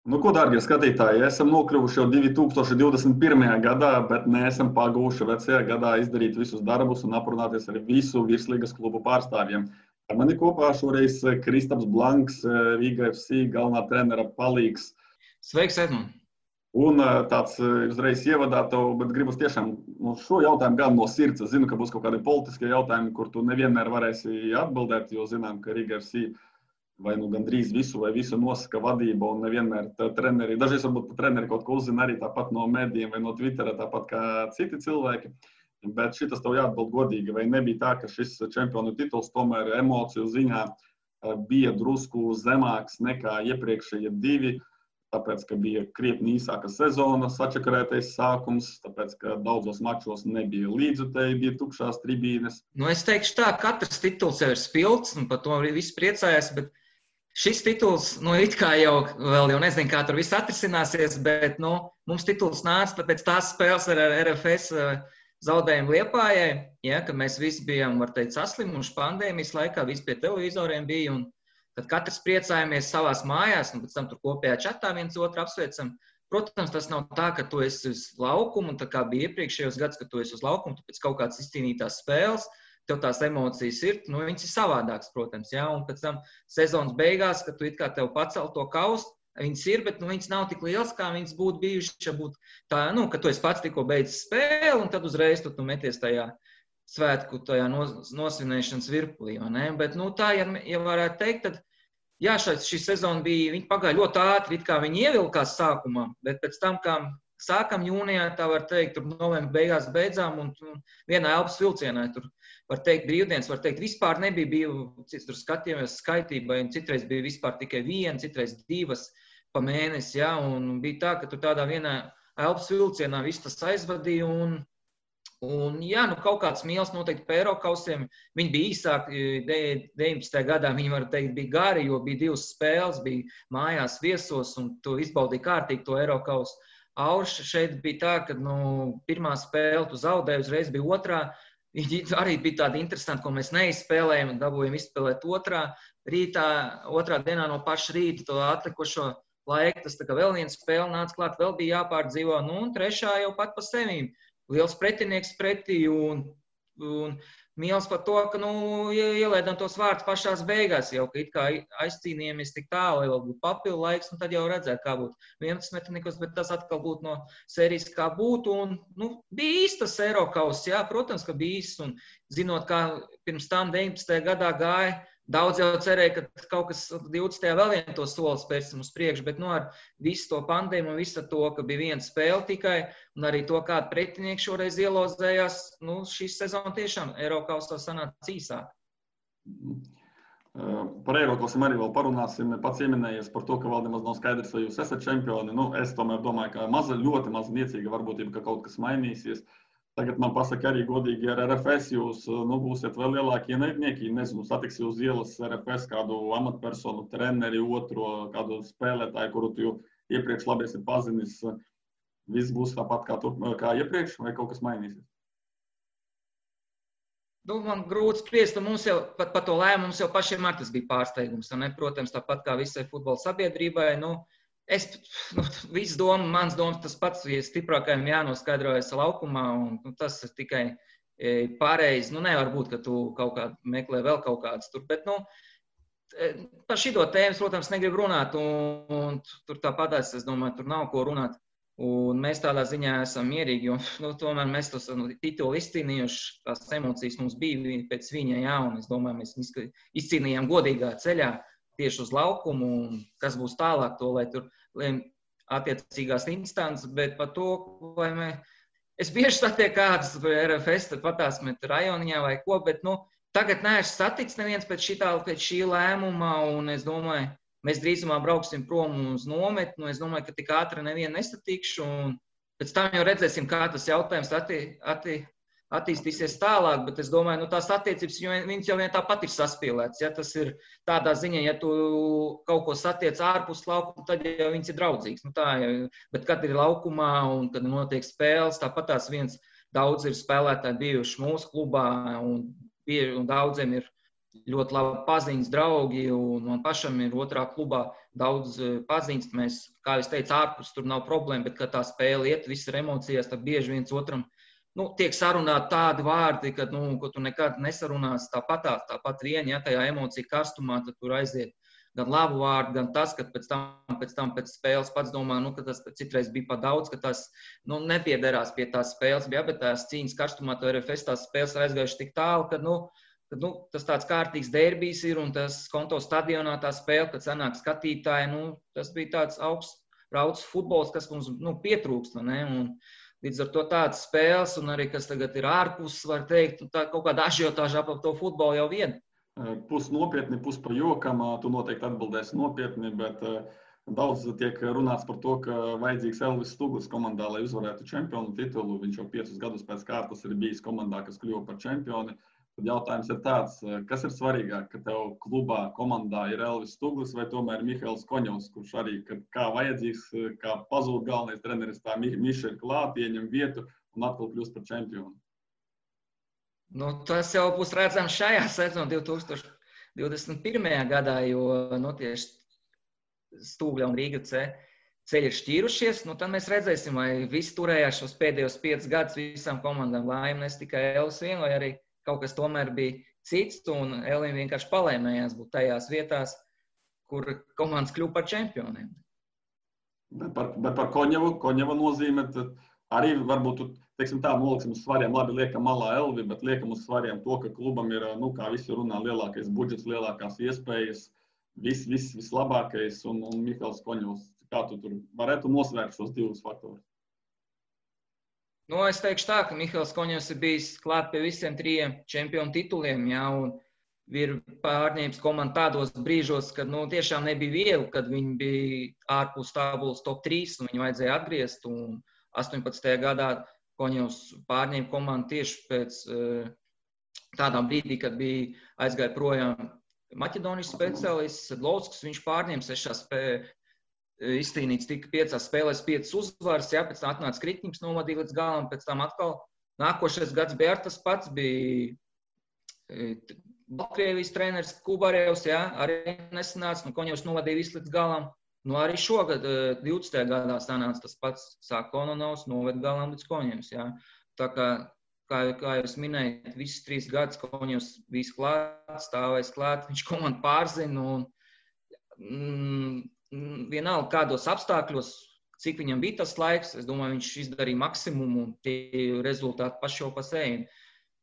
Nu, ko, dārgie skatītāji, esam nokļuvuši jau 2021. gadā, bet neesam pagūši vecajā gadā izdarīt visus darbus un aprunāties ar visu virslīgas klubu pārstāvjiem. Ar mani kopā šoreiz Kristaps Blanks, Riga FC galvenā trenera palīgs. Sveiks, Edmund! Un tāds uzreiz ievadā tev, bet gribas tiešām šo jautājumu gan no sirds. Es zinu, ka būs kaut kādi politiskie jautājumi, kur tu nevienmēr varēsi atbildēt, jo zinām, ka Riga FC vai nu gandrīz visu vai visu nosaka vadība un nevienmēr treneri. Dažreiz varbūt treneri kaut ko uzzina arī tāpat no medijiem vai no Twittera, tāpat kā citi cilvēki. Bet šitas tev jāatbild godīgi, vai nebija tā, ka šis čempionu tituls tomēr emociju ziņā bija drusku zemāks nekā iepriekšējie divi, tāpēc, ka bija krietni īsāka sezona, sačakarētais sākums, tāpēc, ka daudzos mačos nebija līdzutēji, bija tukšās tribīnes. Nu, es teikšu tā, katrs tituls jau ir spilgts, un par to arī viss priecājās, bet šis tituls, it kā jau nezinu, kā tur viss atrisināsies, bet, mums tituls nāca pēc tās spēles ar RFS zaudējumu Liepājai, ja, kad mēs visi bijām, var teikt, saslimuši pandēmijas laikā, visi pie televizoriem bija, un tad katrs priecājamies savās mājās, un pēc tam tur kopējā čatā viens otru apsveicam. Protams, tas nav tā, ka tu esi uz laukumu, un tā kā bija iepriekšējos gads, ka tu esi uz laukumu, tu pēc kaut kādas izcīnītās spēles, tev tās emocijas ir, viņas ir savādākas, protams, ja, un pēc tam sezonas beigās, kad tu it kā tev pacel to kaustu, viņas ir, bet viņas nav tik lielas, kā viņas būtu bijušas, ja būtu tā, ka tu esi pats tikko beidzis spēli, un tad uzreiz tu meties tajā svētku, tajā nosvinēšanas virpulī, vai ne? Bet, tā, ja varētu teikt, tad, jā, šī sezona bija, viņa pagāja ļoti ātri, it kā viņa ievilkās sākumā, bet pēc tam, kā sākam jūnijā, tā var teikt, tur novembra beigās beidzām, un vienā elpas vilcienā, tur var teikt brīvdienas, var teikt, vispār nebija, tur skatījāmies skaitībai, un citreiz bija vispār tikai viena, citreiz divas pa mēnesi, jā, un bija tā, ka tur tādā vienā elpas vilcienā viss tas aizvadīja, un jā, kaut kāds mīls noteikti pa Eirokausiem, viņi bija īsāki, 19. gadā viņi, var teikt, bija gari, jo bija divas spēles, bija mājās viesos, un tu izbaudīji kārtīgi to Eirokausu. Aurš šeit bija tā, ka, pirmā spēle tu zaudēji, uzreiz bija otrā, viņi arī bija tādi interesanti, ko mēs neizspēlējam, un dabūjam izspēlēt otrā dienā no paša rīta, to atlikušo laiku, tas tā kā vēl viena spēle nāca klāt, vēl bija jāpārdzīvo, un trešā jau pat pa sevīm. Liels pretinieks pretī un mīls par to, ka, ielaidām tos vārdus pašās beigās jau, ka it kā aizcīnījāmies tik tālu, lai vēl būtu papildu laiks, un tad jau redzēt, kā būtu 11 bet tas atkal būtu no sērijas kā būtu, un, bija īstas Eirokaus, jā, protams, ka bija īsts, un zinot, kā pirms tam 19. gadā gāja, daudz jau cerēja, ka kaut kas 20. vēl vien to soli spērsim uz priekšu, bet ar visu to pandēmu un visu to, ka bija viena spēle tikai, un arī to, kāda pretinieki šoreiz ielozējās, šī sezona tiešām Eirokausā sanāca īsāk. Par Eirokausiem arī vēl parunāsim. Pats ieminējies par to, ka vēl nemaz nav skaidrs, vai jūs esat čempioni. Es tomēr domāju, ka ļoti maz niecīga varbūtība, ka kaut kas mainīsies. Tagad man pasaka arī godīgi ar RFS, jūs būsiet vēl lielākie ienaidnieki. Nezinu, satiks jūs ielas RFS kādu amatpersonu, treneri, otro, kādu spēlētāju, kuru tu iepriekš labi esi pazinis. Viss būs tāpat kā iepriekš, vai kaut kas mainīsies? Man grūti spriest, mums jau pat par to lēmumu mums jau pašiem ar tas bija pārsteigums. Protams, tāpat kā visai futbola sabiedrībai, mans domas tas pats, ja stiprākajam jānoskaidrojas laukumā, un tas ir tikai pareizi. Nevar būt, ka tu kaut kā meklē vēl kaut kādas tur, bet, par šito tēmas, protams, negribu runāt, un tur tāpatās, es domāju, tur nav ko runāt. Un mēs tādā ziņā esam mierīgi, jo tomēr mēs tos titulu izcīnījuši, tās emocijas mums bija pēc viņa, jā, un es domāju, mēs izcīnījām godīgā ceļā tieši uz laukumu, un kas būs tālāk to, lai tur attiecīgās instances, bet par to, vai es bieži satieku kādas RFS, tad patās met rajoniņā vai ko, bet, tagad neesmu saticis neviens pēc šī lēmuma, un es domāju, mēs drīzumā brauksim prom uz nometni, es domāju, ka tik ātri nevienu nesatikšu, un pēc tam jau redzēsim, kā tas jautājums attīstīsies tālāk, bet es domāju, tās attiecības, viņas jau vien tāpat ir saspīlētas, ja tas ir tādā ziņā, ja tu kaut ko satiec ārpus laukuma, tad jau viņas ir draudzīgas, bet kad ir laukumā un kad notiek spēles, tāpat daudz ir spēlētāji bijuši mūsu klubā, un daudziem ir ļoti labi paziņas draugi, un man pašam ir otrā klubā daudz paziņas. Mēs, kā es teicu, ārpus tur nav problēma, bet, kad tā spēle iet, viss ir emocijās, tad bieži viens otram tiek sarunāti tādi vārdi, ka, ko tu nekad nesarunās tāpat vien, ja tajā emocija karstumā, tad tur aiziet gan labu vārdu, gan tas, ka pēc tam pēc spēles pats domā, ka tas citreiz bija pa daudz, ka tas nepiederās pie tās spēles, bet tās cīņas karstumā, to RFS tās spēles ir aizgājuši tik tālu, ka, tas tāds kārtīgs derbijs ir, un tas konto stadionā tā spēle, kad sanāk skatītāji, tas bija tāds augsts rauds futbols, kas mums pietrūkst, ne? Un līdz ar to tādas spēles, un arī, kas tagad ir ārpus, var teikt, tā kaut kāda ažiotāža ap to futbolu jau vien. Pus nopietni, pus pa jokam, tu noteikti atbildēsi nopietni, bet daudz tiek runāts par to, ka vajadzīgs Elvis Stuglis komandā, lai uzvarētu čempionu titulu. Viņš jau 5 gadus pēc kārtas ir bijis komandā, kas kļuva par čempioni. Tad jautājums ir tāds, kas ir svarīgāk, ka tev klubā, komandā ir Elvis Stuglis vai tomēr Mihails Koņovs, kurš arī, kā vajadzīgs, kā pazūd galvenais treneris, tā Miša ir klāt, ieņem vietu un atkal kļūst par čempionu? Tas jau būs redzams šajā sezonā 2021. gadā, jo tieši Stūgļa un Rīga ceļi ir šķīrušies. Tad mēs redzēsim, vai visi turējās šos pēdējos 5 gadus visām komandām laimi, nes tikai Elvis vien, vai arī kaut kas tomēr bija cits, un Elim vienkārši palēmējās būt tajās vietās, kur komandas kļuva par čempioniem. Bet par Koņeva nozīme, tad arī varbūt, teiksim tā, noliksim uz svariem, labi, liekam malā Elvi, bet liekam uz svariem to, ka klubam ir, kā visi runā, lielākais budžets, lielākās iespējas, vislabākais, un Mihails Koņevs. Kā tu tur varētu nosvērt šos 2 faktorus? Es teikšu tā, ka Mihails Koņevs ir bijis klāt pie visiem 3 čempionu tituliem, un ir pārņēmis komandu tādos brīžos, kad tiešām nebija viegli, kad viņi bija ārpus tabulas top 3, un viņu vajadzēja atgriezt, un 18. gadā Koņevs pārņēma komandu tieši pēc tādā brīdī, kad bija aizgāja projām Maķedonijas speciālists Sedlovskis, viņš pārņēma 6 spēlēs. Izcīnīts tika 5 spēlēs 5 uzvaras, pēc tam atnāca Kritņiks, novadīja līdz galam, pēc tam atkal nākošais gads bija tas pats, bija Baltkrievijas treneris Kubarevs, arī nesanāca, Koņevs novadīja visu līdz galam. Arī šogad 20. gadā sanāca tas pats, sāk Kononovs, noved galam līdz Koņevs, Tā kā jūs minējat, visus 3 gadus Koņevs bijis klāt, stāvēs klāt, viņš komandu pārzina, un vienalga kādos apstākļos, cik viņam bija tas laiks, es domāju, viņš izdarīja maksimumu, un tie rezultāti paši jau pa sevi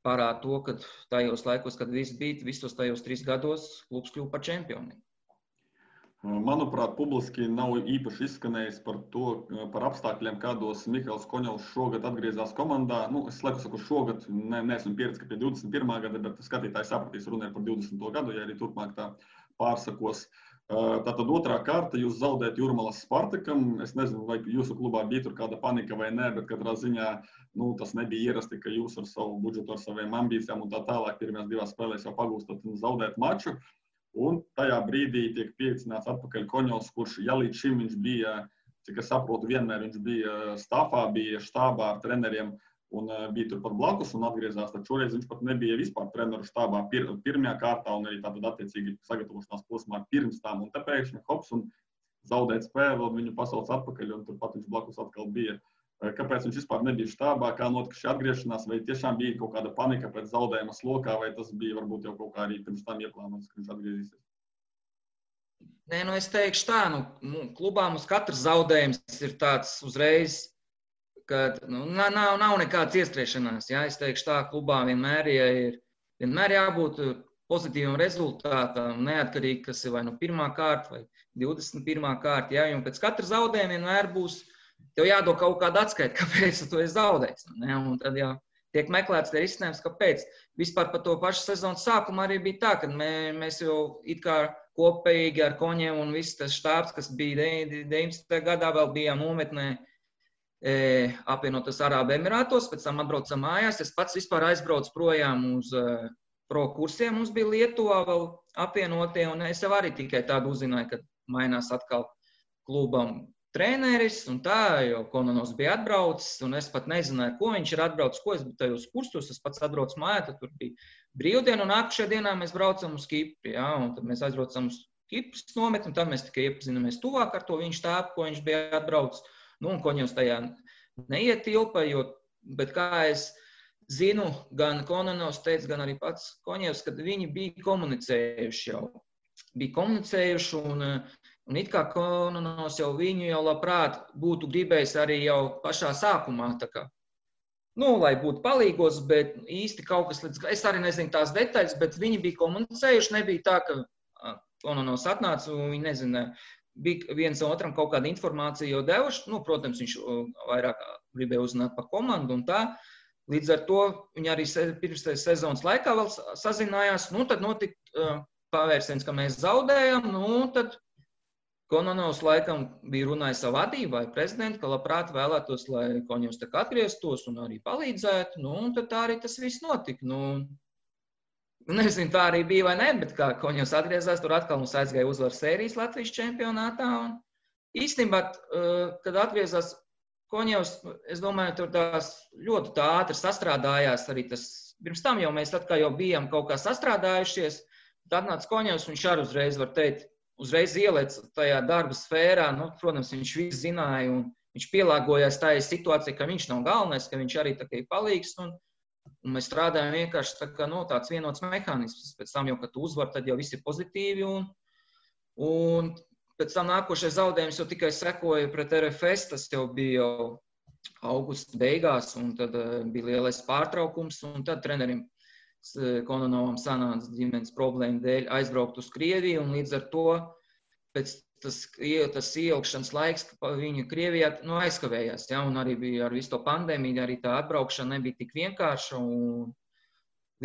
parāda to, ka tajos laikos, kad viss bija, visos tajos 3 gados klubs kļuva par čempioniem. Manuprāt, publiski nav īpaši izskanējis par apstākļiem, kādos Mihails Koņovs šogad atgriezās komandā. Es laiku saku šogad, neesmu pieredzi, ka pie 21. gada, bet skatītāji sapratīs, runāja par 20. gadu, ja arī turpmāk tā pārsakos. Tātad otrā kārta, jūs zaudējat Jūrmalas Spartakam. Es nezinu, vai jūsu klubā bija tur kāda panika vai nē, bet katrā ziņā tas nebija ierasti, ka jūs ar savu budžetu, ar saviem ambīcijām un tā tālāk pirmajās 2 spēlēs jau pagūstat un zaudēt maču. Un tajā brīdī tiek pieicināts atpakaļ Koņovs, kurš, ja līdz šim viņš bija, cik es saprotu, vienmēr viņš bija stāfā, bija štābā ar treneriem un bija tur pat blakus un atgriezās, tad šoreiz viņš pat nebija vispār treneru štābā pirmajā kārtā un arī tātad attiecīgi sagatavošanās posmā pirms tām. Un te pēkšņi hops un zaudēt spēli, un viņu pasauc atpakaļ, un turpat viņš blakus atkal bija. Kāpēc viņš vispār nebija štābā, kā notika šī atgriešanās, vai tiešām bija kaut kāda panika pēc zaudējuma slokā, vai tas bija varbūt jau kaut kā arī pirms tam ieplānots, ka viņš atgriezīsies? Nē, es teikšu tā, klubā mums katrs zaudējums ir tāds uzreiz, ka nav nekādas iestriešanās. Es teikšu tā, klubā vienmēr jābūt pozitīvam rezultātam, neatkarīgi, kas ir vai 1. kārta vai 21. kārta. Un pēc katra zaudējuma vienmēr būs, tev jādod kaut kāda atskaita, kāpēc tu esi zaudējis. Un tad jau tiek meklēts tie risinājums, kāpēc. Vispār par to pašu sezonas sākumu arī bija tā, ka mēs jau it kā kopīgi ar Koņevu un viss tas štābs, kas bija 19. gadā, vēl bijām nometnē apvienotos Arābu Emirātos, pēc tam atbraucam mājās. Es pats vispār aizbraucu projām uz pro kursiem, mums bija Lietuvā vēl apvienotie, un es jau arī tikai tādu uzzināju, ka mainās atkal klubam treneris, un tā, jo Kononovs bija atbraucis, un es pat nezināju, ko viņš ir atbraucis, ko es biju tajos kurstos, es pats atbraucu mājā, tad tur bija brīvdiena, un nākušajā dienā mēs braucam uz Kipri, jā, un tad mēs aizbraucam uz Kipras nometni, un tad mēs tikai iepazināmies tuvāk ar to viņš tāpu, ko viņš bija atbraucis, nu, un Koņevs tajā neietilpa, bet kā es zinu, gan Kononovs teica, gan arī pats Koņevs, kad viņi bija komunicējuši, un it kā Kononovs jau viņu jau labprāt būtu gribējis arī jau pašā sākumā, tā kā, lai būtu palīgos, bet īsti kaut kas es arī nezinu tās detaļas, bet viņi bija komunicējuši, nebija tā, ka Kononovs atnāca un viņi nezināja, bija viens otram kaut kāda informācija jau devuši, protams, viņš vairāk gribēja uzzināt par komandu un tā, līdz ar to viņi arī pirms sezonas laikā vēl sazinājās, tad notika pavērsiens, ka mēs zaudējam, tad Kononovs laikam bija runājis savu vadību vai prezidentu, ka labprāt vēlētos, lai Koņevs tā kā atgrieztos un arī palīdzētu, tad tā arī tas viss notika. Nezinu, tā arī bija vai ne, bet kā Koņevs atgriezās, tur atkal mums aizgāja uzvaras sērijas Latvijas čempionātā. Un īstenībā, kad atgriezās Koņevs, es domāju, tur tās ļoti ātri sastrādājās arī tas. Pirms tam jau mēs tad, kā jau bijām kaut kā sastrādājušies, tad atnāca Koņevs, viņš arī uzreiz, var teikt, uzreiz ielēc tajā darba sfērā, protams, viņš visu zināja un viņš pielāgojās tajā situācijā, ka viņš nav galvenais, ka viņš arī tā kā ir palīgs un mēs strādājam vienkārši tā kā, tāds vienots mehānisms. Pēc tam jau, kad tu uzvar, tad jau viss ir pozitīvi un pēc tam nākošais zaudējums jau tikai sekoja pret RFS, tas jau bija jau augusta beigās un tad bija lielais pārtraukums un tad trenerim Kononovam sanāca ģimenes problēmu dēļ aizbraukt uz Krieviju, un līdz ar to pēc tas ieilgšanas laiks, ka viņa Krievijā aizkavējās, ja, un arī bija ar visu to pandēmiju, arī tā atbraukšana nebija tik vienkārša, un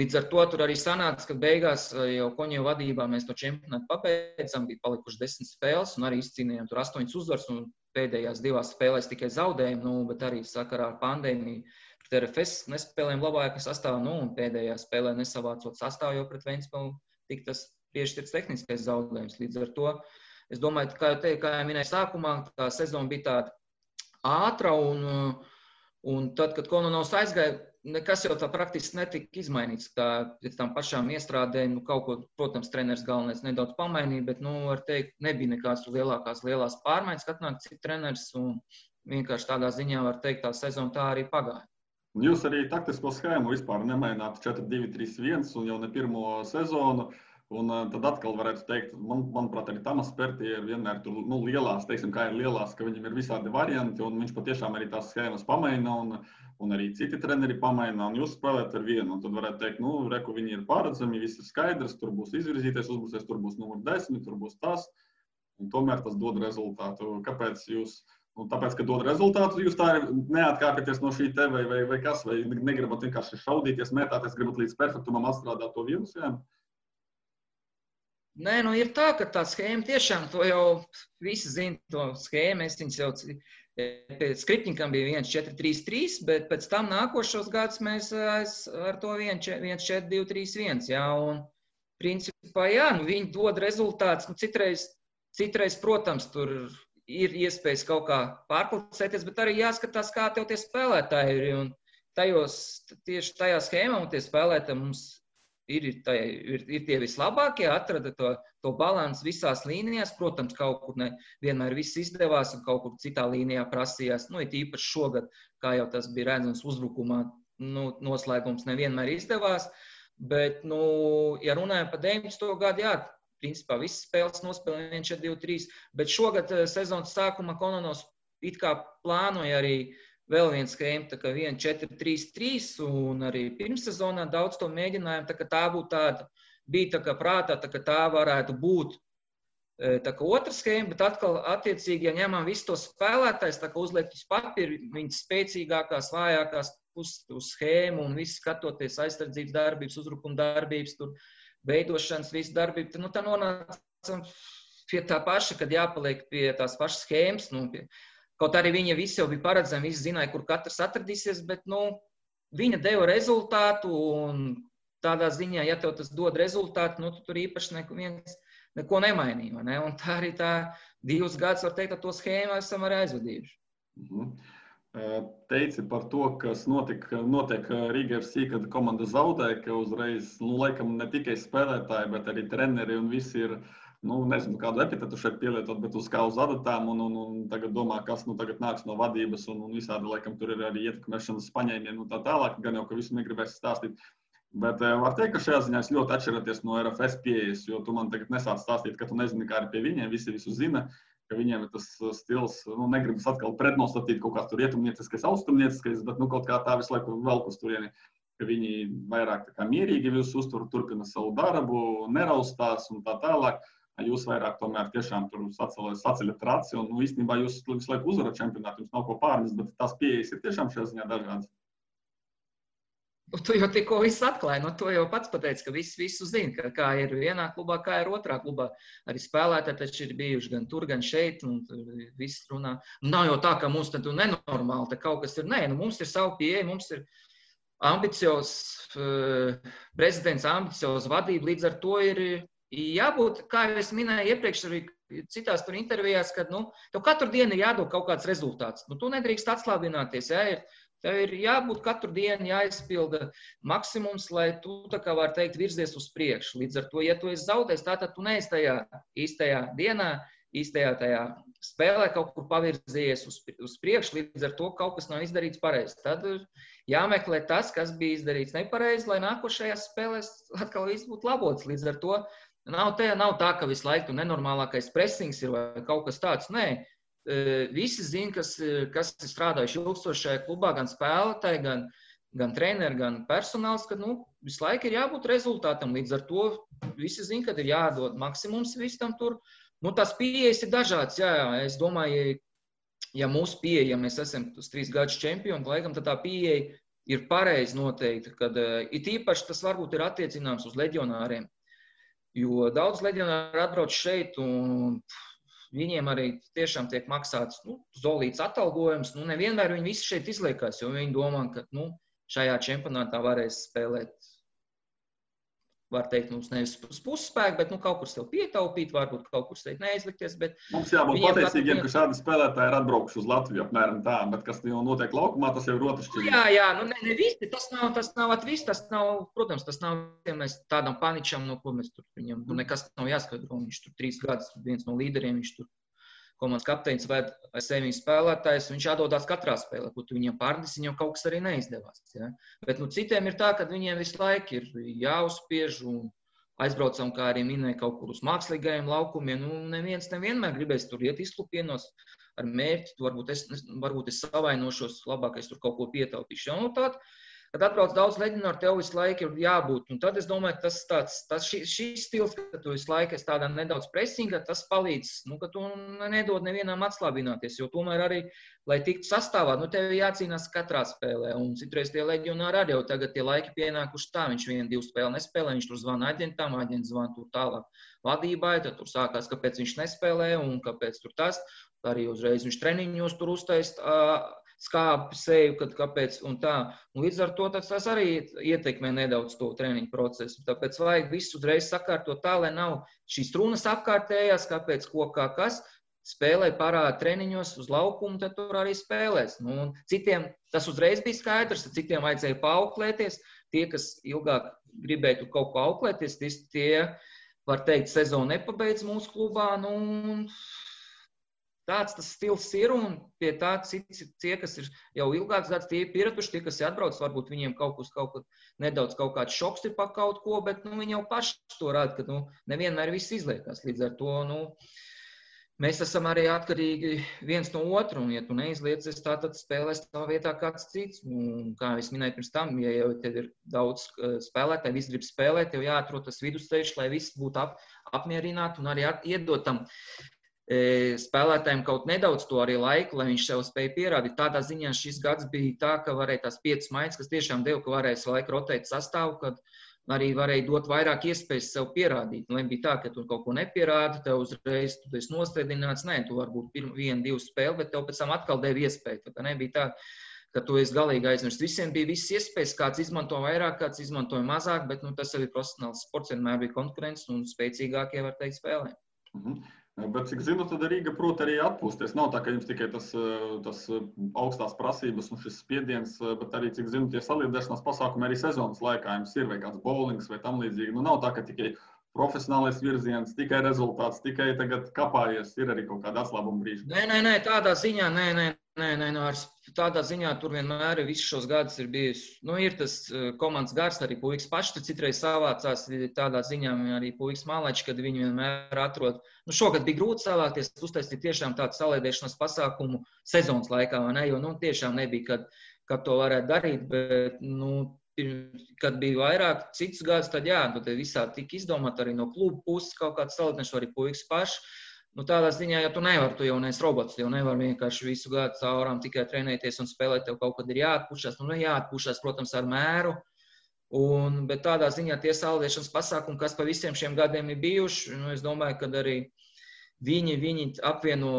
līdz ar to tur arī sanāca, ka beigās jau Koņeva vadībā mēs to čempionātu pabeidzam, bija palikuši 10 spēles, un arī izcīnījām tur 8 uzvaras, un pēdējās 2 spēlēs tikai zaudējumi, bet arī sakarā ar pandēmiju. RFS nespēlējām labākā sastāvā, un pēdējā spēlē nesavācot sastāvu, jo pret Ventspili tik tas piešķirts tehniskais zaudējums. Līdz ar to, es domāju, kā jau minēju sākumā, tā sezona bija tāda ātra, un tad, kad Kononovs aizgāja, nekas jau tā praktiski netika izmainīts. Pēc tam pašām iestrādēm, kaut ko, protams, treneris galvenais nedaudz pamainīja, bet, var teikt, nebija nekāds lielās pārmaiņas, kad atnāk cits treneris, un vienkārši tādā ziņā var teikt, tā sezona tā arī pagāja. Jūs arī taktisko schēmu vispār nemaināt 4-2-3-1 un jau ne pirmo sezonu. Un tad atkal varētu teikt, manuprāt, arī Tamas Pertie ir vienmēr tur lielās, teiksim, kā ir lielās, ka viņam ir visādi varianti, un viņš patiešām arī tās schēmas pamaina, un arī citi treneri pamaina, un jūs spēlēt ar vienu. Un tad varētu teikt, reku viņi ir pārredzami, viss ir skaidrs, tur būs izvirzīties uzbrucējs, tur būs numur 10, tur būs tas, un tomēr tas dod rezultātu. Kāpēc jūs? Tāpēc, ka dod rezultātus, jūs tā neatkāpjaties no šī te vai kas, vai negribat vienkārši šaudīties, mētāties, gribat līdz perfektumam atstrādāt to vienu schēmu? Nē, ir tā, ka tā schēma tiešām, to jau visi zina, to schēmu, es viņas jau pēc Skripņikam bija 1-4-3-3, bet pēc tam nākošos gadus mēs ar to 1-4-2-3-1, jā, un principā, jā, viņi dod rezultātus, citreiz, protams, tur ir iespējas kaut kā pārpulcēties, bet arī jāskatās, kā tev tie spēlētāji ir. Un tieši tajā schēmā un tie spēlētāji mums ir tie vislabākie, atrada to balansu visās līnijās. Protams, kaut kur vienmēr viss izdevās un kaut kur citā līnijā prasījās. It īpaši šogad, kā jau tas bija redzams uzbrukumā, noslēgums nevienmēr izdevās. Bet, ja runājam par 19. gadu, jā, principā visas spēles nospēlēja 1-4-2-3, bet šogad sezonas sākumā Kononovs it kā plānoja arī vēl viens schēma, tā kā 1-4-3-3, un arī pirmssezonā daudz to mēģinājām, tā kā tā būtu tāda, bija tā kā prātā, tā kā tā varētu būt tā kā otra schēma, bet atkal attiecīgi, ja ņemam visu to spēlētājs, tā kā uzliekt uz papīru, viņas spēcīgākās, vājākās puses uz schēmu un visu skatoties aizsardzības darbības, uzbrukuma darbības, tur veidošanas, visu darbību, tā nonācam pie tā paša, kad jāpaliek pie tās pašas schēmas. Kaut arī viņa visi jau bija paredzami, visi zināja, kur katrs atradīsies, bet viņa deva rezultātu, un tādā ziņā, ja tev tas dod rezultātu, tu tur īpaši neko nemainīja. Ne? Un tā arī tā 2 gadus, var teikt, ar to schēmu esam arī aizvadījuši. Teici par to, kas notiek Riga FC, kad komanda zaudē, ka uzreiz, laikam ne tikai spēlētāji, bet arī treneri un visi ir, nezinu, kādu epitetu šeit pielietot, bet uz kā uz adatām un tagad domā, kas tagad nāks no vadības un visādi, laikam, tur ir arī ietekmēšanas paņēmieni un tā tālāk, gan jau, ka visu negribēs stāstīt. Bet var teikt, ka šajā ziņā es ļoti atšķiraties no RFS pieejas, jo tu man tagad nesāc stāstīt, ka tu nezini, kā ir pie viņiem, visi visu zina, ka viņiem ir tas stils, negribas atkal pretnostatīt kaut kāds tur rietumnieciskais, austrumnieciskais, bet kaut kā tā visu laiku velk uz turieni, ka viņi vairāk tā kā mierīgi visu uztur, turpina savu darbu, neraustās un tā tālāk. Jūs vairāk tomēr tiešām tur saceļat raci un īstenībā jūs visu laiku uzvarat čempionātu, jums nav ko pārnest, bet tās pieejas ir tiešām šajā ziņā dažādas. Tu jau tikko viss atklāji, to jau pats pateici, ka visu zina, kā ir vienā klubā, kā ir otrā klubā. Arī spēlētāji taču ir bijuši gan tur, gan šeit, un viss runā. Nav jau tā, ka mums tad nenormāli, te kaut kas ir. Nē, mums ir savu pieeja, mums ir ambiciozs prezidents, ambiciozs vadība, līdz ar to ir jābūt, kā jau es minēju iepriekš arī citās tur intervijās, kad, tev katru dienu ir jādod kaut kāds rezultāts. Tu nedrīkst atslābināties, tev ir jābūt katru dienu jāizpilda maksimums, lai tu, tā kā var teikt, virzies uz priekšu. Līdz ar to, ja tu esi zaudējis, tātad tu neesi tajā īstajā dienā, īstajā tajā spēlē kaut kur pavirzījies uz priekšu, līdz ar to kaut kas nav izdarīts pareizi. Tad jāmeklē tas, kas bija izdarīts nepareizi, lai nākošajās spēlēs atkal viss būtu labots. Līdz ar to nav tā, ka visu laiku nenormālākais pressings ir vai kaut kas tāds. Nē, visi zina, kas ir strādājuši ilgstoši šajā klubā, gan spēlētāji, gan treneri, gan personāls, ka visu laiku ir jābūt rezultātam. Līdz ar to visi zina, ka ir jādod maksimums visam tur. Tās pieejas ir dažādas. Jā, es domāju, ja mūsu pieeja, ja mēs esam uz 3 gadus čempioni, laikam, tad tā pieeja ir pareizi noteikti, kad it īpaši tas varbūt ir attiecināms uz leģionāriem. Jo daudz leģionāri atbrauc šeit, un viņiem arī tiešām tiek maksāts zolīts atalgojums. Nevienmēr viņi visi šeit izliekās, jo viņi domā, ka šajā čempionātā varēs spēlēt, var teikt, mums nevis uz pusspēku, bet kaut kur sev pietaupīt, varbūt kaut kur sev neizlikties. Mums jābūt pateicīgiem, ka šādi spēlētāji ir atbraukuši uz Latviju apmēram tā, bet kas jau notiek laukumā, tas jau ir otršķirīgi. Jā, ne visi, tas nav viss, tas nav, protams, tas nav, ja mēs tādam paničam, ko mēs tur viņam, nekas nav jāskaidro, viņš tur 3 gadus, viens no līderiem, viņš tur komandas kapteinis vai sevi spēlētājs, viņš atdodās katrā spēlē, ko tu viņam pārdis, viņam kaut kas arī neizdevās. Ja? Bet citiem ir tā, ka viņiem visu laiku ir jāuzspiež un aizbraucam, kā arī minēja, kaut kur uz mākslīgajiem laukumiem. Neviens nevienmēr gribēs tur iet izklupienos ar mērķi, varbūt es savainošos, labākais tur kaut ko pietaupīšu. Kad atbrauc daudz leģionāru, tev visu laiku ir jābūt. Un tad es domāju, ka šīs stils, ka tu visu laiku esi tādā nedaudz presingā, tas palīdz, ka tu nedod nevienam atslābināties, jo tomēr arī, lai tiktu sastāvā, tev jācīnās katrā spēlē. Un citreiz tie leģionāri arī jau tagad tie laiki pienākuši tā, viņš 1-2 spēli nespēlē, viņš tur zvana aģentam, aģents zvana tur tālāk vadībai, tad tur sākās, kāpēc viņš nespēlē un kāpēc tur tas. Arī uzreiz viņš treniņos tur uztaist skāpi seju, kāpēc un tā. Un līdz ar to tas arī ietekmē nedaudz to treniņu procesu. Tāpēc vajag visu uzreiz sakārtot tā, lai nav šīs runas apkārtējās, kāpēc, ko, kā, kas. Spēlē parāda treniņos uz laukumu, tad tur arī spēlēs. Citiem tas uzreiz bija skaidrs, citiem vajadzēja paauklēties. Tie, kas ilgāk gribēja tur kaut ko auklēties, tie, var teikt, sezonu nepabeidz mūsu klubā. Tāds tas stils ir, un pie tā tie, kas ir jau ilgāks gads, tie ir pieraduši, tie, kas ir atbrauc, varbūt viņiem kaut kāds šoks ir pa kaut ko, bet viņi jau paši to rāda, ka nevienmēr viss izliekās. Līdz ar to mēs esam arī atkarīgi viens no otru, un ja tu neizliecies tā, tad spēlēs tā vietā kāds cits. Un, kā es minēju pirms tam, ja jau tev ir daudz spēlētāji, visi grib spēlēt, tev jāatrod tas vidusceļš, lai viss būtu apmierināti un arī iedot tam spēlētājiem kaut nedaudz to arī laiku, lai viņš sev spēja pierādīt. Tādā ziņā šis gads bija tā, ka varēja tās 5 maiņas, kas tiešām deva, ka varēja laiku rotēt sastāvu, kad arī varēja dot vairāk iespējas sev pierādīt. Nebija tā, ka tu kaut ko nepierādi, tev uzreiz tu esi nostēdināts. Nē, tu varbūt 1-2 spēli, bet tev pēc tam atkal deva iespēju. Tā nebija tā, ka tu esi galīgi aizmirst. Visiem bija visas iespējas, kāds izmanto vairāk, kāds izmantoja mazāk, bet tas arī profesionāls sports, vienmēr bija konkurence un spēcīgākie, var teikt, spēlē. Bet, cik zinu, tad Rīga prot arī atpūsties. Nav tā, ka jums tikai tas augstās prasības un šis spiediens, bet arī, cik zinu, tie saliedēšanās pasākumi arī sezonas laikā jums ir, vai kāds bowlings vai tam līdzīgi. Nu, nav tā, ka tikai profesionālais virziens, tikai rezultāts, tikai tagad kapājies, ir arī kaut kāda atslābuma brīža. Nē, tādā ziņā, tādā ziņā tur vienmēr visus šos gadus ir bijis, ir tas komandas gars, arī puikas paši tur citreiz savācās, tādā ziņā arī puikas mālaiči, kad viņi vienmēr atrod. Šogad bija grūti savākties, uztaisīt tiešām tādu saliedēšanas pasākumu sezonas laikā, vai ne, jo, tiešām nebija, kad to varētu darīt, bet, kad bija vairāk citus gadus, tad jā, tad visādi tika izdomāt arī no klubu puses kaut kāds saliedēšanas, arī puikas paši. Tādā ziņā, ja tu nevari, tu jau neesi robots, tu jau nevari vienkārši visu gadu caurām tikai trenēties un spēlēt, tev kaut kad ir jāatpušās. Jāatpušās, protams, ar mēru, bet tādā ziņā tie saliedēšanas pasākumi, kas pa visiem šiem gadiem ir bijuši, es domāju, ka arī viņi apvieno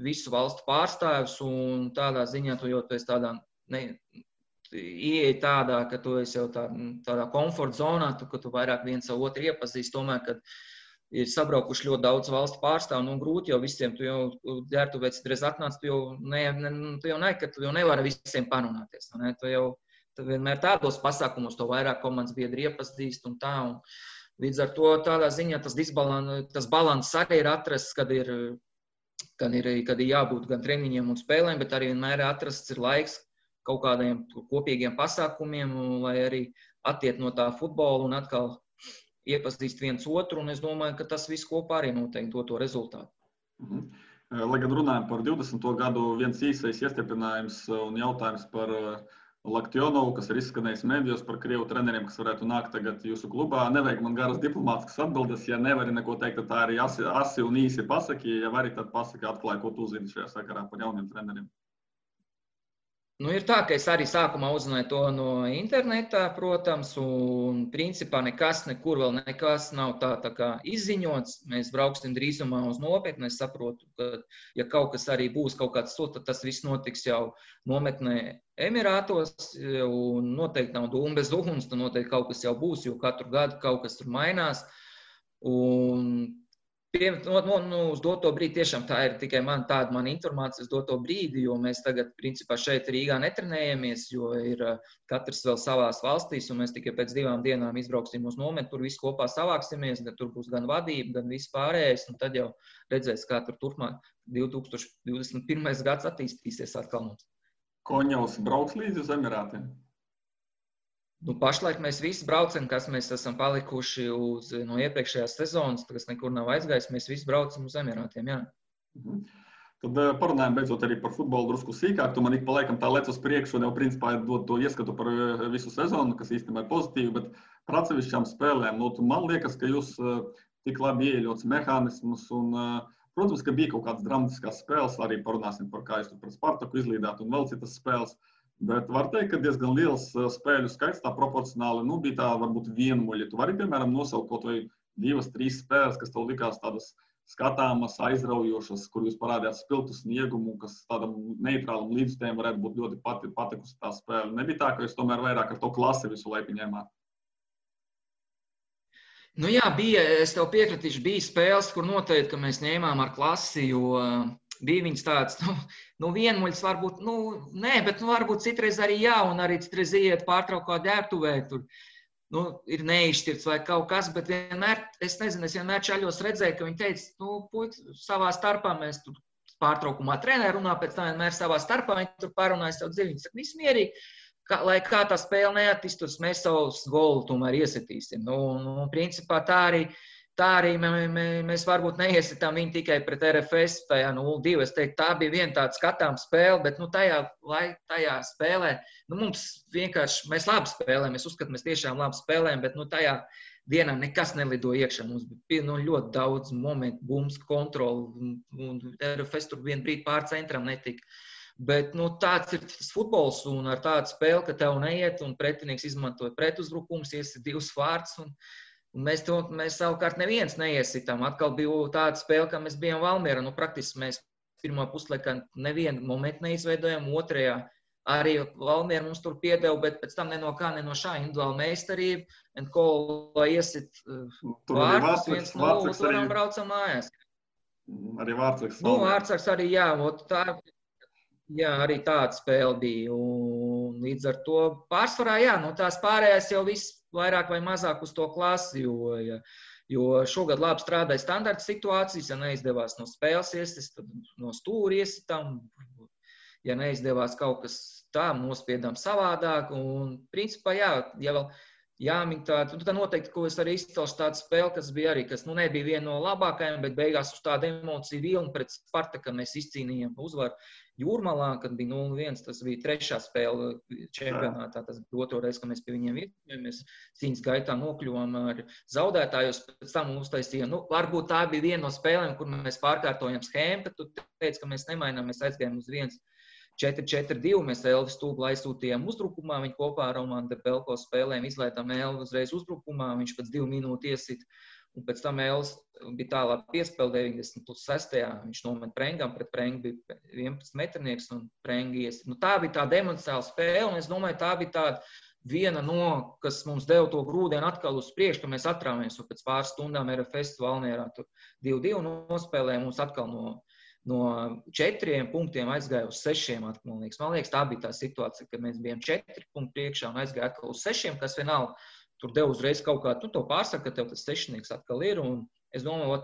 visu valstu pārstāvjus un tādā ziņā tu jau esi tādā, ieeja tādā, ka tu esi jau tādā komforta zonā, ka tu vairāk viens savu otru iepazīst, tomēr, kad ir sabraukuši ļoti daudz valstu pārstāvu, grūti jau visiem, tu jau ģērbtuvēs citreiz atnāc, tu jau nevari visiem parunāties. Tu vienmēr tādos pasākumos to vairāk komandas biedri iepazīst un tā. Un līdz ar to tādā ziņā tas balans arī ir atrasts, kad ir jābūt gan treniņiem un spēlēm, bet arī vienmēr atrasts ir laiks kaut kādiem kopīgiem pasākumiem, lai arī attiet no tā futbola un atkal iepazīst viens otru, un es domāju, ka tas viss kopā arī noteikti to rezultātu. Lai gan runājam par 20. gadu, viens īsais iestiprinājums un jautājums par Laktionovu, kas ir izskanējis medijos par krievu treneriem, kas varētu nākt tagad jūsu klubā. Nevajag man garas diplomātiskas atbildes, ja nevari neko teikt, tad tā arī asi un īsi pasaki, ja vari, tad pasaki atklāja, ko tu zini šajā sakarā par jauniem treneriem. Ir tā, ka es arī sākumā uzzināju to no internetā, protams, un principā nekur vēl nekas nav tā kā izziņots. Mēs brauksim drīzumā uz nometni. Es saprotu, ka, ja kaut kas arī būs kaut kāds sūta, tad tas viss notiks jau nometnē Emirātos, un noteikti nav dūma bez uguns, tad noteikti kaut kas jau būs, jo katru gadu kaut kas tur mainās. Un uz doto brīdi tiešām tā ir tikai tāda informācija uz doto brīdi, jo mēs tagad, principā, šeit Rīgā netrenējamies, jo ir katrs vēl savās valstīs, un mēs tikai pēc 2 dienām izbrauksim uz nometni, tur visi kopā savāksimies, tur būs gan vadība, gan viss pārējais, un tad jau redzēs, kā tur turpmāk 2021. gads attīstīsies atkal mums. Koņevs brauks līdzi uz Emirātiem? Pašlaik mēs visi braucam, kas mēs esam palikuši no iepriekšējās sezonas, kas nekur nav aizgājis, mēs visi braucam uz Emirātiem, jā. Tad parunājam beidzot arī par futbolu drusku sīkāk. Tu man ik pa laikam tā lec uz priekšu un jau principā dod to ieskatu par visu sezonu, kas īstenībā ir pozitīvi, bet par atsevišķām spēlēm, man liekas, ka jūs tik labi ieļots mehānismus un, protams, ka bija kaut kādas dramatiskās spēles, arī parunāsim par kā jūs tur par Spartaku izlīdāt un vēl citas spēles. Bet var teikt, ka diezgan liels spēļu skaits, tā proporcionāli, bija tā varbūt vienmuļi. Tu vari, piemēram, nosaukt kaut vai 2-3 spēles, kas tev likās tādas skatāmas, aizraujošas, kur jūs parādījāt spiltu sniegumu, kas tādam neitrālam līdzstājiem varētu būt ļoti patikusi tā spēle. Nebija tā, ka jūs tomēr vairāk ar to klasi visu laiku ņēmāt? Jā, es tev piekritīšu, bija spēles, kur noteikti, ka mēs ņēmām ar klasi, jo bija viņas tāds, vienmuļs varbūt, nē, bet varbūt citreiz arī jā, un arī citreiz iet pārtraukā ģērbtuvē, tur, ir neizšķirts vai kaut kas, bet vienmēr, es vienmēr čaļos redzēju, ka viņi teica, puiši, savā starpā mēs tur pārtraukumā trenē runā, pēc tā vienmēr savā starpā viņi tur parunājas savu dziļi, viņi saka, viss mierīgi, lai kā tā spēle neattīstos, mēs savus golu tomēr iesitīsim. Principā tā arī mēs varbūt neiesitām viņu tikai pret RFS, tajā 0-2. Es teiktu, tā bija viena tāda skatām spēle, bet tajā spēlē, mums vienkārši, mēs labi spēlējam, es uzskatu, mēs tiešām labi spēlējam, bet tajā dienā nekas nelido iekšā. Mums bija ļoti daudz momentu, bums, kontroli, un RFS tur vienu brīdi pār centram netika. Bet tāds ir tas futbols, un ar tādu spēli, ka tev neiet, un pretinieks izmantoja pretuzbrukums, iesit 2 vārtus, un mēs savukārt neviens neiesitām. Atkal bija tāda spēle, ka mēs bijām Valmierā. Praktiski mēs pirmā puslaikā nevienu momentu neizveidojām, otrajā arī Valmiera mums tur piedeva, bet pēc tam ne no šā individuāla meistarība, lai iesit vārtus 1-0, un braucam mājās. Arī Vārtsargs. Vārtsargs arī, arī tāda spēle bija. Un līdz ar to pārsvarā, tās pārējās jau viss vairāk vai mazāk uz to klasi, jo šogad labi strādāja standarta situācijas, ja neizdevās no spēles iesist, tad no stūra iesitām, ja neizdevās kaut kas tā, nospiedām savādāk, un principā, ja vēl jāmin tādu, tad noteikti, ko es arī izcelšu tādu spēli, kas bija arī, kas nebija viena no labākajām, bet beigās uz tādu emociju vilni pret Spartaku mēs izcīnījām uzvaru Jūrmalā, kad bija 0-1, tas bija 3. spēle čempionātā, tas bija 2. reize, kad mēs pie viņiem vietījāmies, cīņas gaitā nokļuvām ar zaudētājus, pēc tam uztaisījām, varbūt tā bija viena no spēlēm, kur mēs pārkārtojam schēmu, bet tu teici, ka mēs nemainām, mēs aizgājām uz 4-4-2, mēs Elvis Stūblu aizsūtījām uzbrukumā, viņi kopā ar Romanu Debelko spēlēm izlaidām Elvis uzreiz uzbrukumā, viņš pēc 2 minūtu iesit, un pēc tam Elvis bija tālāk piespēle 90+6. Viņš nomet Prengam, pret Prengu bija 11 metrnieks un Prengi iesit. Tā bija tāda emocionāla spēle, un es domāju, tā bija tāda viena no, kas mums deva to grūdienu atkal uz priekšu, ka mēs atrāmies, un pēc pāris stundām RFS Valmierā tur 2-2 nospēlēja, mums atkal no 4 punktiem aizgāja uz 6 atkal, man liekas, tā bija tā situācija, kad mēs bijām 4 punktu priekšā un aizgāja atkal uz 6, kas vienalga tur deva uzreiz kaut kā, to pārsaka, ka tev tas 6 atkal ir, un es domāju,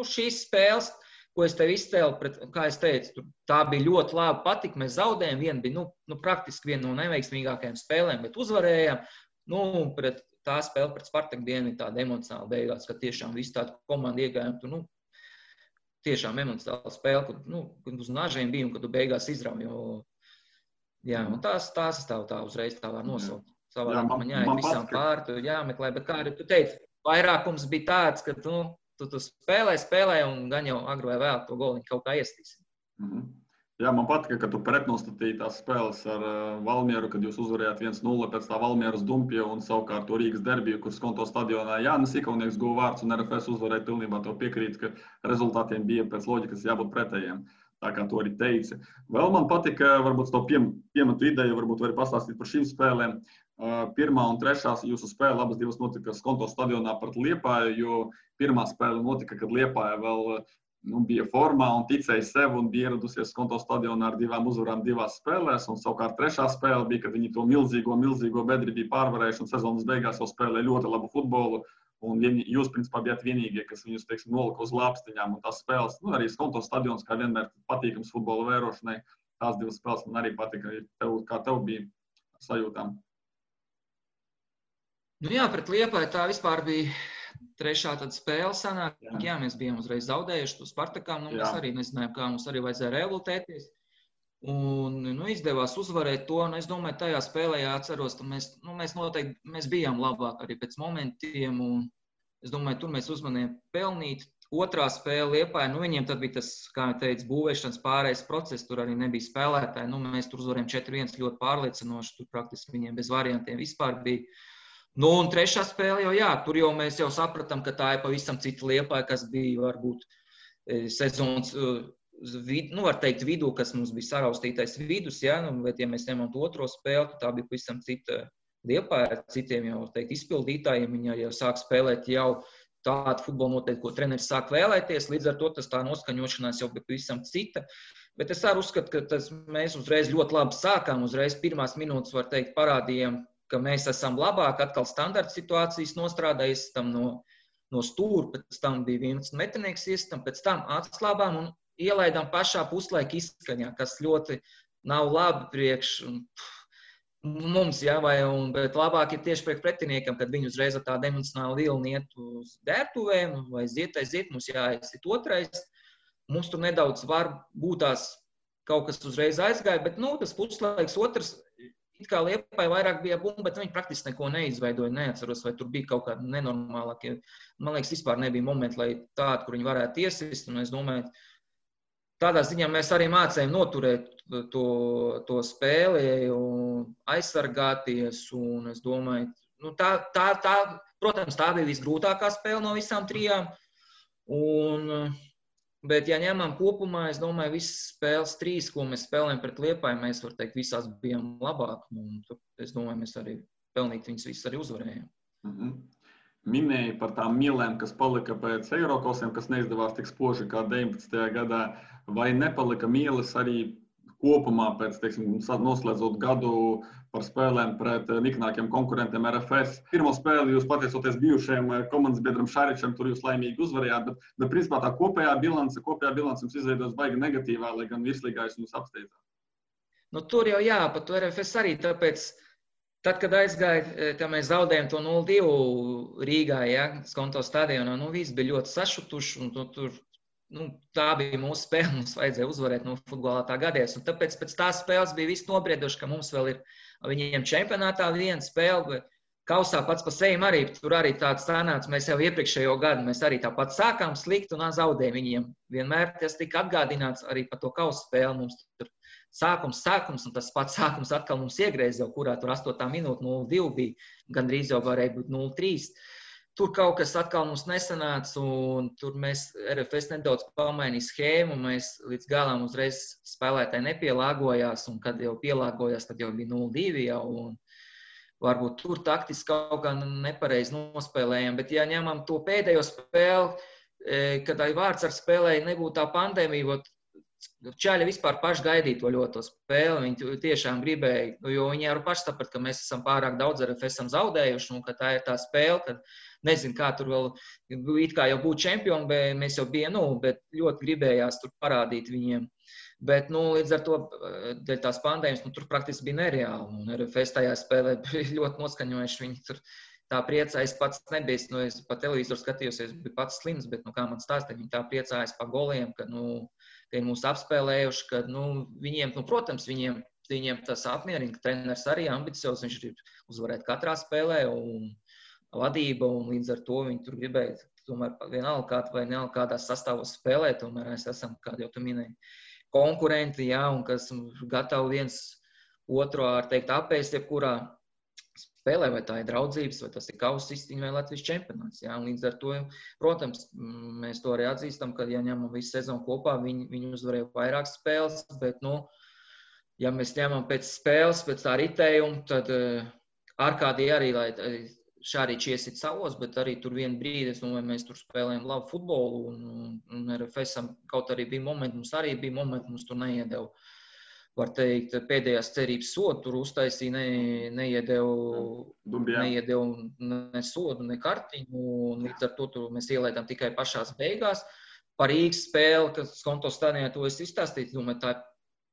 šīs spēles, ko es tev izcēlu, kā es teicu, tā bija ļoti labi patika, mēs zaudējām, viena bija, praktiski viena no neveiksmīgākajām spēlēm, bet uzvarējām, pret tā spēle pret Spartaku dienu ir tāda emocionāla beigās, ka tiešām visu tādu komandu iegājām, tur, tiešām emocionāla spēle, kad uz nažiem bija un kad tu beigās izrauj. Un tās es tā uzreiz tā var nosaukt. Savādāk man jāiet visām pāri, tu jāmeklē, bet kā arī tu teici, vairākums bija tāds, ka tu spēlē un gan jau agri vai vēl to goliņu kaut kā iestīsi. Man patika, ka tu pretnostatīji tās spēles ar Valmieru, kad jūs uzvarējāt 1-0 pēc tā Valmieras Dumpja un savukārt to Rīgas derbiju, kur Skonto stadionā Jānis Ikaunieks guva vārds un RFS uzvarēja pilnībā to piekrīt, ka rezultātiem bija pēc loģikas jābūt pretējiem. Tā kā to arī teici. Vēl man patika, varbūt to piemetu ideju, varbūt vari pastāstīt par šīm spēlēm. 1. un 3. jūsu spēle, abas divas notika Skonto stadionā pret Liepāju, jo pirmā spēle notika, kad Liepāja vēl bija formā un ticēja sev un bija ieradusies Skonto stadionā ar 2 uzvarām 2 spēlēs. Un savukārt 3. spēle bija, kad viņi to milzīgo bedri bija pārvarējuši un sezonas beigās jau spēlēja ļoti labu futbolu. Un jūs, principā, bijāt vienīgie, kas viņus, nolika uz lāpstiņām. Un tās spēles, arī Skonto stadions, kā vienmēr patīkams futbola vērošanai, tās 2 spēles man arī patika. Kā tev bija sajūtām? Pret Liepāju tā vispār bija 3. tad spēle sanāk. Mēs bijām uzreiz zaudējuši to Spartakām. Mēs arī nezinājām, kā mums arī vajadzēja revoltēties. Un izdevās uzvarēt to. Un es domāju, tajā spēlē atceros, ka mēs noteikti bijām labāk arī pēc momentiem. Un es domāju, tur mēs uzmanījām pelnīt. 2. spēle Liepāja, viņiem tad bija tas, kā jau teicu, būvēšanas pārējais process. Tur arī nebija spēlētāji. Mēs tur uzvarējām 4-1 ļoti pārliecinoši. Tur praktiski viņiem bez variantiem vispār bija. Un 3. spēle tur jau mēs jau sapratām, ka tā ir pavisam cita Liepāja, kas bija varbūt sezonas, var teikt, vidū, kas mums bija saraustītais vidus, bet ja mēs ņemam to 2. spēli, tad tā bija pavisam cita Liepāja ar citiem jau, teikt, izpildītājiem, viņi jau sāk spēlēt jau tādu futbolu noteikti, ko treneris sāk vēlēties, līdz ar to tas tā noskaņošanās jau bija pavisam cita. Bet es arī uzskatu, ka mēs uzreiz ļoti labi sākām, uzreiz pirmās minūtes, var teikt, parādījām, ka mēs esam labāk, atkal standarta situācijas nostrādājis, tam no stūra, pēc tam bija 11 metrnieks iestam, pēc tam atslābām un ielaidām pašā puslaika izskaņā, kas ļoti nav labi priekš mums, bet labāk ir tieši priekš pretiniekam, kad viņi uzreiz ar tādu emocionālu vilni iet uz dērtuvēm, vai aiziet, mums jāaiziet 2. Mums tur nedaudz var būtās kaut kas uzreiz aizgāja, bet tas puslaiks 2. It kā Liepāja vairāk bija bumba, bet viņi praktiski neko neizveidoja, neatceros, vai tur bija kaut kāda nenormālākie. Man liekas, vispār nebija momenti, lai tādi, kur viņi varētu iesist, un es domāju, tādā ziņā mēs arī mācējām noturēt to spēli un aizsargāties, un es domāju, protams, tā bija visgrūtākā spēle no visām 3. Bet, ja ņemam kopumā, es domāju, visas spēles 3, ko mēs spēlējam pret Liepāju, mēs, var teikt, visās bijām labāk. Un es domāju, mēs arī pelnīt viņas visas arī uzvarējām. minēji par tām mielēm, kas palika pēc Eirokosiem, kas neizdevās tik spoži kā 19. gadā, vai nepalika mielas arī kopumā pēc, teiksim, noslēdzot gadu par spēlēm pret niknākiem konkurentiem RFS. Pirmo spēli jūs pateicoties bijušajam komandas biedram Šaričam, tur jūs laimīgi uzvarējāt, bet principā tā kopējā bilance jums izveidos baigi negatīvā, lai gan virslīgā jūs mums apsteidzāt. Nu, tur jau jā, par to RFS arī, tāpēc, tad, kad aizgāja, tā mēs zaudējām to 0-2 Rīgā, ja, Skonto stadionā, visi bija ļoti sašutuši, un tur, tā bija mūsu spēle, mums vajadzēja uzvarēt, futbolā tā gadījās, un tāpēc pēc tās spēles bija viss nobrieduši, ka mums vēl ir viņiem čempionātā viena spēle, bet kausā pats pa sevi arī, tur arī tāds sanāca, mēs jau iepriekšējo gadu, mēs arī tāpat sākām slikt un zaudējām viņiem. Vienmēr tas tika atgādināts arī par to kausa spēli, mums tur sākums, un tas pats sākums atkal mums iegreiz jau, kurā tur 8. minūte 0-2 bija, gandrīz jau varēja būt 0-3. Tur kaut kas atkal mums nesanāca, un tur mēs RFS nedaudz pamainīja schēmu, mēs līdz galam uzreiz spēlētāji nepielāgojās, un kad jau pielāgojās, tad jau bija 0-2 jau, un varbūt tur taktiski kaut kā nepareizi nospēlējām, bet ja ņemam to pēdējo spēli, kad vārds ar spēlēju nebūtu tā pandēmija, Čaļi vispār paši gaidīja to ļoti spēli, viņi tiešām gribēja, jo viņi jau paši saprat, ka mēs esam pārāk daudz RFS esam zaudējuši, un ka tā ir tā spēle, kad nezinu, kā tur vēl, it kā jau būtu čempioni, bet mēs jau bijām, bet ļoti gribējās tur parādīt viņiem. Bet, līdz ar to, dēļ tās pandēmijas, tur praktiski bija nereāli, un RFS tajā spēlē bija ļoti noskaņojuši, viņi tur tā priecājas pats nebija, es pa televizoru skatījos, es biju pats slims, bet, kā man stāstīja, viņi tā priecājas pa goliem, ka, ka ir mūs apspēlējuši, ka, viņiem, protams, viņiem tas apmierina, ka treneris arī ambiciozs, viņš grib uzvarēt katrā spēlē, un vadība, un līdz ar to viņi tur gribēja, tomēr vienalga vai nealga kādās sastāvos spēlēt, tomēr mēs esam, kā jau tu minēji, konkurenti, jā, un kas gatavi viens otru, teikt, apēst jebkurā spēlē, vai tā ir draudzības, vai tas ir kausa izcīņa vai Latvijas čempionāts. Jā, un līdz ar to, protams, mēs to arī atzīstam, ka, ja ņemam visu sezonu kopā, viņi uzvarēja vairākas spēles, bet, ja mēs ņemam pēc spēles, pēc tā ritējuma, tad ārkārtīgi arī, lai Šarič iesit savos, bet arī tur vienu brīdi, mēs tur spēlējam labu futbolu, un RFS-am kaut arī bija momenti, mums tur neiedeva. Var teikt, pēdējās cerības sodu tur uztaisīja, neiedeva ne sodu, ne kartiņu, un līdz ar to mēs ielaidām tikai pašās beigās. Par Rīgas spēli, kas Skonto stadionā to es izstāstīju, domāju, tā ir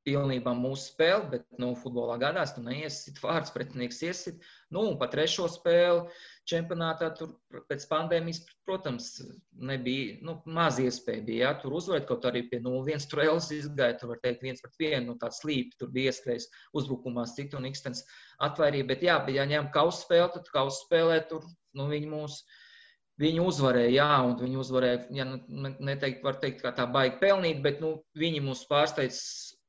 pilnībā mūsu spēle, bet, futbolā gadās, tu neiesit vārds, pretinieks iesit. Un pa trešo spēli čempionātā tur pēc pandēmijas, protams, nebija, maz iespēja bija, tur uzvarēt, kaut arī pie 0-1 tur Elis izgāja, tur var teikt 1-1, tāds slīpi, tur bija ieskrējis uzbrukumā citu un Ikstens atvairīja, bet jā, ja ņem kausa spēli, tad kausa spēlē tur, viņi uzvarēja, jā, un viņi uzvarēja, ja neteikt, var teikt, kā tā baigi pelnīt, bet, viņi mūs pārsteidz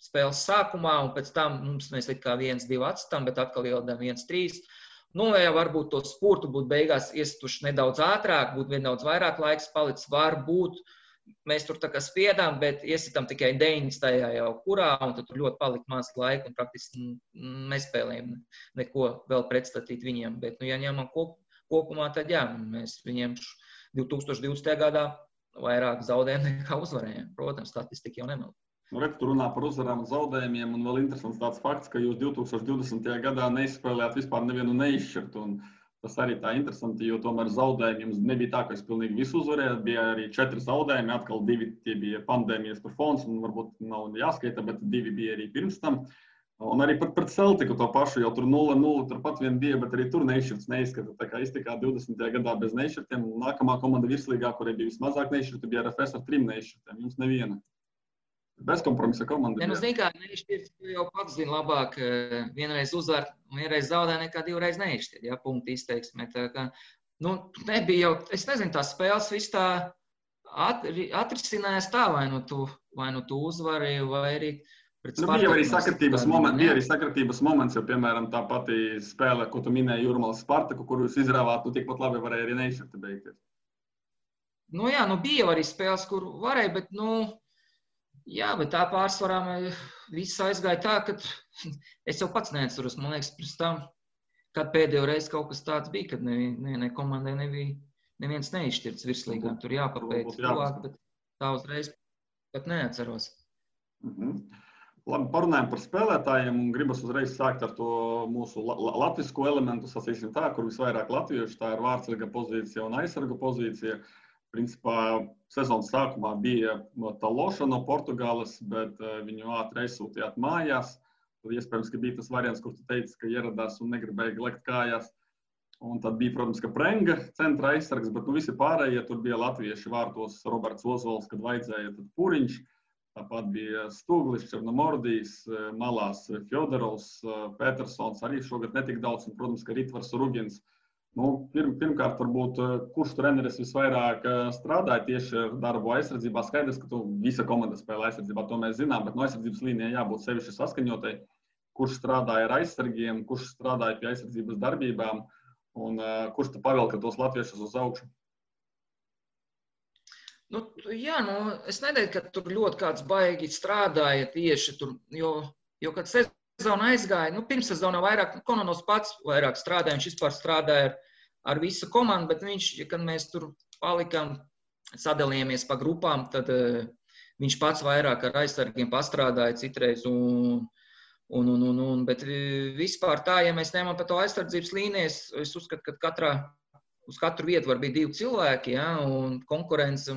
spēles sākumā, un pēc tam mēs kā 1-2 atstām, bet atkal ieladām 1-3. Ja varbūt to spurtu būtu beigās iestuši nedaudz ātrāk, būtu nedaudz vairāk laiks palicis, varbūt mēs tur tā kā spiedām, bet iesitam tikai 90. jau kurā, un tad tur ļoti palika maz laika, un praktiski nespēlējam neko vēl pretstatīt viņiem. Bet, ja ņemam kopumā, tad jā, mēs viņiem 2020. gadā vairāk zaudējām nekā uzvarējām. Protams, statistika jau nemēl. Tu runā par uzvarām un zaudējumiem, un vēl interesants tāds fakts, ka jūs 2020. gadā neizspēlējāt vispār nevienu neizšķirtu. Tas arī tā interesanti, jo tomēr zaudējumi jums nebija tā, ka jūs pilnīgi visu uzvarējāt. Bija arī 4 zaudējumi, atkal 2 tie bija pandēmijas par fons, un varbūt nav jāskaita, bet 2 bija arī pirms tam. Un arī pret Celtiku to pašu, jau tur 0-0, turpat vien bija, bet arī tur neizšķirts neizskata. Tā kā iztikā 20. gadā bez neizšķirtiem, nākamā komanda virslīgā, kurai bija vismazāk neizšķirti, bija RFS ar 3 neizšķirtiem, jums neviena. Bezkompromisa komanda. Zini, kā neizšķirts, tu jau pats zini labāk, vienreiz uzvar, vienreiz zaudē, nekā 2 reizes neizšķirt, ja, punkti izteiksmē. Tā kā, nebija jau, es nezinu, tās spēles viss tā atrisinājās tā, vai tu uzvari, vai arī pret Spartaku. Bija arī sakritības moments, jo, piemēram, tā pati spēle, ko tu minēji Jūrmalas Spartaku, kur jūs izrāvāt, tikpat labi varēja arī neizšķirti beigties. Jā, bija arī spēles, kur varēja, bet, jā, bet tā pārsvarā viss aizgāja tā, ka es jau pats neatceros, man liekas, pirms tam, kad pēdējo reizi kaut kas tāds bija, kad ne komandai nebija neviens neizšķirts virslīgā. Tur jāpapēc tuvāk, bet tā uzreiz pat neatceros. Labi, parunājam par spēlētājiem un gribas uzreiz sākt ar to mūsu latvisko elementu, sacīsim tā, kur visvairāk latviešu, tā ir vārdsarga pozīcija un aizsarga pozīcija. Principā sezonas sākumā bija Taloša no Portugāles, bet viņu ātri aizsūtījāt mājās. Tad iespējams, ka bija tas variants, kur tu teici, ka ieradās un negribēja lekt kājās. Un tad bija, protams, ka Prenga centra aizsargs, bet visi pārējie tur bija latvieši vārtos Roberts Ozols, kad vajadzēja, tad Puriņš. Tāpat bija Stūglis, Černomordijs, malās Fjodorovs, Petersons, arī šogad netik daudz, un, protams, ka Ritvars Rugins. Pirmkārt, varbūt, kurš treneris visvairāk strādāja tieši ar darbu aizsardzībā? Skaidrs, ka tu visa komanda spēlē aizsardzībā, to mēs zinām, bet no aizsardzības līnijai jābūt sevišķi saskaņotai. Kurš strādāja ar aizsargiem, kurš strādāja pie aizsardzības darbībām un kurš tu pavilka tos latviešus uz augšu? Es neteiktu, ka tur ļoti kāds baigi strādāja tieši tur, jo kad sezona aizgāja, pirms sezonā vairāk, Kononovs pats vairāk strādāja, viņš vispār strādāja ar visu komandu, bet viņš, kad mēs tur palikām, sadalījāmies pa grupām, tad viņš pats vairāk ar aizsargiem pastrādāja citreiz, bet vispār tā, ja mēs ņemam par to aizsardzības līnijas, es uzskatu, ka uz katru vietu var būt 2 cilvēki, un konkurence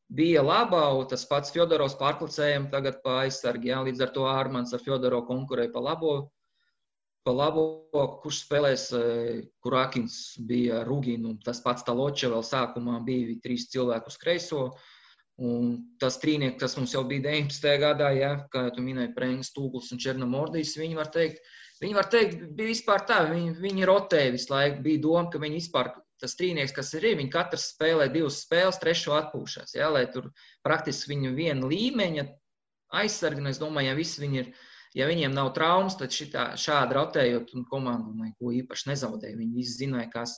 bija labā, un tas pats Fjodorovs pārklicējam tagad pa aizsargi, līdz ar to Ārmans ar Fjodorovu konkurēja pa labo, kurš spēlēs, Kurakins bija Ruginu, tas pats Taloča vēl sākumā bija 3 cilvēku uz kreiso, un tas trīnieki, kas mums jau bija 19. gadā, kā tu minēji, Prengs, Stūglis un Černomordijs, viņi var teikt, bija vispār tā, viņi rotēja visu laiku, bija doma, ka viņi vispār, tas trīnieks, kas ir, viņi katrs spēlē 2 spēles, 3 atpūšās, lai tur praktiski viņu viena līmeņa aizsargi, un es domāju, ja viņiem nav traumas, tad šādi rotējot un komandu neko īpaši nezaudēja. Viņi visi zināja, kas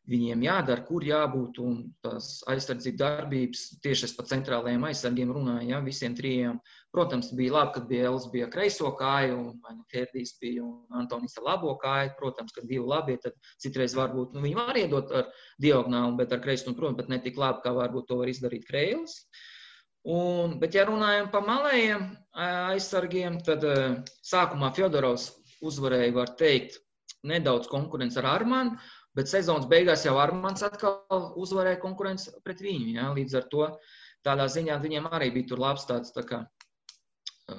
viņiem jādara, kur jābūt, un tās aizsardzība darbības, tieši es pa centrālajiem aizsargiem runāju, visiem 3. Protams, bija labi, kad bija Elis bija kreiso kāju, un Herdijs bija un Antonis ar labo kāju. Protams, kad 2 labie, tad citreiz varbūt, viņi var iedot ar diagonālu, bet ar kreiso, protams, bet ne tik labi, kā varbūt to var izdarīt Kreilis. Bet, ja runājam pa malējiem aizsargiem, tad sākumā Fjodorovs uzvarēja, var teikt, nedaudz konkurence ar Armanu, bet sezonas beigās jau Armans atkal uzvarēja konkurence pret viņu. Līdz ar to tādā ziņā viņiem arī bija tur labs tāds tā kā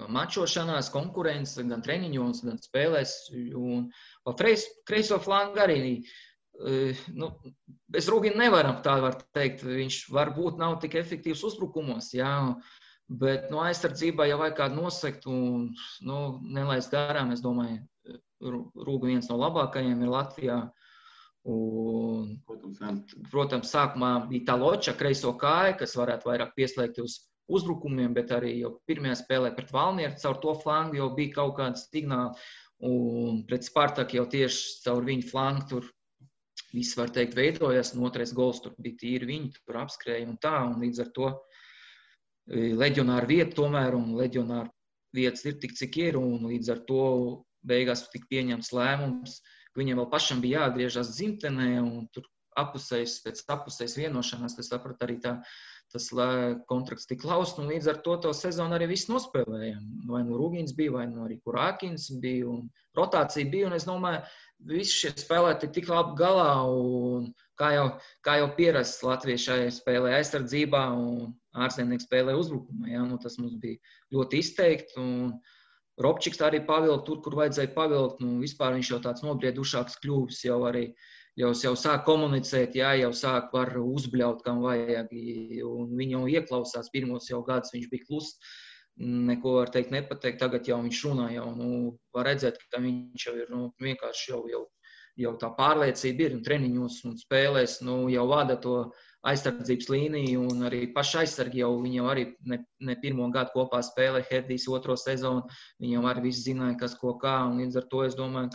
mačošanās, konkurence, gan treniņos, gan spēlēs. Un pa kreiso flangu arī, bez Rugina nevaram, tā var teikt, viņš varbūt nav tik efektīvs uzbrukumos, bet no aizsardzībā jau vajag kādu nosekt un nelaist garām, es domāju, Rūga viens no labākajiem ir Latvijā. Un, protams, sākumā bija Taloča kreiso kāja, kas varētu vairāk pieslēgt uz uzbrukumiem, bet arī jau pirmajā spēlē pret Valmieru caur to flangu jau bija kaut kāds signāli, un pret Spartaku jau tieši caur viņu flangu tur viss, var teikt, veidojas, un 2. gols tur bija tīri viņi, tur apskrēja un tā, un līdz ar to leģionāru vietu tomēr, un leģionāru vietas ir tik, cik ir, un līdz ar to beigās tik pieņemts lēmums, ka viņiem vēl pašam bija jāatgriežas dzimtenē, un tur pēc apusējas vienošanās, tas saprat arī tas kontrakts tik laust, un līdz ar to sezonu arī viss nospēlējām. Vai nu Rugins bija, vai nu arī Kurakins bija, un rotācija bija, un es domāju, visi šie spēlētāji tik labi galā, un kā jau pierasts latviešai spēlē aizsardzībā, un ārzemnieki spēlē uzbrukumā, tas mums bija ļoti izteikti, un Robčiks arī pavilka tur, kur vajadzēja pavilkt, vispār viņš jau tāds nobriedušāks kļuvis, jau sāk komunicēt, jau sāk var uzbļaut, kam vajag, un viņi jau ieklausās, pirmos jau gadus viņš bija kluss, neko var teikt nepateikt, tagad jau viņš runā, var redzēt, ka viņš jau ir, vienkārši jau tā pārliecība ir, un treniņos un spēlēs, jau vada to aizsardzības līniju, un arī paši aizsargi viņi jau arī ne pirmo gadu kopā spēlē, Herdijs 2. sezonu, viņi jau arī visi zināja, kas ko kā, un līdz ar to es domāju,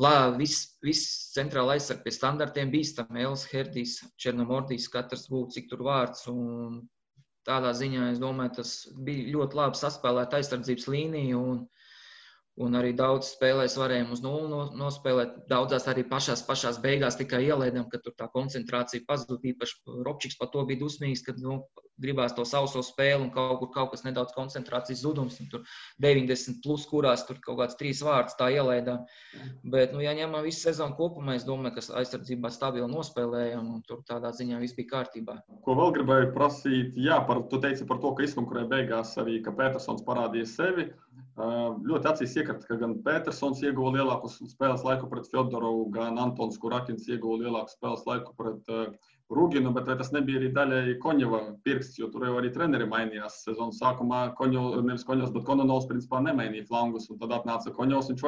ka viss centrāla aizsargi pie standartiem bīstam, Elis, Herdijs, Černomordijs, katrs būtu, cik tur vārds, un tādā ziņā, es domāju, tas bija ļoti labi saspēlēt aizsardzības līniju, Un arī daudz spēlēs varējām uz 0 nospēlēt. Daudzās arī pašās beigās tikai ielaidām, ka tur tā koncentrācija pazuda. Īpaši Robčiks par to bija dusmīgs, kad gribās to sauso spēli un kaut kas nedaudz koncentrācijas zudums. Tur 90 plus, kurās tur kaut kāds 3 vārdus tā ielaidām. Bet, ja ņemam visu sezonu kopumā, es domāju, ka aizsardzībā stabili nospēlējām un tur tādā ziņā viss bija kārtībā. Ko vēl gribēju prasīt? Jā, tu teici par to, ka izkonkurē beigās arī, ka Petersons parādīja sevi. Ļoti acīs iekrita, ka gan Petersons ieguva lielāku spēles laiku pret Fjodorovu, gan Antons Kurakins ieguva lielāku spēles laiku pret Ruginu, bet vai tas nebija arī daļai Koņeva pirksts, jo tur jau arī treneri mainījās sezonas sākumā. Nevis Koņevs, bet Kononovs principā nemainīja flangus, un tad atnāca Koņevs, viņš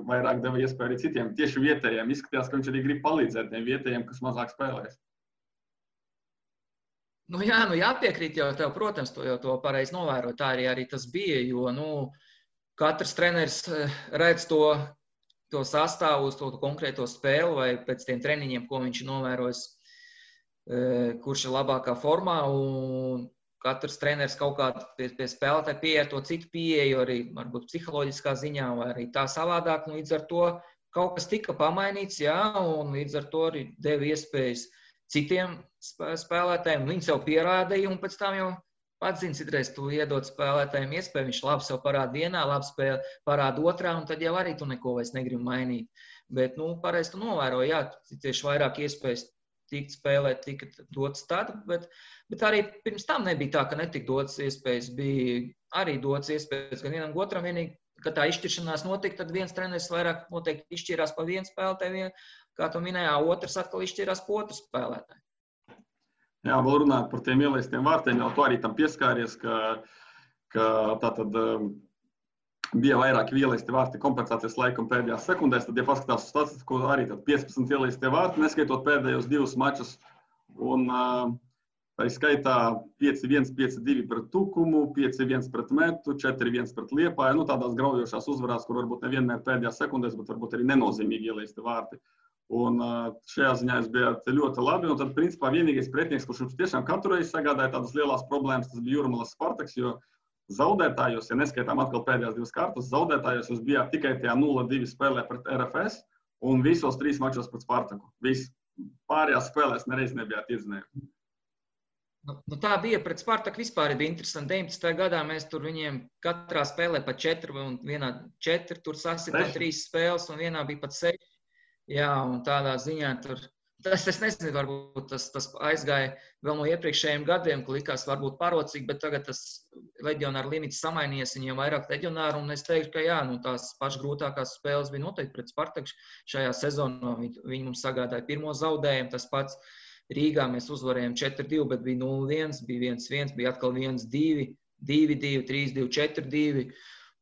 vairāk deva iespēju arī citiem. Tieši vietējiem izskatījās, ka viņš arī grib palīdzēt tiem vietējiem, kas mazāk spēlēs. Jāpiekrīt jau tev, protams, to pareizi novēro. Tā arī tas bija, jo, katrs treneris redz to sastāvu uz to konkrēto spēli vai pēc tiem treniņiem, ko viņš novērojis, kurš ir labākā formā, un katrs treneris kaut kādā pie spēlētāja pieeja to citu pieeju, arī varbūt psiholoģiskā ziņā, vai arī tā savādāk, līdz ar to kaut kas tika pamainīts, jā, un līdz ar to arī deva iespējas citiem spēlētājiem. Viņi sev pierādīja, un pēc tam jau pats zini, citreiz tu iedod spēlētājiem iespēju, viņš labi sev parāda vienā, labi spēle parāda otrā, un tad jau arī tu neko vairs negribi mainīt. Bet, pareizi tu novēroji, jā, tieši vairāk iespējas tikt spēlēt, tika dots tad, bet arī pirms tam nebija tā, ka netika dots iespējas, bija arī dots iespējas gan vienam otram, vienīgi, kad tā izšķiršanās notika, tad viens treneris vairāk noteikti izšķirās pa vienu spēlētāju, kā tu minējā, otrs atkal izšķirās pa otru spēlētāju. Jā, vēl runāt par tiem ielaistiem vārtiem, jau tu arī tam pieskāries, ka tātad bija vairāki ielaisti vārti kompensācijas laikam pēdējās sekundēs, tad, ja paskatās uz statistiku, arī tad 15 ielaistie vārti, neskaitot pēdējos 2 mačus, un tā skaitā 5-1, 5-2 pret Tukumu, 5-1 pret Metu, 4-1 pret Liepāju, tādās graujošās uzvarās, kur varbūt nevienmēr pēdējās sekundēs, bet varbūt arī nenozīmīgi ielaisti vārti. Un šajā ziņā jūs bijāt ļoti labi, un tad, principā, vienīgais pretinieks, kurš jums tiešām katru reizi sagādāja tādas lielās problēmas, tas bija Jūrmalas Spartaks, jo zaudētājos, ja neskaitām atkal pēdējās 2 kārtas, zaudētājos jūs bijāt tikai tajā 0-2 spēlē pret RFS un visos 3 mačos pret Spartaku. Pārējās spēlēs nereiz nebijāt iznējuši. Tā bija pret Spartaku vispār bija interesanti. 19. gadā mēs tur viņiem katrā spēlē pa 4 un vienā 4, tur sasitām 3 spēles un vienā bija pat 6. Jā, un tādā ziņā tur, es nezinu, varbūt tas aizgāja vēl no iepriekšējiem gadiem, ka likās varbūt parocīgi, bet tagad tas leģionāru limits samainījies, viņiem vairāk leģionāru, un es teiktu, ka jā, tās pašas grūtākās spēles bija noteikti pret Spartaku šajā sezonā. Viņi mums sagādāja pirmo zaudējumu, tas pats Rīgā mēs uzvarējām 4-2, bet bija 0-1, bija 1-1, bija atkal 1-2, 2-2, 3-2, 4-2.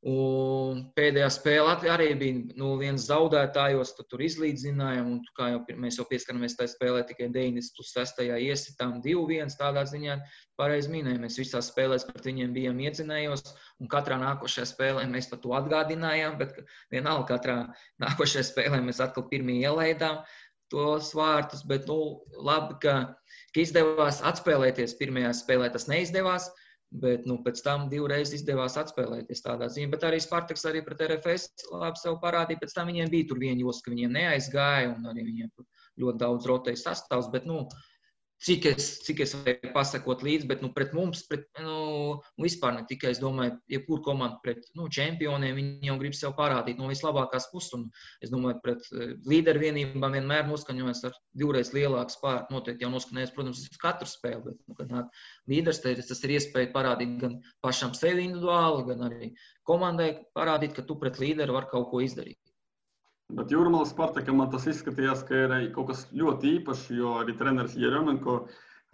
Un pēdējā spēle arī bija 0-1 zaudētājos, tad tur izlīdzinājām, un kā jau mēs jau pieskaramies tajā spēlē, tikai 90+6 iesitām 2-1, tādā ziņā pareizi minēju. Mēs visās spēlēs pret viņiem bijām iedzinējos, un katrā nākošajā spēlē mēs par to atgādinājām, bet vienalga katrā nākošajā spēlē mēs atkal pirmie ielaidām tos vārtus, bet labi, ka izdevās atspēlēties pirmajā spēlē, tas neizdevās. Bet pēc tam 2 reizes izdevās atspēlēties tādā ziņā. Bet arī Spartaks arī pret RFS labi sev parādīja. Pēc tam viņiem bija tur viena josla, ka viņiem neaizgāja un arī viņiem ļoti daudz rotēja sastāvs. Bet, cik es varēju pasakot līdzi, bet pret mums, vispār ne tikai, es domāju, jebkur komandu pret čempioniem, viņi jau grib sev parādīt no vislabākās puses. Un es domāju, pret līderu vienībām vienmēr noskaņojas ar 2 reizes lielāku spēku. Noteikti jau noskaņojas, protams, uz katru spēli, bet, kad nāk līderis, tas ir iespēja parādīt gan pašam sevi individuāli, gan arī komandai parādīt, ka tu pret līderu var kaut ko izdarīt. Bet Jūrmalas Spartakam man tas izskatījās, ka ir kaut kas ļoti īpašs, jo arī treneris Jeremenko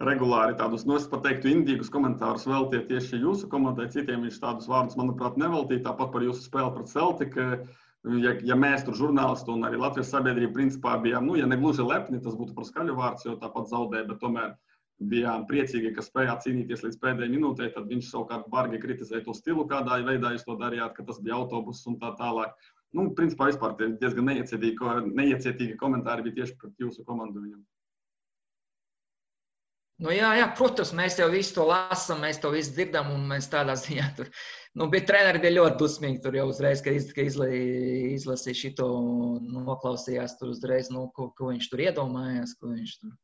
regulāri tādus, es pat teiktu, indīgus komentārus veltīja tieši jūsu komandai, citiem viņš tādus vārdus, manuprāt, neveltīja, tāpat par jūsu spēli pret Celtic. Ja mēs tur žurnālisti un arī Latvijas sabiedrība principā bijām, ja ne gluži lepni, tas būtu par skaļu vārds, jo tāpat zaudēja, bet tomēr bijām priecīgi, ka spējāt cīnīties līdz pēdējai minūtei, tad viņš savukārt bargi kritizēja to stilu, kādā veidā jūs to darījāt, ka tas bija autobus un tā tālāk. Principā vispār diezgan neiecietīgi komentāri bija tieši pret jūsu komandu viņam. Jā, protams, mēs jau visu to lasām, mēs to visu dzirdam, un mēs tādā ziņā tur Bet treneri bija ļoti dusmīgi tur jau uzreiz, ka izlasīja šito un noklausījās tur uzreiz, ko viņš tur iedomājās, ko viņš tur.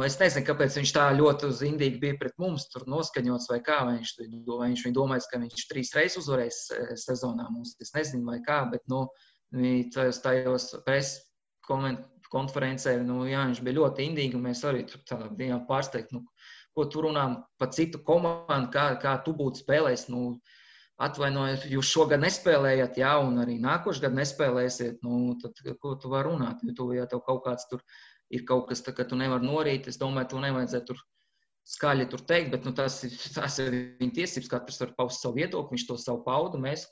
Es nezinu, kāpēc viņš tā ļoti uz indīgi bija pret mums tur noskaņots vai kā, vai viņš domājas, ka viņš 3 reizes uzvarēs sezonā mums. Es nezinu vai kā, bet tajos preses konferencē, jā, viņš bija ļoti indīgi un mēs arī tur tā bijām pārsteigti, ko tu runā par citu komandu, kā tu būtu spēlējis, atvainojiet, jūs šogad nespēlējat, jā, un arī nākošu gadu nespēlēsiet, tad ko tu vari runāt, ja tev kaut kāds tur ir kaut kas, ka tu nevari norīt, es domāju, to nevajadzētu tur skaļi tur teikt, bet tas ir viņa tiesības, katrs var paust savu viedokli, viņš to savu paudu, mēs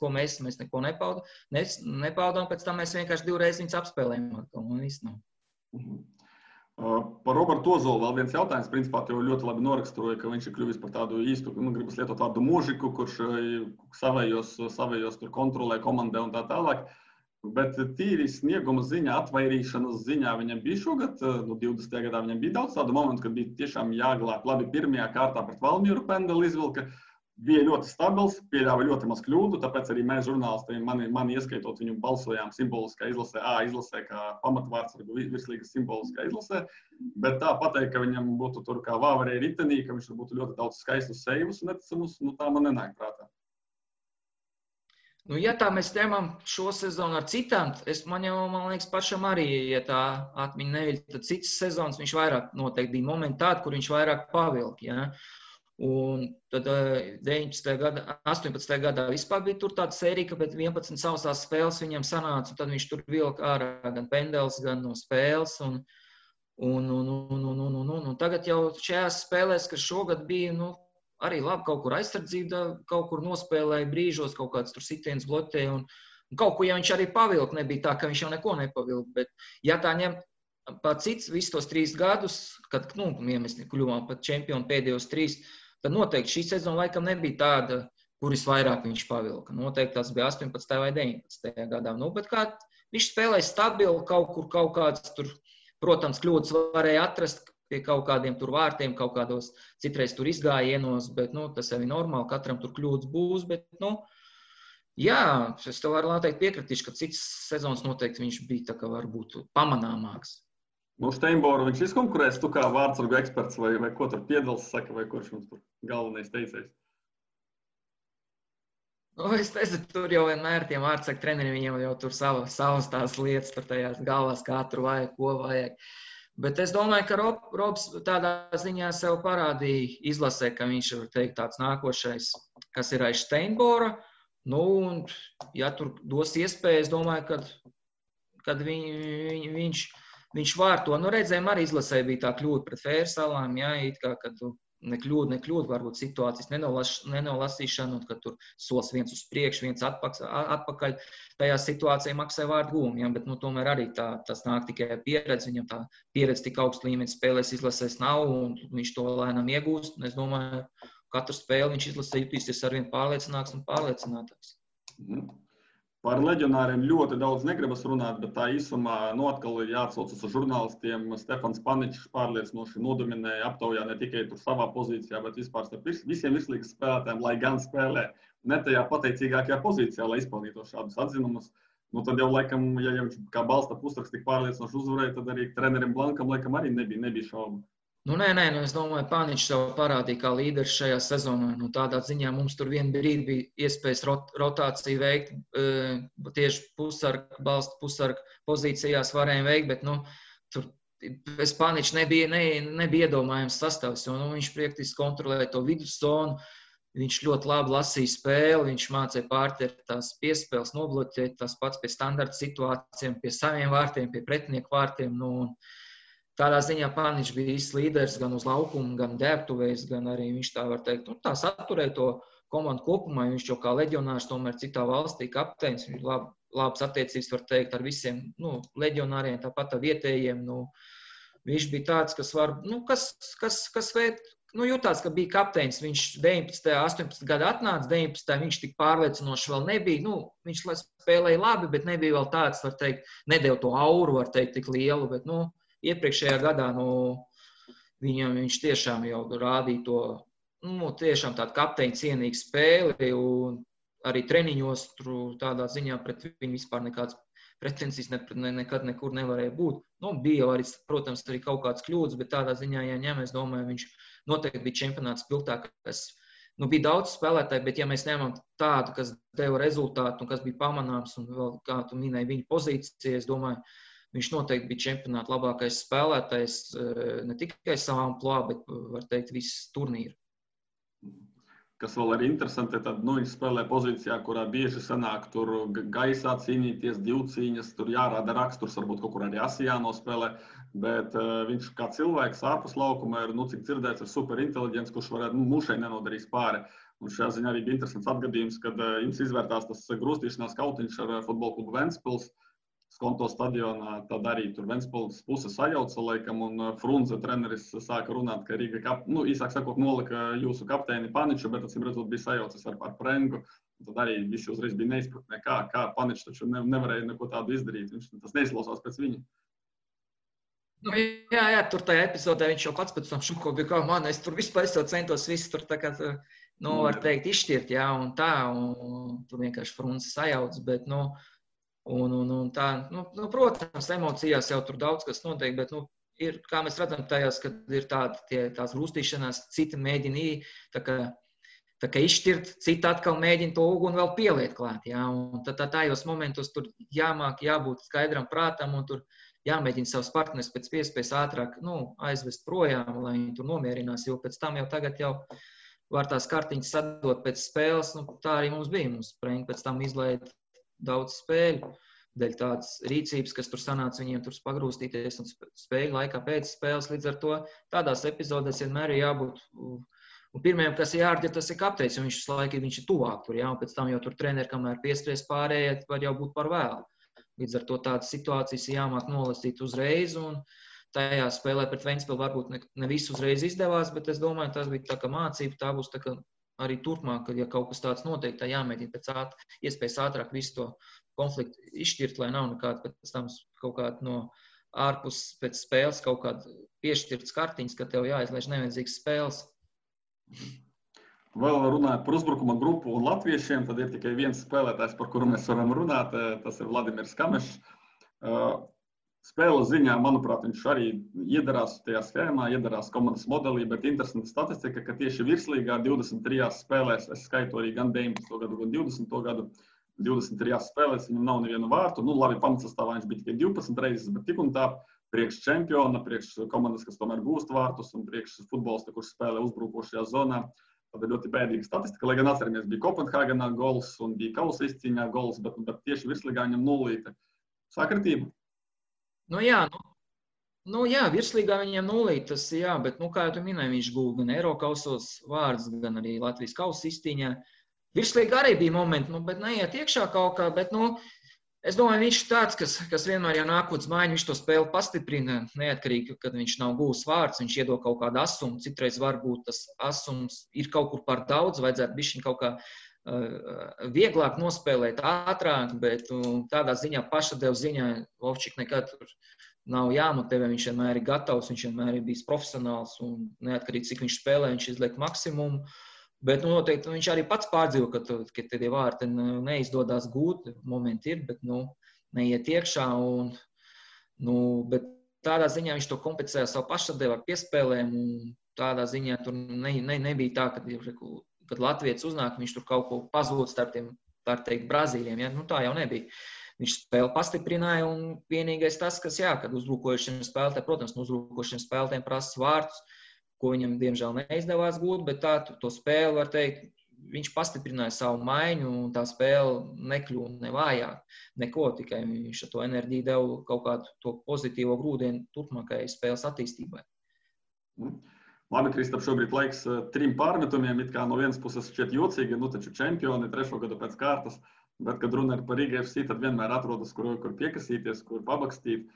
neko nepaudām, pēc tam mēs vienkārši 2 reizes viņus apspēlējam, un viss nav. Par Robertu Ozolu vēl viens jautājums, principā tev ļoti labi noraksturoja, ka viņš ir kļuvis par tādu īstu, gribas lietot vārdu mūžiku, kurš savējos tur kontrolē komandē un tā tālāk. Bet tīri snieguma ziņā, atvairīšanas ziņā viņam bija šogad, 20. gadā viņam bija daudz tādu momentu, kad bija tiešām jāglāb. Labi, pirmajā kārtā pret Valmieru pendeli izvilka, bija ļoti stabils, pieļāva ļoti maz kļūdu, tāpēc arī mēs žurnālisti, mani ieskaitot, viņu balsojām simboliskā izlasē, kā pamatvārdsargu virslīgas simboliskā izlasē, bet tā pateikt, ka viņam būtu tur kā vāvarēja ritenī, ka viņš būtu ļoti daudz skaistus sejus neticamus, tā man nenāk prātā. Ja tā mēs ņemam šo sezonu ar citām, man liekas, pašam arī, ja tā atmiņa neviļ, tad citas sezonas viņš vairāk noteikti bija momenti tādi, kur viņš vairāk pavilka. Ja? Un tad 18. gadā vispār bija tur tāda sērija, ka pēc 11 sausās spēles viņam sanāca, un tad viņš tur vilka ārā gan pendels, gan no spēles. Un tagad jau šajās spēlēs, kas šogad bija, arī labi kaut kur aizsardzība, kaut kur nospēlēja brīžos, kaut kāds tur sitiens bloķēja un kaut ko, ja viņš arī pavilka, nebija tā, ka viņš jau neko nepavilka, bet ja tā ņem pat cits visus tos 3 gadus, kad, mēs kļuvām pat čempioni pēdējos 3, tad noteikti šī sezona laikam nebija tāda, kuris vairāk viņš pavilka. Noteikti tas bija 18. vai 19. gadā. Bet kā viņš spēlēja stabili kaut kāds tur, protams, kļūdas varēja atrast, pie kaut kādiem tur vārtiem, kaut kādos citreiz tur izgājienos, bet, tas jau ir normāli, katram tur kļūdas būs, bet, jā, es tev varu teikt piekritīšu, ka cits sezonas noteikti viņš bija tā kā varbūt pamanāmāks. Steinboru viņš izkonkurēs, tu kā vārdsargu eksperts vai ko tur Piedals saka, vai kurš mums tur galvenais teicējs? Es nezinu, tur jau vienmēr tiem vārdsargu treneriem viņiem jau tur savas tās lietas, tur tajās galvās, kā tur vajag, ko vajag. Bet es domāju, ka Robs tādā ziņā sev parādīja izlasē, ka viņš ir teikt tāds nākošais, kas ir aiz Steinbora. Un, ja tur dos iespēju, es domāju, kad viņš var to. Redzējām, arī izlasē bija tā kļūda pret Fērsalām, jā, it kā, kad nekļūda, varbūt situācijas nenolasīšana, un kad tur solis viens uz priekšu, viens atpakaļ, tajā situācijā maksāja vārdu gūmu, ja? Bet tomēr arī tas nāk tikai pieredze, viņam tā pieredze tik augstu līmeni spēlēs izlasēs nav, un viņš to lēnām iegūst, un es domāju, katru spēli viņš izlasē jutīsies arvien pārliecināks un pārliecinātāks. Par leģionāriem ļoti daudz negribas runāt, bet tā īsumā atkal ir jāatsaucas uz žurnālistiem. Stefans Paničs pārliecinoši nodominēja aptaujā ne tikai tur savā pozīcijā, bet vispār starp visiem virslīgas spēlētājiem, lai gan spēlē ne tajā pateicīgākajā pozīcijā, lai izpildītos šādus atzinumus. Tad jau laikam, ja viņš kā balsta pusraksts tik pārliecinoši uzvarēja, tad arī trenerim Blankam laikam arī nebija šaubu. Nē, es domāju, Pāniņš sev parādīja kā līderis šajā sezonā. Tādā ziņā mums tur vienu brīdi bija iespējas rotāciju veikt, tieši pusargu pozīcijās varējām veikt, bet tur bez Pāniņš nebija iedomājams sastāvs, jo viņš praktiski kontrolēja to viduszonu, viņš ļoti labi lasīja spēli, viņš mācīja pārķert tās piespēles, nobloķēt tās pats pie standarta situācijām, pie saviem vārtiem, pie pretinieku vārtiem. Tādā ziņā Pāniņš bija īsts līderis gan uz laukuma, gan ģērbtuvēs, gan arī viņš tā var teikt. Tā saturēja to komandu kopumā, viņš jau kā leģionārs tomēr citā valstī kapteinis, viņš labas attiecības var teikt ar visiem leģionāriem, tāpat ar vietējiem. Viņš bija tāds, kas var, jutās, ka bija kapteinis, viņš 19. 18. gada atnāca, 19. viņš tik pārliecinoši vēl nebija, viņš spēlēja labi, bet nebija vēl tāds, var teikt, nedēļ to auru, var teikt, tik lielu, bet, iepriekšējā gadā viņš tiešām jau rādīja to tiešām tāda kapteiņa cienīga spēle, un arī treniņos tur tādā ziņā pret viņu vispār nekāds pretensijas nekad nekur nevarēja būt. Bija arī, protams, arī kaut kāds kļūdas, bet tādā ziņā, ja ņem, es domāju, viņš noteikti bija čempionāts spilgtākais. Bija daudz spēlētāji, bet ja mēs ņemam tādu, kas deva rezultātu un kas bija pamanāms, un vēl, kā tu minēji, viņa pozīcija, es domāju, viņš noteikti bija čempionāta labākais spēlētājs, ne tikai savā amplitūdā, bet, var teikt, viss turnīru. Kas vēl ir interesanti, tad viņš spēlē pozīcijā, kurā bieži sanāk tur gaisā cīnīties, divcīņas, tur jārāda raksturs, varbūt kaut kur arī asi jānospēlē, bet viņš kā cilvēks ārpus laukuma ir, cik dzirdēts, ir super inteliģents, kurš varētu mušai nenodarīs pāri. Un šajā ziņā arī bija interesants atgadījums, kad jums izvērtās tas grūstīšanās kautiņš ar futbola klubu Ventspils, Skonto stadionā, tad arī tur Ventspils puse sajauca laikam, un Frunze treneris sāka runāt, ka Rīga, īsāk sakot, nolika jūsu kapteini Paniču, bet acīm redzot bija sajaucis ar Prengu. Tad arī visi uzreiz bija neizpratnē, kā Paničs taču nevarēja neko tādu izdarīt. Tas neizklausās pēc viņa. Jā, tur tajā epizodē viņš jau pats pēc tam šuko bija, kā man, es tur vispār centos visu tur tā kā, var teikt, izšķirt, jā, un tā, un tur vienkārši Frunze sajauc, bet, un tā, protams, emocijās jau tur daudz kas notiek, bet, ir, kā mēs redzam tajās, kad ir tās grūstīšanās, citi mēģina tā kā izšķirt, citi atkal mēģina to uguni vēl pieliet klāt, jā, un tajos momentos tur jābūt skaidram prātam, un tur jāmēģina savus partneris pēc iespējas ātrāk, aizvest projām, lai viņi tur nomierinās, jo pēc tam jau tagad jau var tās kartiņas sadot pēc spēles, tā arī mums bija, mums Prengi pēc tam izlaida daudz spēļu, dēļ tādas rīcības, kas tur sanāca viņiem tur pagrūstīties un spēļu laikā pēc spēles. Līdz ar to tādās epizodēs vienmēr ir jābūt. Un pirmajam, kas ir jārģi, tas ir kapteinis, un viņš ir tuvāk tur, jā, un pēc tam jau tur treneri, kamēr pieskries pārējie, var jau būt par vēlu. Līdz ar to tādas situācijas ir jāmāk nolasīt uzreiz, un tajā spēlē pret Ventspilu varbūt ne visu uzreiz izdevās, bet es domāju, tas bija tā kā mācība, tā būs tā kā arī turpmāk, kad ja kaut kas tāds notiek, tā jāmēģina pēc iespējas ātrāk visu to konfliktu izšķirt, lai nav nekāda pēc tam kaut kāda no ārpus pēc spēles kaut kāda piešķirtas kartiņas, ka tev jāizlaiž nevajadzīgas spēles. Vēl runājot par uzbrukuma grupu un latviešiem, tad ir tikai viens spēlētājs, par kuru mēs varam runāt, tas ir Vladimirs Kamešs. Spēles ziņā, manuprāt, viņš arī iedarās tajā schēmā, iedarās komandas modelī, bet interesanta statistika, ka tieši virslīgā 23 spēlēs, es skaitu arī gan 19. gadu, gan 20. gadu, 23 spēlēs viņam nav nevienu vārtu. Labi, pamatsastāvā viņš bija tikai 12 reizes, bet tik un tā priekš čempiona, priekš komandas, kas tomēr gūst vārtus un priekš futbolista, kurš spēlē uzbrukošajā zonā. Tad ir ļoti bēdīga statistika, lai gan atceramies, bija Kopenhāgenā gols un bija kausa izcīņā gols, bet tieši virslīgā viņam nulīte. Sākratība? Jā, virslīgā viņiem nulīt, tas jā, bet, kā jau tu minēji, viņš guva gan Eirokausos vārds, gan arī Latvijas kausa izcīņā. Virslīgā arī bija momenti, bet neiet iekšā kaut kā, bet, es domāju, viņš ir tāds, kas vienmēr jau nāk uz mājiņu, viņš to spēli pastiprina, neatkarīgi, kad viņš nav gūs vārds, viņš iedod kaut kādu asumu, citreiz varbūt tas asums ir kaut kur par daudz, vajadzētu bišķiņ kaut kā vieglāk nospēlēt, ātrāk, bet tādā ziņā, pašadev ziņā, Vovčik nekad tur nav jāmotivē, viņš vienmēr ir gatavs, viņš vienmēr ir bijis profesionāls un neatkarīgi, cik viņš spēlē, viņš izliek maksimumu, bet noteikti viņš arī pats pārdzīvo, ka tie vārti neizdodas gūt, momenti ir, bet neiet iekšā, bet tādā ziņā viņš to kompensē savu pašadevu ar piespēlēm, un tādā ziņā tur nebija tā, kad Latvijas uznāk, viņš tur kaut ko pazūd starp tiem, tā teikt, Brazīļiem, ja? Tā jau nebija. Viņš spēli pastiprināja, un vienīgais tas, kad uzbrukojušiem spēlētājiem, protams, uzbrukojušiem spēlētājiem prasa vārtus, ko viņam, diemžēl, neizdevās gūt, bet to spēli, var teikt, viņš pastiprināja savu maiņu, un tā spēle nekļūna ne vājāk, neko, tikai viņš ar to enerģiju deva kaut kādu to pozitīvo grūdienu turpmākajai spēles attīstībai. Labi, Kristap, šobrīd laiks 3 pārmetumiem, it kā no vienas puses šķiet jocīgi, taču čempioni 3. gadu pēc kārtas, bet, kad runa ir par Riga FC, tad vienmēr atrodas, kur piekasīties, kur pabakstīt.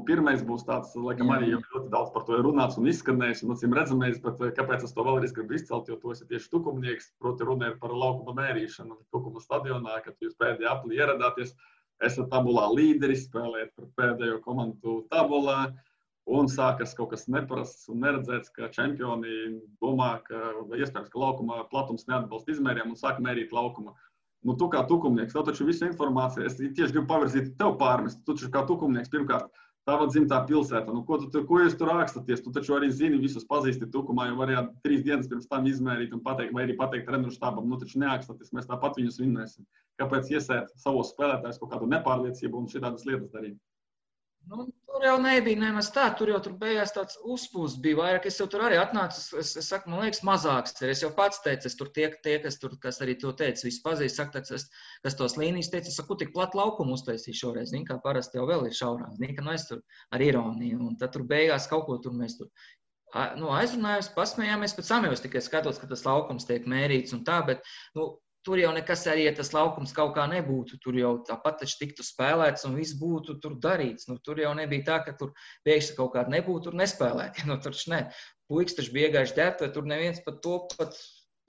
Pirmais būs tāds, laikam arī jau ļoti daudz par to ir runāts un izskanējis, un acīm redzamais, bet kāpēc es to vēlreiz gribu izcelt, jo to esi tieši tukumnieks, proti runa ir par laukuma mērīšanu Tukuma stadionā, kad jūs pēdējā aplī ieradāties, esat tabulā līderis, spēlējat par pēdējo komandu tabulā, Un sākas kaut kas neparasts un neredzēts, ka čempioni domā, ka iespējams, ka laukuma platums neatbalsta izmēriem un sāk mērīt laukuma. Nu, tu kā tukumnieks, tev taču visa informācija, es tieši gribu pavirzīt tev pārmest. Tu taču kā tukumnieks, pirmkārt, tava dzimtā pilsēta. Nu, ko jūs tur rakstaties? Tu taču arī zini, visus pazīsti tukumā, jo varējāt 3 dienas pirms tam izmērīt un pateikt, vai arī pateikt treneru štābam, nu taču nerakstaties, mēs tāpat viņus vinnēsim. Kāpēc iesēt savos spēlētājus kaut kādu nepārliecību un šitādas lietas darīt? Nu, tur jau nebija nemaz tā, tur beigās tāds uzpūsts bija vairāk. Es jau tur arī atnācu, es saku, man liekas, mazāks. Es jau pats teicu, es tur tie, kas arī to teica, visi pazīst, saka, kas tos līnijas teica, es saku, tik plat laukumu uztaisīju šoreiz, zin, kā parasti jau vēl ir šaurāk, zin, ka nu es tur ar ironiju, un tad tur beigās kaut ko tur mēs tur aizrunājos, pasmējāmies, pēc samējos tikai skatos, ka tas laukums tiek mērīts un tā, bet, nu, tur jau nekas arī, ja tas laukums kaut kā nebūtu, tur jau tāpat taču tiktu spēlēts un viss būtu tur darīts. Nu, tur jau nebija tā, ka tur pēkšņi kaut kāda nebūtu tur nespēlēt. Nu, tur ne. Puikas taču bija gājuši ģērbtuvē, tur neviens pat to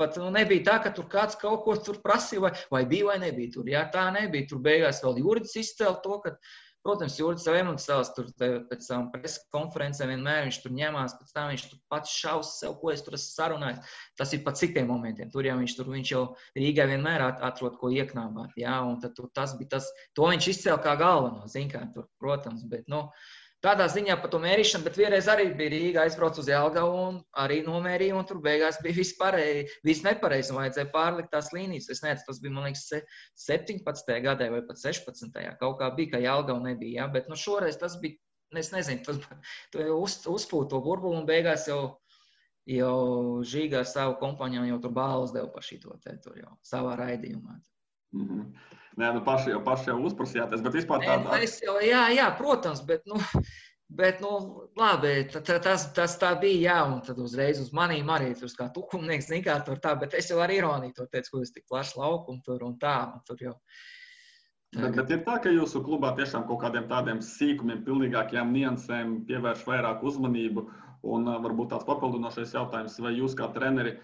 pat nebija tā, ka tur kāds kaut ko tur prasīja, vai bija vai nebija tur. Jā, tā nebija. Tur beigās vēl Juridis izcēla to, ka, protams, Juridis savu emocionāls tur pēc savām preses konferencēm vienmēr viņš tur ņemās, pēc tam viņš tur pats šaus sev, ko es tur esmu sarunājis. Tas ir pa citiem momentiem. Viņš jau Rīgai vienmēr atrod, ko ieknābāt, jā, un tad tas bija tas, to viņš izcēla kā galveno, zin kā tur, protams, bet, nu, tādā ziņā par to mērīšanu, bet vienreiz arī bija Rīga aizbrauc uz Jelgavu un arī nomērīja, un tur beigās bija viss nepareizi, un vajadzēja pārlikt tās līnijas. Es nezinu, tas bija, man liekas, 17. gadē vai pat 16. Kaut kā bija, ka Jelgavu nebija, jā, bet nu šoreiz tas bija, es nezinu, tas uzpūt to burbulu un beigās jau Žīga ar savu kompāņām jau tur balvas deva par šito te tur jau savā raidījumā. Nē, nu paši jau uzprasījāties, bet vispār tādā... Jā, protams, bet labi, tas tā bija, jā, un tad uzreiz uz manīm arī tur kā tukumnieks, zin kā tur tā, bet es jau ar ironiju to teicu, ko es tik plaši laukumu tur un tā, un tur jau... Bet ir tā, ka jūsu klubā tiešām kaut kādiem tādiem sīkumiem, pilnīgākajām niansēm pievērš vairāk uzmanību, un varbūt tāds papildinošais jautājums, vai jūs kā treneri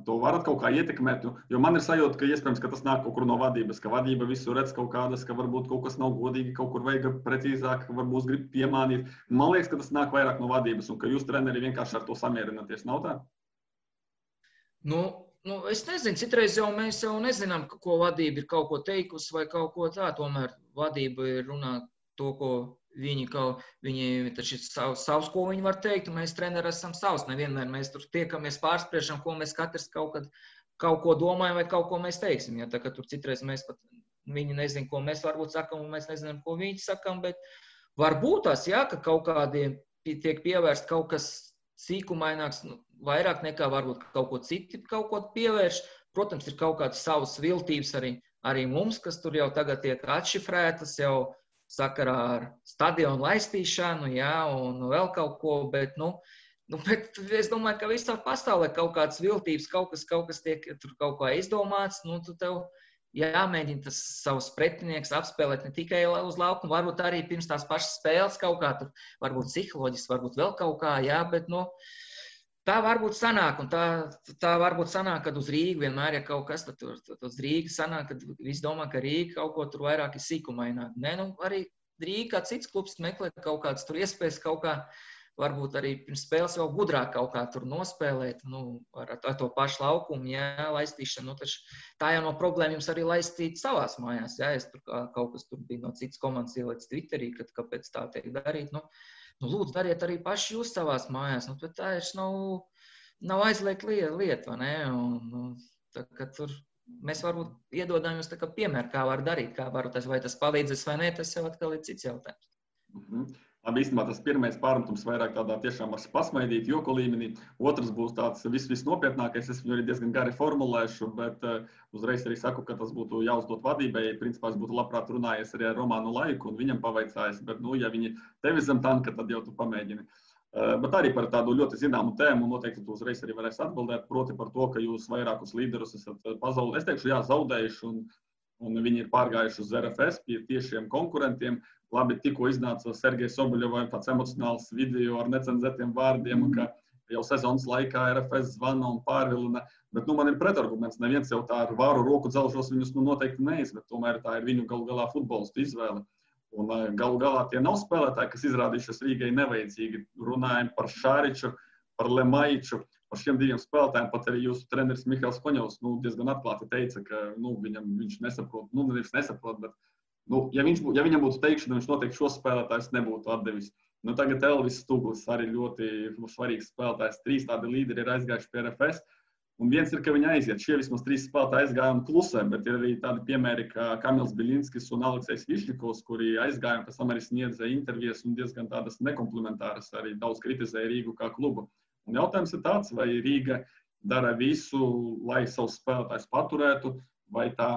to varat kaut kā ietekmēt, jo man ir sajūta, ka iespējams, ka tas nāk kaut kur no vadības, ka vadība visu redz kaut kādas, ka varbūt kaut kas nav godīgi, kaut kur vajag precīzāk, varbūt grib piemānīt. Man liekas, ka tas nāk vairāk no vadības un ka jūs treneri vienkārši ar to samierināties, nav tā? Nu, es nezinu, citreiz mēs jau nezinām, ko vadība ir kaut ko teikusi vai kaut ko tā, tomēr vadība ir runāt to, ko viņi taču ir savs, ko viņi var teikt, un mēs treneri esam savs. Nevienmēr mēs tur tiekamies pārspriešam, ko mēs katrs kaut ko domājam vai kaut ko mēs teiksim. Ja, tā, ka tur citreiz mēs pat, viņi nezin, ko mēs varbūt sakam, un mēs nezinām, ko viņi sakam, bet varbūt tās, jā, ka kaut kādiem tiek pievērst kaut kas sīkumaināks, vairāk nekā varbūt kaut ko citi kaut ko pievērš. Protams, ir kaut kādas savas viltības arī mums, kas tur jau tagad tiek atšifrētas jau sakarā ar stadionu laistīšanu, jā, un vēl kaut ko, bet es domāju, ka visā pasaulē kaut kādas viltības, kaut kas tiek tur kaut kā izdomāts, tu tev jāmēģina tas savus pretinieks apspēlēt ne tikai uz laukumu, varbūt arī pirms tās pašas spēles kaut kā tur, varbūt psiholoģiski, varbūt vēl kaut kā, jā, bet, tā varbūt sanāk, un tā varbūt sanāk, kad uz Rīgu vienmēr ir kaut kas, tad uz Rīgu sanāk, kad visi domā, ka Rīga kaut ko tur vairāk ir sīkumaināk. Nē, arī Rīga kā cits klubs meklē kaut kādas tur iespējas kaut kā, varbūt arī pirms spēles vēl gudrāk kaut kā tur nospēlēt, ar to pašu laukumu, jā, laistīšanu, taču tā jau no problēma jums arī laistīt savās mājās, jā, es tur kaut kas tur bija no citas komandas ielaicis Twitterī, kad kāpēc tā tiek darīt, lūdzu, dariet arī paši jūs savās mājās, bet tā ir nav aizliegt lieta, vai ne? Tā, ka tur mēs varbūt iedodam jums tā kā piemēru, kā var darīt, vai tas palīdzēs vai ne, tas jau atkal ir cits jautājums. Labi, īstenībā tas pirmais pārmetums vairāk tādā tiešām var pasmaidīt, joku līmenī. Otrs būs tāds viss nopietnākais, es viņu arī diezgan gari formulēšu, bet uzreiz arī saku, ka tas būtu jāuzdot vadībai. Principā es būtu labprāt runājies arī ar Romānu Laiku un viņam pavaicājis, bet, ja viņi tevi zem tanka, tad jau tu pamēģini. Bet arī par tādu ļoti zināmu tēmu, noteikti tu uzreiz arī varēsi atbildēt, proti par to, ka jūs vairākus līderus esat pazaudējuši. Es teikšu, jā, zaudējuši un viņi ir pārgājuši uz RFS pie tiešiem konkurentiem. Labi, tikko iznāca Sergejs Soboļovs tāds emocionāls video ar necenzētiem vārdiem, ka jau sezonas laikā RFS zvana un pārvilina, bet man ir pretarguments. Neviens jau tā ar vāru roku dzelžos viņus noteikti neizved, tomēr tā ir viņu galu galā futbolistu izvēle. Un galu galā tie nav spēlētāji, kas izrādījušies Rīgai nevajadzīgi. Runājam par Šāriču, par Lemaiču, par šiem diviem spēlētājiem. Pat arī jūsu treneris Mihails Koņovs diezgan atklāti teica, ka viņš nesaprot, nevis nesaprot, bet ja viņam būtu teikšana, viņš noteikti šos spēlētājus nebūtu atdevis. Tagad Elvis Stuglis arī ļoti svarīgs spēlētājs. 3 tādi līderi ir aizgājuši pie RFS. Un viens ir, ka viņi aiziet. Šie vismaz 3 spēlētāji aizgāja un klusē, bet ir arī tādi piemēri, kā Kamils Biļinskis un Aleksejs Višņikovs, kuri aizgāja un pēc tam arī sniedza intervijas un diezgan tādas nekomplementāras, arī daudz kritizēja Rīgu kā klubu. Un jautājums ir tāds, vai Rīga dara visu, lai savus spēlētājus paturētu, vai tā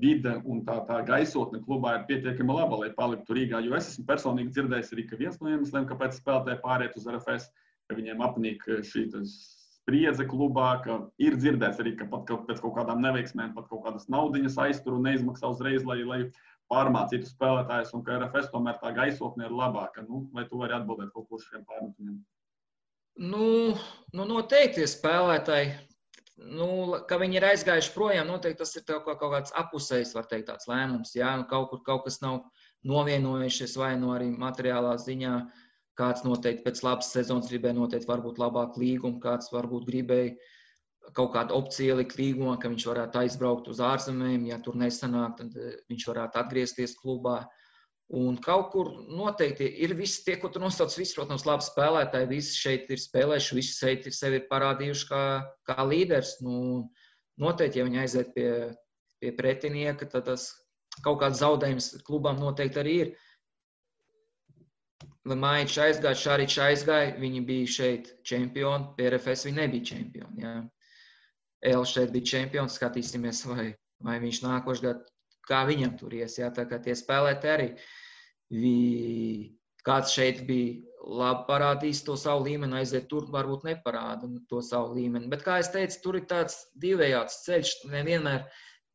vide un tā gaisotne klubā ir pietiekami laba, lai paliktu Rīgā. Jo es esmu personīgi dzirdējis arī, ka viens no iemesliem, kāpēc spēlētāji pāriet uz RFS, ka viņiem apnīk šī spriedze klubā, ka ir dzirdēts arī, ka pat pēc kaut kādām neveiksmēm, pat kaut kādas naudiņas aiztur un neizmaksā uzreiz, lai pārmācītu spēlētājus, un ka RFS tomēr tā gaisotne ir labāka. Vai tu vari atbildēt kaut ko šiem pārmetumiem? Noteikti spēlētāji, ka viņi ir aizgājuši projām, noteikti tas ir kaut kāds apusējs, var teikt, tāds lēmums. Jā, kaut kas nav novienojušies vai arī materiālā ziņā. Kāds noteikti pēc labas sezonas gribēja noteikti varbūt labāku līgumu, kāds varbūt gribēja kaut kādu opciju likt līgumā, ka viņš varētu aizbraukt uz ārzemēm, ja tur nesanāk, tad viņš varētu atgriezties klubā. Un kaut kur noteikti ir visi tie, ko tu nosauc, visi, protams, labi spēlētāji, visi šeit ir spēlējuši, visi šeit sevi ir parādījuši kā līderis. Noteikti, ja viņi aiziet pie pretinieka, tad tas kaut kāds zaudējums klubām noteikti arī ir. Lemaičs aizgāja, Šāričs aizgāja, viņi bija šeit čempioni, pie RFS viņi nebija čempioni. Jā. Elvis šeit bija čempions, skatīsimies, vai viņš nākošais gads, kā viņam tur ies. Jā. Tā kā tie spēlēti arī, kāds šeit bija labi parādījis to savu līmeni, aiziet tur varbūt neparāda to savu līmeni. Bet, kā es teicu, tur ir tāds divējāds ceļš, nevienmēr.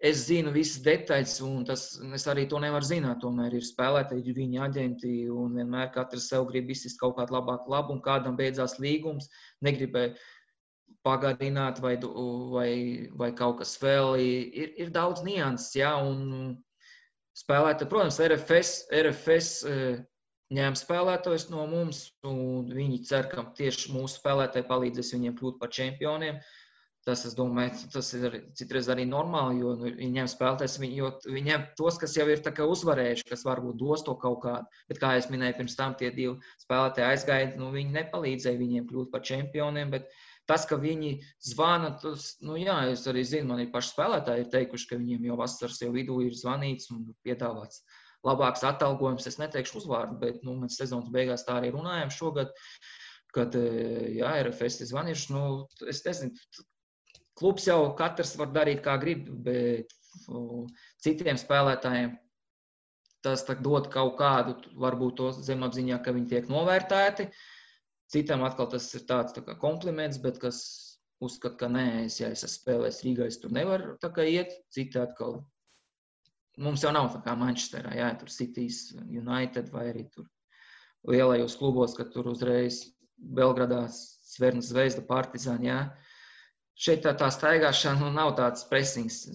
Es zinu visas detaļas, un es arī to nevaru zināt. Tomēr ir spēlētāji, viņa aģenti, un vienmēr katrs sev grib izsist kaut kādu labāku labumu, kādam beidzās līgums, negribēja pagarināt vai kaut kas vēl. Ir daudz nianses, jā, un spēlētāji, protams, RFS ņēma spēlētājus no mums, un viņi cer, ka tieši mūsu spēlētāji palīdzēs viņiem kļūt par čempioniem. Tas, es domāju, tas ir citreiz arī normāli, jo viņiem spēlētājs, jo viņiem tos, kas jau ir tā kā uzvarējuši, kas varbūt dos to kaut kādu. Bet, kā es minēju, pirms tam tie 2 spēlētāji aizgāja, viņi nepalīdzēja viņiem kļūt par čempioniem, bet tas, ka viņi zvana, tas, jā, es arī zinu, man ir paši spēlētāji ir teikuši, ka viņiem jau vasaras jau vidū ir zvanīts un piedāvāts labāks atalgojums. Es neteikšu uzvārdu, bet, mēs sezonas beigās tā arī runājam šogad, kad, jā, RFS ir zvanījuši, es nezinu, klubs jau katrs var darīt, kā grib, bet citiem spēlētājiem tas dod kaut kādu, varbūt to zemapziņā, ka viņi tiek novērtēti. Citam atkal tas ir tāds tā kā kompliments, bet kas uzskata, ka nē, ja es esmu spēlējis Rīgā, es tur nevaru tā kā iet. Citi atkal, mums jau nav tā kā Manchesterā, jā, tur Citys, United vai arī tur lielajos klubos, kad tur uzreiz Belgradā, Cverna Zvezda, Partizāni, jā. Šeit tā staigāšana nav tāds presings.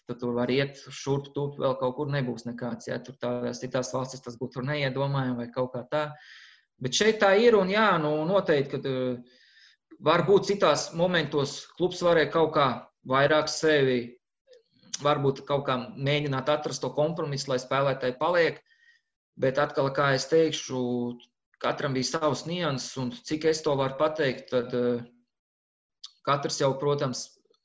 Tad tur var iet šurp, turp, vēl kaut kur nebūs nekāds. Ja? Tur tādās citās valstis tas būtu neiedomājami vai kaut kā tā. Bet šeit tā ir un jā, noteikti, ka varbūt citās momentos klubs varēja kaut kā vairāk sevi, varbūt kaut kā mēģināt atrast to kompromisu, lai spēlētāji paliek. Bet atkal, kā es teikšu, katram bija savs nianses un cik es to varu pateikt, tad katrs jau, protams,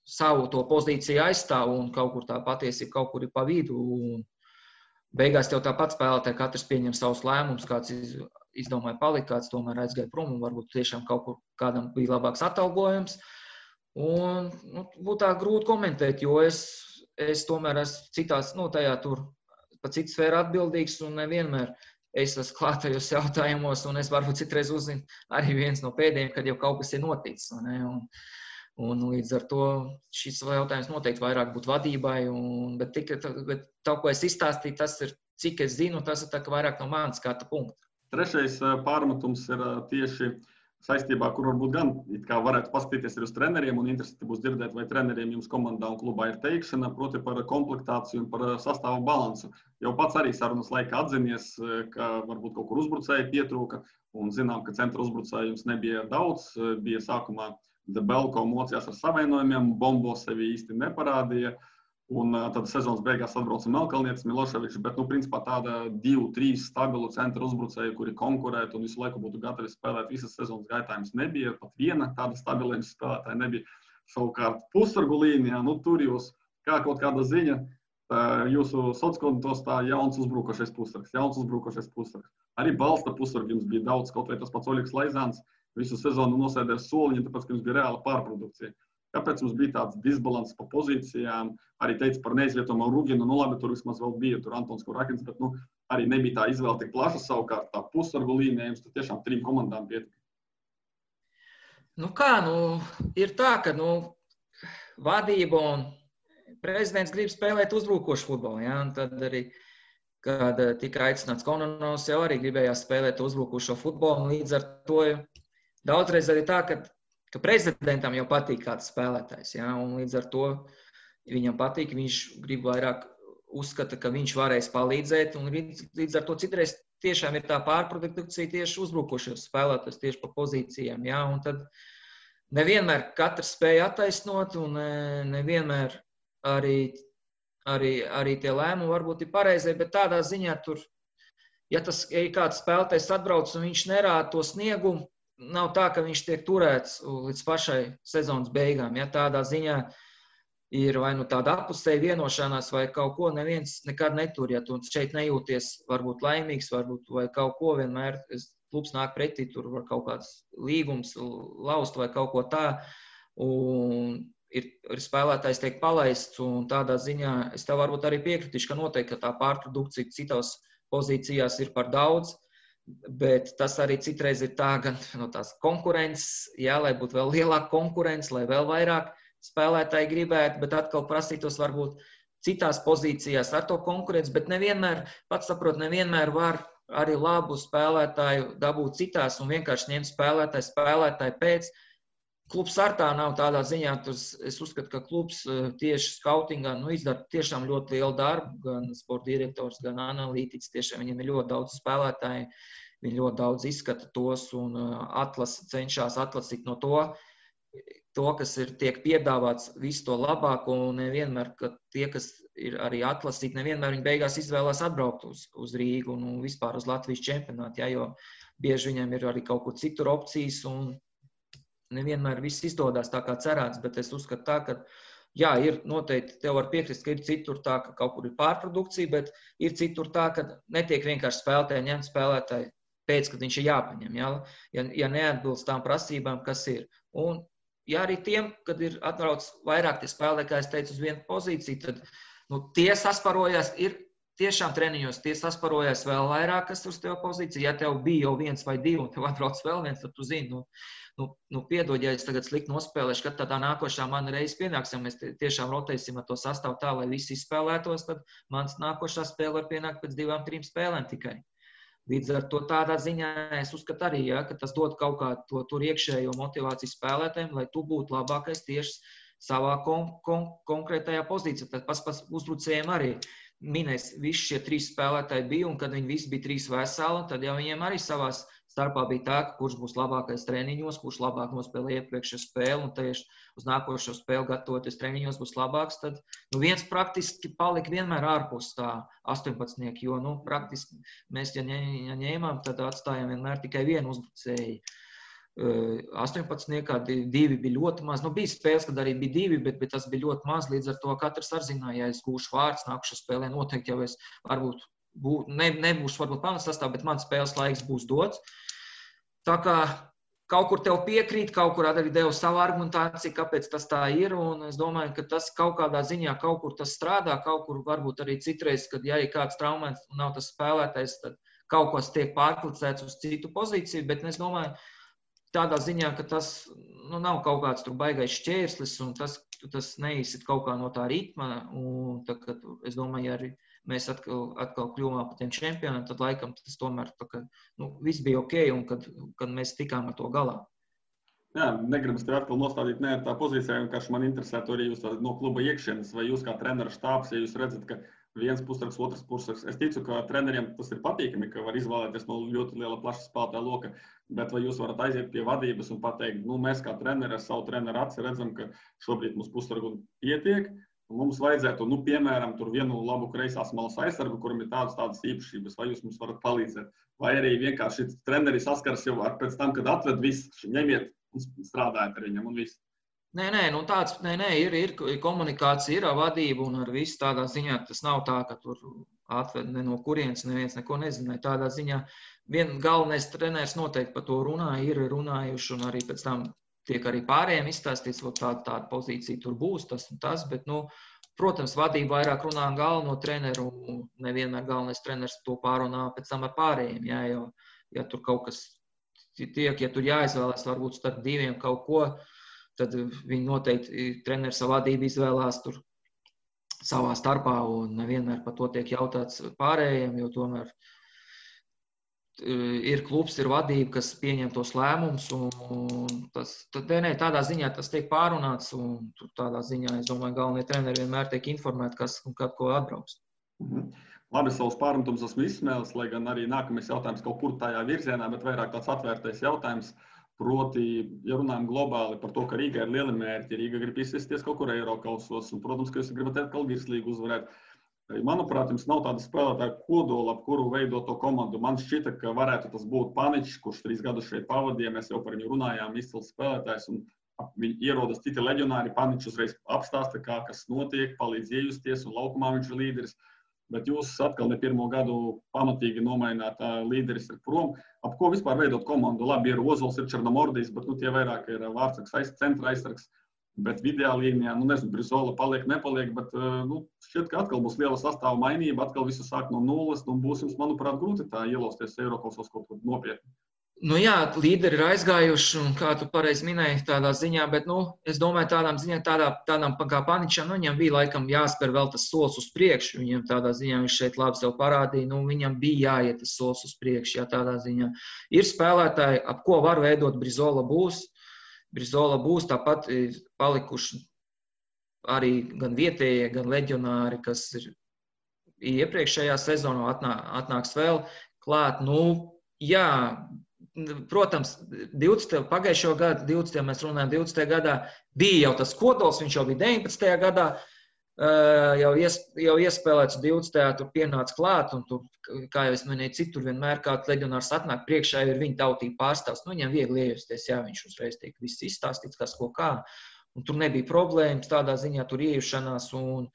savu to pozīciju aizstāv un kaut kur tā patiesība kaut kur ir pa vidu. Un beigās tev tāpat spēlētāji katrs pieņem savus lēmumus, kāds izdomāja palikt, kāds tomēr aizgāja prom un varbūt tiešām kaut kur kādam bija labāks atalgojums. Un būtu tā grūti komentēt, jo es tomēr esmu citās, tajā tur pa citu sfēru atbildīgs un nevienmēr es esmu klātajos jautājumos un es varbūt citreiz uzzinu arī viens no pēdējiem, kad jau kaut kas ir noticis. Un līdz ar to šis jautājums noteikti vairāk būtu vadībai, bet tā, ko es izstāstīju, tas ir, cik es zinu, tas ir tā, ka vairāk no manas skata punkta. Trešais pārmetums ir tieši saistībā, kur varbūt gan it kā varētu paskatīties arī uz treneriem un interesanti būs dzirdēt, vai treneriem jums komandā un klubā ir teikšana, proti par komplektāciju un par sastāvu balansu. Jau pats arī sarunas laikā atzinies, ka varbūt kaut kur uzbrucēji pietrūka un zinām, ka centra uzbrucēji jums nebija daudz. Bija sākumā Debelko mocījās ar savainojumiem, Bombo sevi īsti neparādīja. Un tad sezonas beigās atbrauca Melkalnietis, Miloševičs, bet, principā tāda 2-3 stabilu centra uzbrucēju, kuri konkurētu un visu laiku būtu gatavi spēlēt visas sezonas gaitā, jums nebija. Pat viena tāda stabilējuma spēlētāja nebija. Savukārt pusargu līnijā, tur jūs kā kaut kāda ziņa, jūsu sociālos tā jauns uzbrukošais pusargs. Arī balsta pusargi jums bija daudz, kaut vai tas pats Oļegs Laizāns visu sezonu nosēdēja soliņu, tāpēc, ka jums bija reāla pārprodukcija. Kāpēc mums bija tāds disbalans pa pozīcijām? Arī teica par neizvietojumu Ruginu, labi, tur vismaz vēl bija, tur Antons Kurakins, bet arī nebija tā izvēle tik plaša savukārt. Tā pusargu līnija jums tur tiešām 3 komandām pietika. Ir tā, ka vadība un prezidents grib spēlēt uzbrukošu futbolu. Ja? Un tad arī, kad tika aicināts Kononovs, jau arī gribējās spēlēt uzbrukošo futbolu. Un līdz ar to daudzreiz arī tā, ka prezidentam jau patīk kāds spēlētājs, ja? Un līdz ar to viņam patīk, viņš grib vairāk uzskata, ka viņš varēs palīdzēt, un līdz ar to citreiz tiešām ir tā pārprodukcija tieši uzbrukošos spēlētājs, tieši pa pozīcijām, ja? Un tad nevienmēr katrs spēja attaisnot, un nevienmēr arī tie lēmumi varbūt ir pareizie, bet tādā ziņā tur, ja kāds spēlētājs atbrauc un viņš nerāda to sniegumu, nav tā, ka viņš tiek turēts līdz pašai sezonas beigām. Ja tādā ziņā ir vai tāda apusēja vienošanās vai kaut ko, neviens nekad netur. Ja tu šeit nejūties varbūt laimīgs, varbūt vai kaut ko vienmēr, klubs nāk pretī, tur var kaut kāds līgums laust vai kaut ko tā. Un ir spēlētājs tiek palaists, un tādā ziņā es tev varbūt arī piekritīšu, ka noteikti tā pārprodukcija citās pozīcijās ir par daudz. Bet tas arī citreiz ir tā, gan no tās konkurences, jā, lai būtu vēl lielāka konkurence, lai vēl vairāk spēlētāji gribētu, bet atkal prasītos varbūt citās pozīcijās ar to konkurenci, bet nevienmēr, pats saprot, nevienmēr var arī labu spēlētāju dabūt citās un vienkārši ņemt spēlētāju pēc. Klubs ar tā nav tādā ziņā, es uzskatu, ka klubs tieši skautingā izdara tiešām ļoti lielu darbu, gan sporta direktors, gan analītiķis, tiešām viņiem ir ļoti daudz spēlētāji, viņi ļoti daudz izskata tos un cenšas atlasīt no to, kas tiek piedāvāts visu to labāko, un nevienmēr, ka tie, kas ir arī atlasīti, nevienmēr viņi beigās izvēlās atbraukt uz Rīgu un vispār uz Latvijas čempionātu, ja, jo bieži viņiem ir arī kaut kur citur opcijas, un nevienmēr viss izdodas tā kā cerēts, bet es uzskatu tā, ka jā, ir noteikti, tev var piekrist, ka ir citur tā, ka kaut kur ir pārprodukcija, bet ir citur tā, ka netiek vienkārši ņemt spēlētāji pēc, kad viņš ir jāpaņem, ja neatbilst tām prasībām, kas ir. Un ja arī tiem, kad ir atbrauc vairāk tie spēlētāji, kā es teicu, uz vienu pozīciju, tad tie sasparojās, ir tiešām treniņos, tie sasparojās vēl vairāk, kas uz tev pozīciju. Ja tev bija jau 1 vai 2, un tev atbrauc vēl viens, tad tu zini, piedod, ja es tagad slikti nospēlēšu, kad tādā nākošā mana reize pienāks, ja mēs tiešām rotēsim ar to sastāvu tā, lai visi izspēlētos, tad mans nākošā spēle var pienākt pēc 2-3 spēlēm tikai. Līdz ar to tādā ziņā es uzskatu arī, ja, ka tas dod kaut kā to tur iekšējo motivāciju spēlētājiem, lai tu būtu labākais tieši savā konkrētajā pozīcijā. Tad pats uzbrucējiem arī minēs, visi šie 3 spēlētāji bija, un kad viņi visi bija 3 veseli, tad jau viņiem arī savās starpā bija tā, kurš būs labākais treniņos, kurš labāk nospēlē iepriekšējo spēli, un tieši uz nākošo spēli gatavoties treniņos būs labāks, tad viens praktiski palika vienmēr ārpus tā 18, jo praktiski mēs, ja ņēmām, tad atstājām vienmēr tikai vienu uzbrucēju. 18, 2 bija ļoti maz. Bija spēles, kad arī bija 2, bet tas bija ļoti maz. Līdz ar to katrs ar zināja, ja es gūšu vārds nākušā spēlē, noteikti jau es varbūt nebūšu varbūt pamatsastāvā, bet man spēles laiks būs dots. Tā kā kaut kur tev piekrīt, kaut kur arī devu savu argumentāciju, kāpēc tas tā ir, un es domāju, ka tas kaut kādā ziņā kaut kur tas strādā, kaut kur varbūt arī citreiz, kad ja ir kāds traumēts un nav tas spēlētājs, tad kaut kas tiek pārklicēts uz citu pozīciju, bet es domāju, tādā ziņā, ka tas nav kaut kāds tur baigais šķērslis, un tas neizsit kaut kā no tā ritma, un tā, es domāju, arī mēs atkal kļuvām par tiem čempioniem, tad laikam tas tomēr tā, ka viss bija ok, un kad mēs tikām ar to galā. Jā, negribas tev atkal nostādīt tā pozīcijā, vienkārši man interesētu arī jūs no kluba iekšienes, vai jūs kā treneru štābs, ja jūs redzat, ka viens pusraks, otrs pusraks. Es ticu, ka treneriem tas ir patīkami, ka var izvēlēties no ļoti liela plaša spēlētāja loka, bet vai jūs varat aiziet pie vadības un pateikt, mēs kā treneri ar savu treneru aci redzam, ka šobrīd mums pusragu pietiek, un mums vajadzētu, piemēram, tur vienu labu kreisās malas aizsargu, kuram ir tādas īpašības, vai jūs mums varat palīdzēt, vai arī vienkārši treneri saskars jau pēc tam, kad atved visu, ņemiet un strādājat ar viņam un visu. Nē, ir komunikācija, ir vadība un ar visu tādā ziņā. Tas nav tā, ka tur atved ne no kurienes, neviens neko nezināja. Tādā ziņā galvenais treneris noteikti par to runāja, ir runājuši un arī pēc tam tiek arī pārējiem izstāstīts, ka tāda pozīcija tur būs, tas un tas, bet, protams, vadība vairāk runā galveno treneru un nevienmēr galvenais treneris to pārunā pēc tam ar pārējiem, ja tur kaut kas tiek, ja tur jāizvēlās varbūt starp diviem kaut ko, tad viņi noteikti treneris savu vadību izvēlās tur savā starpā un nevienmēr par to tiek jautāts pārējiem, jo tomēr ir klubs, ir vadība, kas pieņem tos lēmumus un tādā ziņā tas tiek pārunāts un tādā ziņā, es domāju, galvenie treneri vienmēr tiek informēti, kas un kad ko atbrauks. Labi, savus pārmetums esmu izsmēlis, lai gan arī nākamais jautājums kaut kur tajā virzienā, bet vairāk tāds atvērtais jautājums. Proti, ja runājam globāli par to, ka Rīga ir lieli mērķi, Rīga grib izsisties kaut kur Eirokausos, un, protams, ka jūs gribat atkal virslīgu uzvarēt. Manuprāt, jums nav tāda spēlētāja kodola, ap kuru veidot to komandu. Man šķita, ka varētu tas būt Paničs, kurš 3 gadus šeit pavadīja, mēs jau par viņu runājām, izcils spēlētājs, un viņi ierodas citi leģionāri, Paničs uzreiz apstāsta, kas notiek, palīdz iejusties, un laukumā viņš ir līderis. Bet jūs atkal ne pirmo gadu pamatīgi nomaināt līderis ir prom. Ap ko vispār veidot komandu? Labi, ir Ozols, ir Černomordijs, bet tie vairāk ir vārdsargs, centra aizsargs. Bet vidējā līnijā, nezinu, Brizola paliek, nepaliek, bet šķiet, ka atkal būs liela sastāva mainība, atkal visu sāk no nulles, un būs jums, manuprāt, grūti tā ielausties Eirokausos kaut kur nopietni. Jā, līderi ir aizgājuši, un kā tu pareizi minēji tādā ziņā, bet, es domāju, tādām kā Paničam, viņam bija laikam jāspēr vēl tas solis uz priekšu, viņam tādā ziņā viņš šeit labi sev parādīja, viņam bija jāiet tas solis uz priekšu, jā, tādā ziņā. Ir spēlētāji, ap ko var veidot Brizola būs, tāpat ir palikuši arī gan vietējie, gan leģionāri, kas ir iepriekšējā sezonā atnāks vēl klāt, jā, protams, pagājušo gadu, 20. mēs runājam, 20. gadā bija jau tas kodols, viņš jau bija 19. gadā, jau iespēlēts 20. tur pienāca klāt, un tur, kā jau es minēju, citur vienmēr kāds leģionārs atnāk priekšā, ir viņa tautība pārstāvs, viņam viegli iejusties, jā, viņš uzreiz tiek viss izstāstīts, kas ko kā, un tur nebija problēmas, tādā ziņā tur iejušanās, un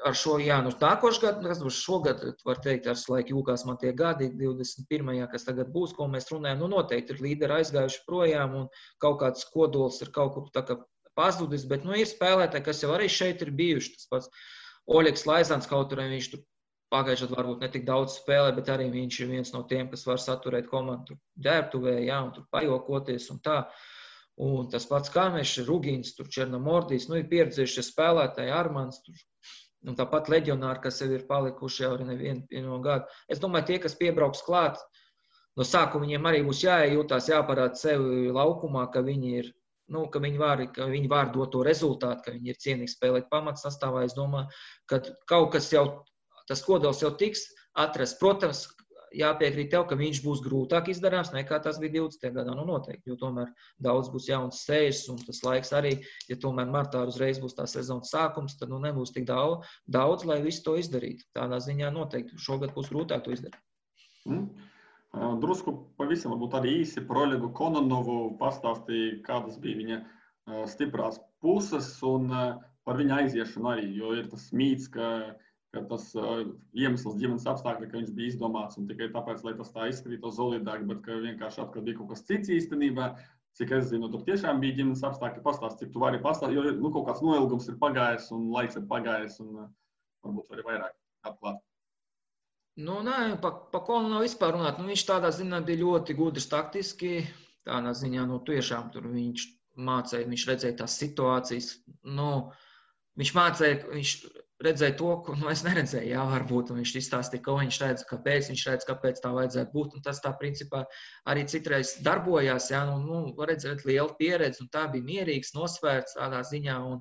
ar šo, nākošu gadu, kas būs šogad, var teikt, ar laiku jūkās man tie gadi, 21. kas tagad būs, ko mēs runājam, noteikti ir līderi aizgājuši projām un kaut kāds kodols ir kaut kur tā kā pazudis, bet, ir spēlētāji, kas jau arī šeit ir bijuši, tas pats Oļegs Laizāns, kaut arī viņš tur pagājušajā varbūt ne tik daudz spēlē, bet arī viņš ir viens no tiem, kas var saturēt komandu ģērbtuvē, un tur pajokoties un tā. Un tas pats Kāmešs, Rugīns, tur Černomordijs, ir pieredzējušie spēlētāji, Armans, tur. Un tāpat leģionāri, kas jau ir palikuši jau arī nevienu gadu. Es domāju, tie, kas piebrauks klāt, no sākuma viņiem arī būs jāiejūtās, jāparāda sevi laukumā, ka viņi ir, ka viņi var dot to rezultātu, ka viņi ir cienīgi spēlēt pamatsastāvā. Es domāju, ka kaut kas jau, tas kodols jau tiks atrasts. Protams, jāpiekrīt tev, ka viņš būs grūtāk izdarāms nekā tas bija 20. gadā, noteikti, jo tomēr daudz būs jauns sejas, un tas laiks arī, ja tomēr martā uzreiz būs tā sezonas sākums, tad nebūs tik daudz, lai visu to izdarītu. Tādā ziņā noteikti šogad būs grūtāk to izdarīt. Drusku pavisam varbūt arī īsi par Oļegu Kononovu pastāstīja, kādas bija viņa stiprās puses un par viņa aiziešanu arī, jo ir tas mīts, ka tas iemesls ģimenes apstākļi, ka viņš bija izdomāts un tikai tāpēc, lai tas tā izskatītos solidāk, bet ka vienkārši atkal bija kaut kas cits īstenībā. Cik es zinu, tur tiešām bija ģimenes apstākļi, pastāst, cik tu vari pastāstīt, jo kaut kāds noilgums ir pagājis un laiks ir pagājis un varbūt vari vairāk atklāt. Nē, pa Konu nav vispār runāt. Viņš tādā ziņā bija ļoti gudrs taktiski, tādā ziņā, tiešām tur viņš mācēja, viņš redzēja tās situācijas, viņš mācēja, redzēja to, ko es neredzēju, jā, varbūt, un viņš izstāstīja, ko viņš redz, kāpēc tā vajadzētu būt, un tas tā principā arī citreiz darbojās, jā, var redzēt lielu pieredzi, un tā bija mierīgs, nosvērts tādā ziņā, un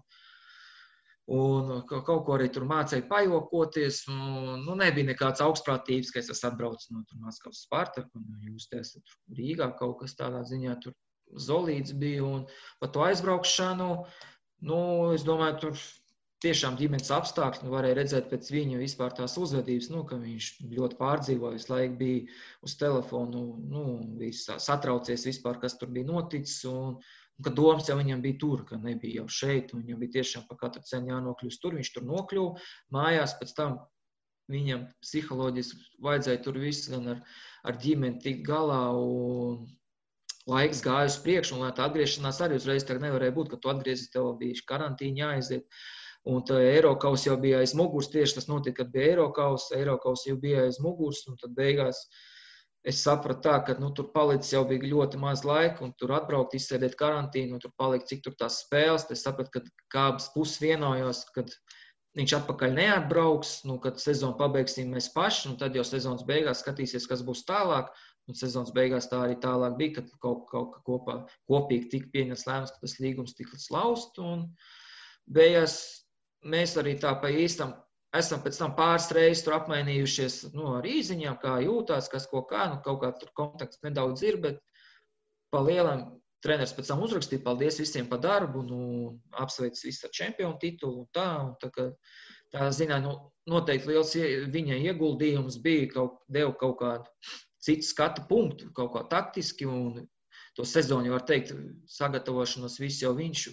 kaut ko arī tur mācēja pajokoties, un nebija nekāds augstprātības, ka es esmu atbraucis no Maskavas Spartaku, un jūs te esat Rīgā kaut kas tādā ziņā, tur Zolīts bija, un par to aizbraukšanu, es domāju, tur tiešām ģimenes apstākļi, varēja redzēt pēc viņa vispār tās uzvedības, ka viņš ļoti pārdzīvoja, visu laiku bija uz telefonu, bija satraucies vispār, kas tur bija noticis, un ka domas jau viņam bija tur, ka nebija jau šeit, un viņam bija tiešām pa katru cenu jānokļūst tur, viņš tur nokļuva, mājās pēc tam viņam psiholoģiski vajadzēja tur viss gan ar ģimeni tikt galā, un laiks gāja uz priekšu, un lai tā atgriešanās arī uzreiz tā nevarēja būt, ka tu atgriezies, tev bija karantīna jāaiziet. Un tā Eirokaus jau bija aiz muguras, tieši tas notika, kad bija Eirokaus jau bija aiz muguras, un tad beigās es sapratu tā, ka tur palicis jau bija ļoti maz laika, un tur atbraukt, izsēdēt karantīnu, un tur palikt, cik tur tās spēles, tad es sapratu, ka abas puses vienojos, kad viņš atpakaļ neatbrauks, kad sezonu pabeigsim mēs paši, un tad jau sezonas beigās skatīsies, kas būs tālāk, un sezonas beigās tā arī tālāk bija, kad kaut kopīgi tika pieņemts lēmums, ka tas līgums tika lausts, un beigās mēs arī tā pa īstam esam pēc tam pāris reizes tur apmainījušies ar īziņām, kā jūtās, kas ko kā, kaut kā tur kontakts nedaudz ir, bet pa lielam treneris pēc tam uzrakstīja, paldies visiem par darbu, apsveic visu ar čempionu titulu un tā ziņā, noteikti liels viņa ieguldījums bija, deva kaut kādu citu skatu punktu, kaut kā taktiski, un to sezonu, var teikt, sagatavošanos visu jau viņš,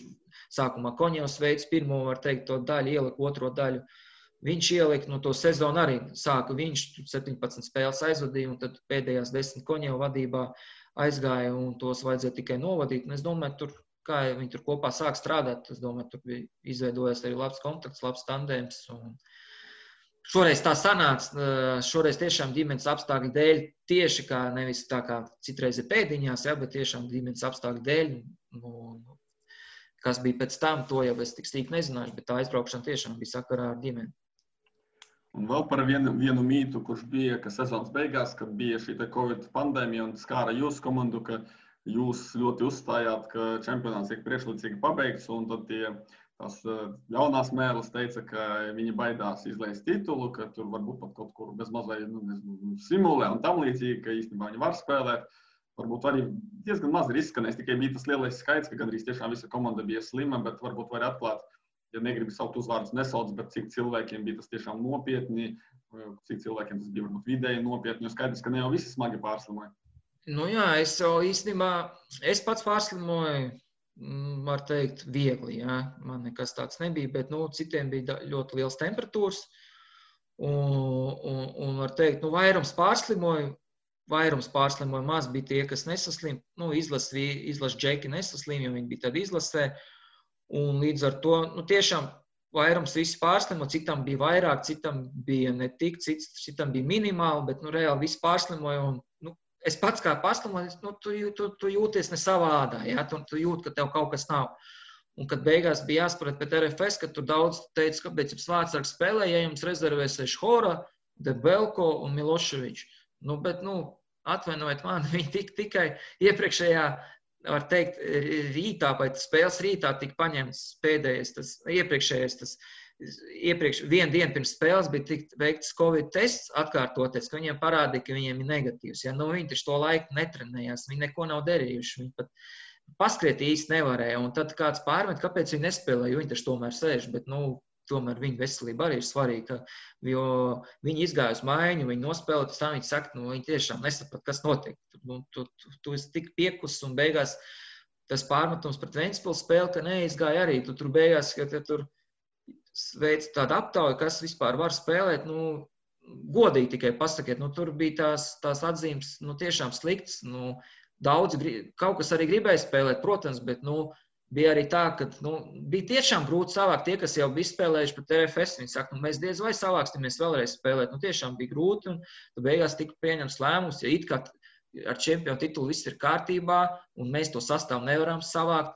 sākumā Koņevs veids pirmo, var teikt, to daļu ielika, otro daļu viņš ielika, to sezonu arī sāka viņš, 17 spēles aizvadīja, un tad pēdējās 10 Koņeva vadībā aizgāja, un tos vajadzēja tikai novadīt, un es domāju, kā viņi tur kopā sāk strādāt, es domāju, tur bija izveidojies arī labs kontakts, labs tandēms, un šoreiz tā sanāca, šoreiz tiešām ģimenes apstākļu dēļ, tieši kā nevis tā kā citreiz ir pēdiņās, bet tiešām ģimenes apstākļu dēļ, kas bija pēc tam, to jau es tik stīk nezināšu, bet tā aizbraukšana tiešām bija sakarā ar ģimeni. Un vēl par vienu mītu, kurš bija, ka sezonas beigās, kad bija šī Covid pandēmija un skāra jūsu komandu, ka jūs ļoti uzstājāt, ka čempionāts tiek priekšlaicīgi pabeigts, un tad tās ļaunās mēlis teica, ka viņi baidās izlaist titulu, ka tur varbūt pat kaut kur bez mazai simulē un tam līdzīgi, ka īstenībā viņi var spēlēt. Varbūt arī diezgan maz ir izskanējis, tikai bija tas lielais skaits, ka gandrīz tiešām visa komanda bija slima, bet varbūt var atklāt, ja negribi saukt uzvārdus nesauc, bet cik cilvēkiem bija tas tiešām nopietni, cik cilvēkiem tas bija varbūt vidēji nopietni, jo skaidrs, ka ne jau visi smagi pārslimoja. Jā, es jau īstenībā, es pats pārslimoju, var teikt, viegli, jā. Man nekas tāds nebija, bet, citiem bija ļoti liels temperatūras, un var teikt, vairums pārslimoju, maz bija tie, kas nesaslim, izlases džeki nesaslim, jo viņi bija tad izlasē, un līdz ar to, tiešām vairums visi pārslimo, citam bija vairāk, citam bija ne tik, citam bija minimāli, bet, reāli visi pārslimoja, un, es pats kā pārslimoju, tu jūties ne savā ādā, jā, tu jūti, ka tev kaut kas nav. Un kad beigās bija jāspēlēt pēc RFS, kad tur daudz teica, kāpēc jums vārdsargs spēlē, ja jums rezervēsies Hora, Debelko un Miloševičs. Bet, atvainojiet mani, viņi tikai iepriekšējā, var teikt, rītā, vai spēles rītā tika paņemts pēdējais, vienu dienu pirms spēles bija tikt veikts Covid tests atkārtoties, ka viņiem parādīja, ka viņiem ir negatīvs. Ja? Viņi taču to laiku netrenējās, viņi neko nav darījuši, viņi pat paskriet īsti nevarēja. Un tad kāds pārmet, kāpēc viņi nespēlē, jo viņi taču tomēr sēž, bet, tomēr viņa veselība arī ir svarīga, jo viņi izgāja uz maiņu, viņi nospēlē, tas tā viņi saka, viņi tiešām nesaprot, kas notiek. Tu esi tik piekus un beigās tas pārmetums pret Ventspils spēli, ka neizgāja arī. Tu tur beigās, ka tur veic tādu aptauju, kas vispār var spēlēt, godīgi tikai pasakiet, tur bija tās atzīmes, tiešām sliktas, daudzi, kaut kas arī gribēja spēlēt, protams, bet, bija arī tā, ka bija tiešām grūti savākt tie, kas jau bija spēlējuši pret RFS. Viņi saka, mēs diez vai savāksimies vēlreiz spēlēt. Tiešām bija grūti, un beigās tika pieņemts lēmums, ja it kā ar čempionu titulu viss ir kārtībā, un mēs to sastāvu nevaram savākt.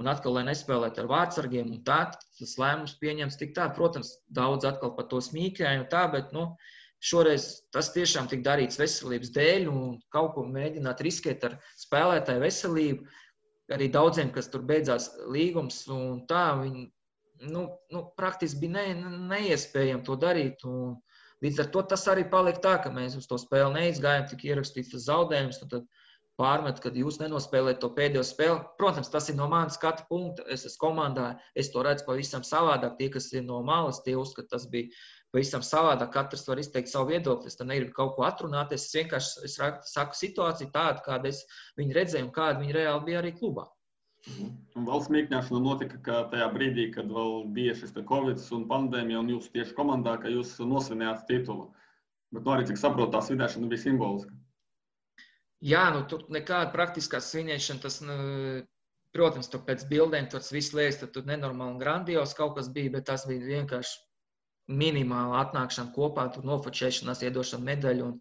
un atkal, lai nespēlētu ar vārdsargiem, un tā, tas lēmums pieņems tik tā. Protams, daudz atkal par to smīkēju un tā, bet, šoreiz tas tiešām tik darīts veselības dēļ, un kaut ko mēģināt riskēt ar spēlētāju veselību. Arī daudziem, kas tur beidzās līgums, un tā, viņi, praktiski bija neiespējami to darīt, un līdz ar to tas arī palika tā, ka mēs uz to spēli neizgājām, tik ierakstīts tas zaudējums, un tad pārmet, kad jūs nenospēlējat to pēdējo spēli. Protams, tas ir no manas skatu punkta, es esmu komandā, es to redzu pavisam savādāk, tie, kas ir no malas, tie uzskata, tas bija pavisam savādāk, katrs var izteikt savu viedokli, es tam negribu kaut ko atrunāties, es vienkārši saku situāciju tādu, kādu es viņu redzēju un kāda viņa reāli bija arī klubā. Un vēl smīkņāšana notika, ka tajā brīdī, kad vēl bija šis Covid un pandēmija, un jūs tieši komandā, ka jūs nosvinējāt titulu. Bet arī, cik saprotu, tā svinēšana bija simboliska. Jā, tur nekāda praktiskā svinēšana, tas, protams, tur pēc bildēm tas viss liekas, tad tur nenormāli un grandios kaut kas bija, bet tas bija vienkārši minimāla atnākšana kopā, tur nofočēšanās, iedošana medaļu un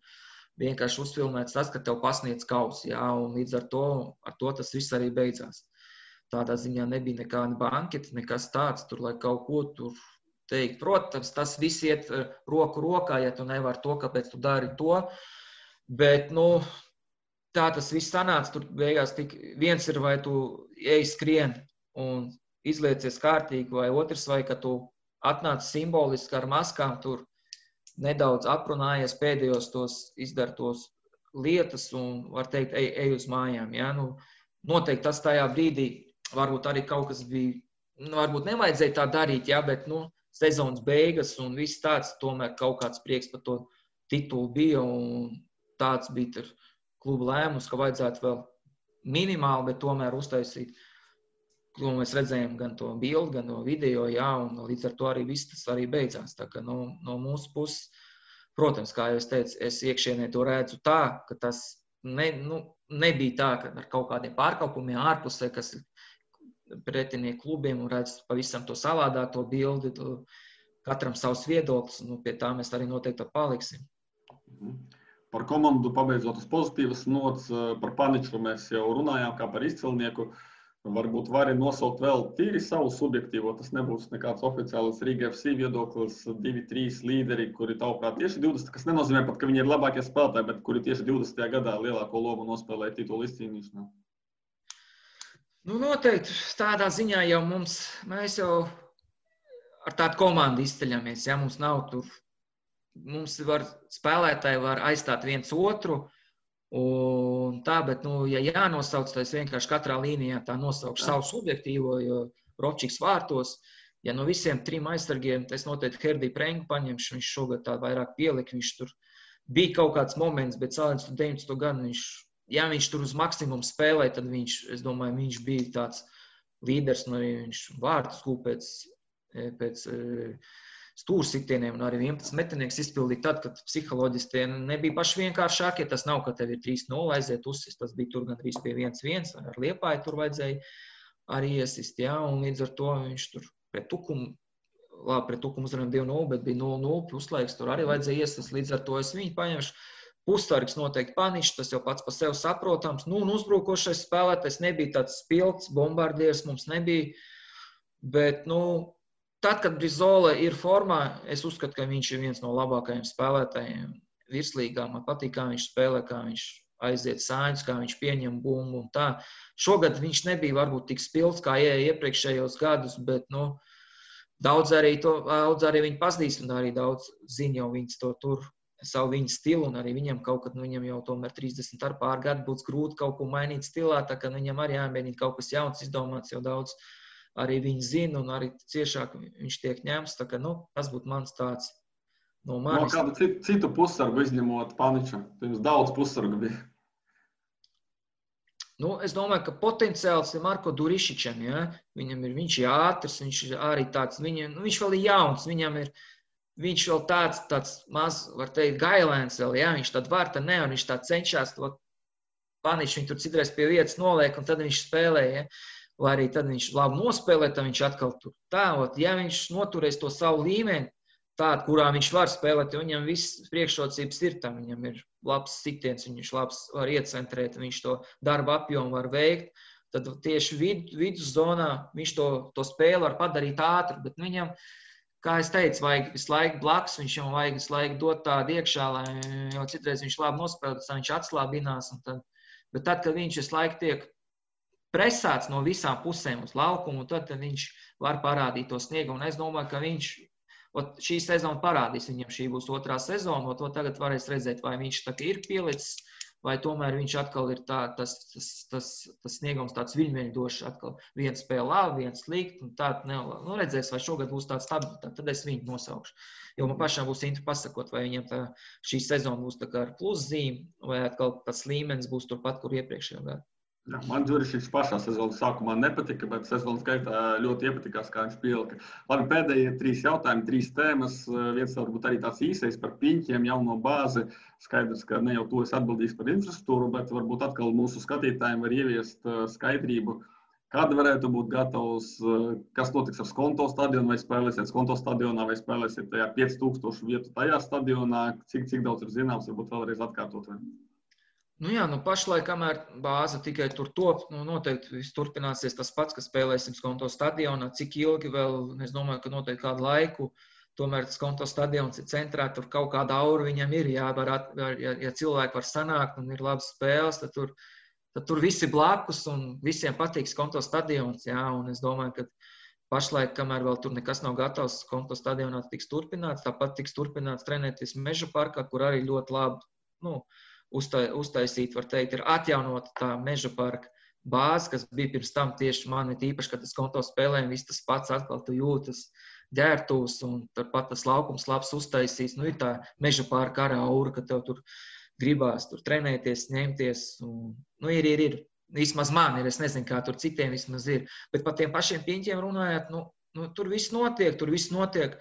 vienkārši uzfilmēts tas, ka tev pasniedz kausi, jā, un līdz ar to tas viss arī beidzās. Tādā ziņā nebija nekāda banketa, nekas tāds, tur, lai kaut ko tur teikt. Protams, tas viss iet roku rokā, ja tu nevari to, kāpēc tu dari to, bet, tā tas viss sanāca, tur beigās tik viens ir, vai tu ej skrien un izliecies kārtīgi, vai otrs, vai ka tu atnāc simboliski ar maskām, tur nedaudz aprunājies pēdējos tos izdartos lietas un, var teikt, ej uz mājām. Ja? Noteikti tas tajā brīdī varbūt arī kaut kas bija, varbūt nevajadzēja tā darīt, ja? Bet sezonas beigas un viss tāds, tomēr kaut kāds prieks par to titulu bija un tāds bija tur kluba lēmums, ka vajadzētu vēl minimāli, bet tomēr uztaisīt, ko mēs redzējām gan to bildi, gan no video, jā, un līdz ar to arī viss tas arī beidzās. Tā kā no mūsu puses, protams, kā jau es teicu, es iekšienē to redzu tā, ka tas nebija tā, ka ar kaut kādiem pārkāpumiem ārpusē, kas ir pretinieku klubiem un redz pavisam to savādāk, to bildi, katram savs viedoklis, un pie tā mēs arī noteikti paliksim. Par komandu pabeidzot uz pozitīvas nots, par Paniču mēs jau runājām kā par izcilnieku. Varbūt vari nosaukt vēl tīri savu subjektīvo, tas nebūs nekāds oficiāls Riga FC viedoklis, 2-3 līderi, kuri tavuprāt tieši 20, kas nenozīmē pat, ka viņi ir labākie spēlētāji, bet kuri tieši 20. gadā lielāko lomu nospēlēja titulu izcīnīšanā. Noteikti tādā ziņā jau mēs jau ar tādu komandu izceļamies, ja mums nav tur. Mums spēlētāji var aizstāt viens otru, un tā, bet, ja jānosauc, tad es vienkārši katrā līnijā tā nosaukšu savu subjektīvo, jo Rovčiks vārtos, ja no visiem 3 aizsargiem, es noteikti Herdiju Prengu paņemšu, viņš šogad tā vairāk pielika, viņš tur bija kaut kāds moments, bet salīdzinot 19. gadu, viņš tur uz maksimumu spēlēja, tad es domāju, viņš bija tāds līderis, un arī viņš vārtus kūpēc pēc stūrsitieniem un arī 11 metinieks izpildīt tad, kad psiholoģiski tie nebija paši vienkāršākie. Tas nav, ka tev ir 3-0 aiziet uzsist, tas bija tur gandrīz pie 1-1, ar Liepāju tur vajadzēja arī iesist, jā, un līdz ar to viņš tur pret Tukumu uzvarējām 2-0, bet bija 0-0, puslaiks tur arī vajadzēja iesist, līdz ar to es viņu paņemšu. Pussargs noteikti Paničs, tas jau pats par sevi saprotams, un uzbrukošais spēlētājs nebija tāds spilgts, bombardieris mums nebija, bet, tad, kad Brizola ir formā, es uzskatu, ka viņš ir viens no labākajiem spēlētājiem virslīgā. Man patīk, kā viņš spēlē, kā viņš aiziet sāņus, kā viņš pieņem bumbu un tā. Šogad viņš nebija varbūt tik spilgts, kā iepriekšējos gadus, bet daudz arī viņi pazīst un arī daudz zina jau viņas to tur, savu viņa stilu, un arī viņam kaut kad, viņam jau tomēr 30 ar pār gadu būs grūti kaut ko mainīt stilā, tā ka viņam arī jāmēģina kaut kas jauns izdomāts, jau daudz arī viņi zina, un arī ciešāk viņš tiek ņemts, tā ka, tas būtu mans tāds no manis. No kādu citu pussargu izņemot Paniču? Jums daudz pussargu bija. Es domāju, ka potenciāls ir Marko Durišičam, ja? Viņš ir ātrs, viņš ir arī tāds, viņš vēl ir jauns, viņš vēl tāds maz, var teikt, gailēns vēl, ja? Viņš tad var, tad ne, un viņš tā cenšas, Paniču viņu tur citreiz pie vietas noliek, un tad viņš spēlē, ja? Vai arī tad viņš labi nospēlē, tad viņš atkal tur tā, ja viņš noturēs to savu līmeni, tādu, kurā viņš var spēlēt, jo viņam viss priekšrocības ir tam, viņam ir labs sitiens, viņš labs var iecentrēt, viņš to darba apjomu var veikt, tad tieši viduszonā viņš to spēli var padarīt ātru, bet viņam, kā es teicu, vajag visu laiku blakus, viņam vajag visu laiku dot tādu iekšā, lai jau citreiz viņš labi nospēlēs, viņš atslābinās. Bet tad, kad viņš visu laiku tiek presēts no visām pusēm uz laukumu, tad viņš var parādīt to sniegu. Un es domāju, ka viņš šī sezona parādīs viņam, šī būs otrā sezona, to tagad varēs redzēt, vai viņš tā ir pielicis, vai tomēr viņš atkal ir tas sniegums tāds viļņveņdošs, atkal viens spēle labi, viens slikti, un tā redzēs, vai šogad būs tāds stabilitāte, tad es viņu nosaukšu. Jo man pašām būs interesanti pasakot, vai viņam šī sezona būs tā kā ar pluszīmi, vai atkal tas līmenis būs turpat, kur iepriekšējā gadā. Jā, man Džurišiņš pašā sezonas sākumā nepatika, bet sezonas gaitā ļoti iepatikās, kā viņš pielika. Labi, pēdējie 3 jautājumi, 3 tēmas. Viens varbūt arī tāds īsais par piņķiem, jauno bāzi. Skaidrs, ka ne jau to es atbildīšu par infrastruktūru, bet varbūt atkal mūsu skatītājiem var ieviest skaidrību, kad varētu būt gatavs, kas notiks ar Skonto stadionu, vai spēlēsiet Skonto stadionā, vai spēlēsiet tajā 5000 vietu tajā stadionā, cik daudz ir zināms, varbūt vēlreiz atkārtot. Pašlaik, kamēr bāze tikai tur top, noteikti viss turpināsies tas pats, ka spēlēsim Skonto stadionā. Cik ilgi vēl, es domāju, ka noteikti kādu laiku, tomēr Skonto stadions ir centrā, tur kaut kāda aura viņam ir, ja cilvēki var sanākt un ir labas spēles, tad tur visi blakus un visiem patīk Skonto stadions, un es domāju, ka pašlaik, kamēr vēl tur nekas nav gatavs, Skonto stadionā tiks turpināts, tāpat tiks turpināts trenēties Meža parkā, kur arī ļoti labi, uztaisīt, var teikt, ir atjaunota tā Meža parka bāze, kas bija pirms tam tieši man īpaši, kad es Skonto spēlēju, viss tas pats atkal tu jūtas ģērtūs un turpat tas laukums labs uztaisīts. Ir tā Meža parka arī aura, ka tev tur gribās tur trenēties, ņemties. Ir. Vismaz man ir, es nezinu, kā tur citiem vismaz ir. Bet par tiem pašiem piņķiem runājot, tur viss notiek.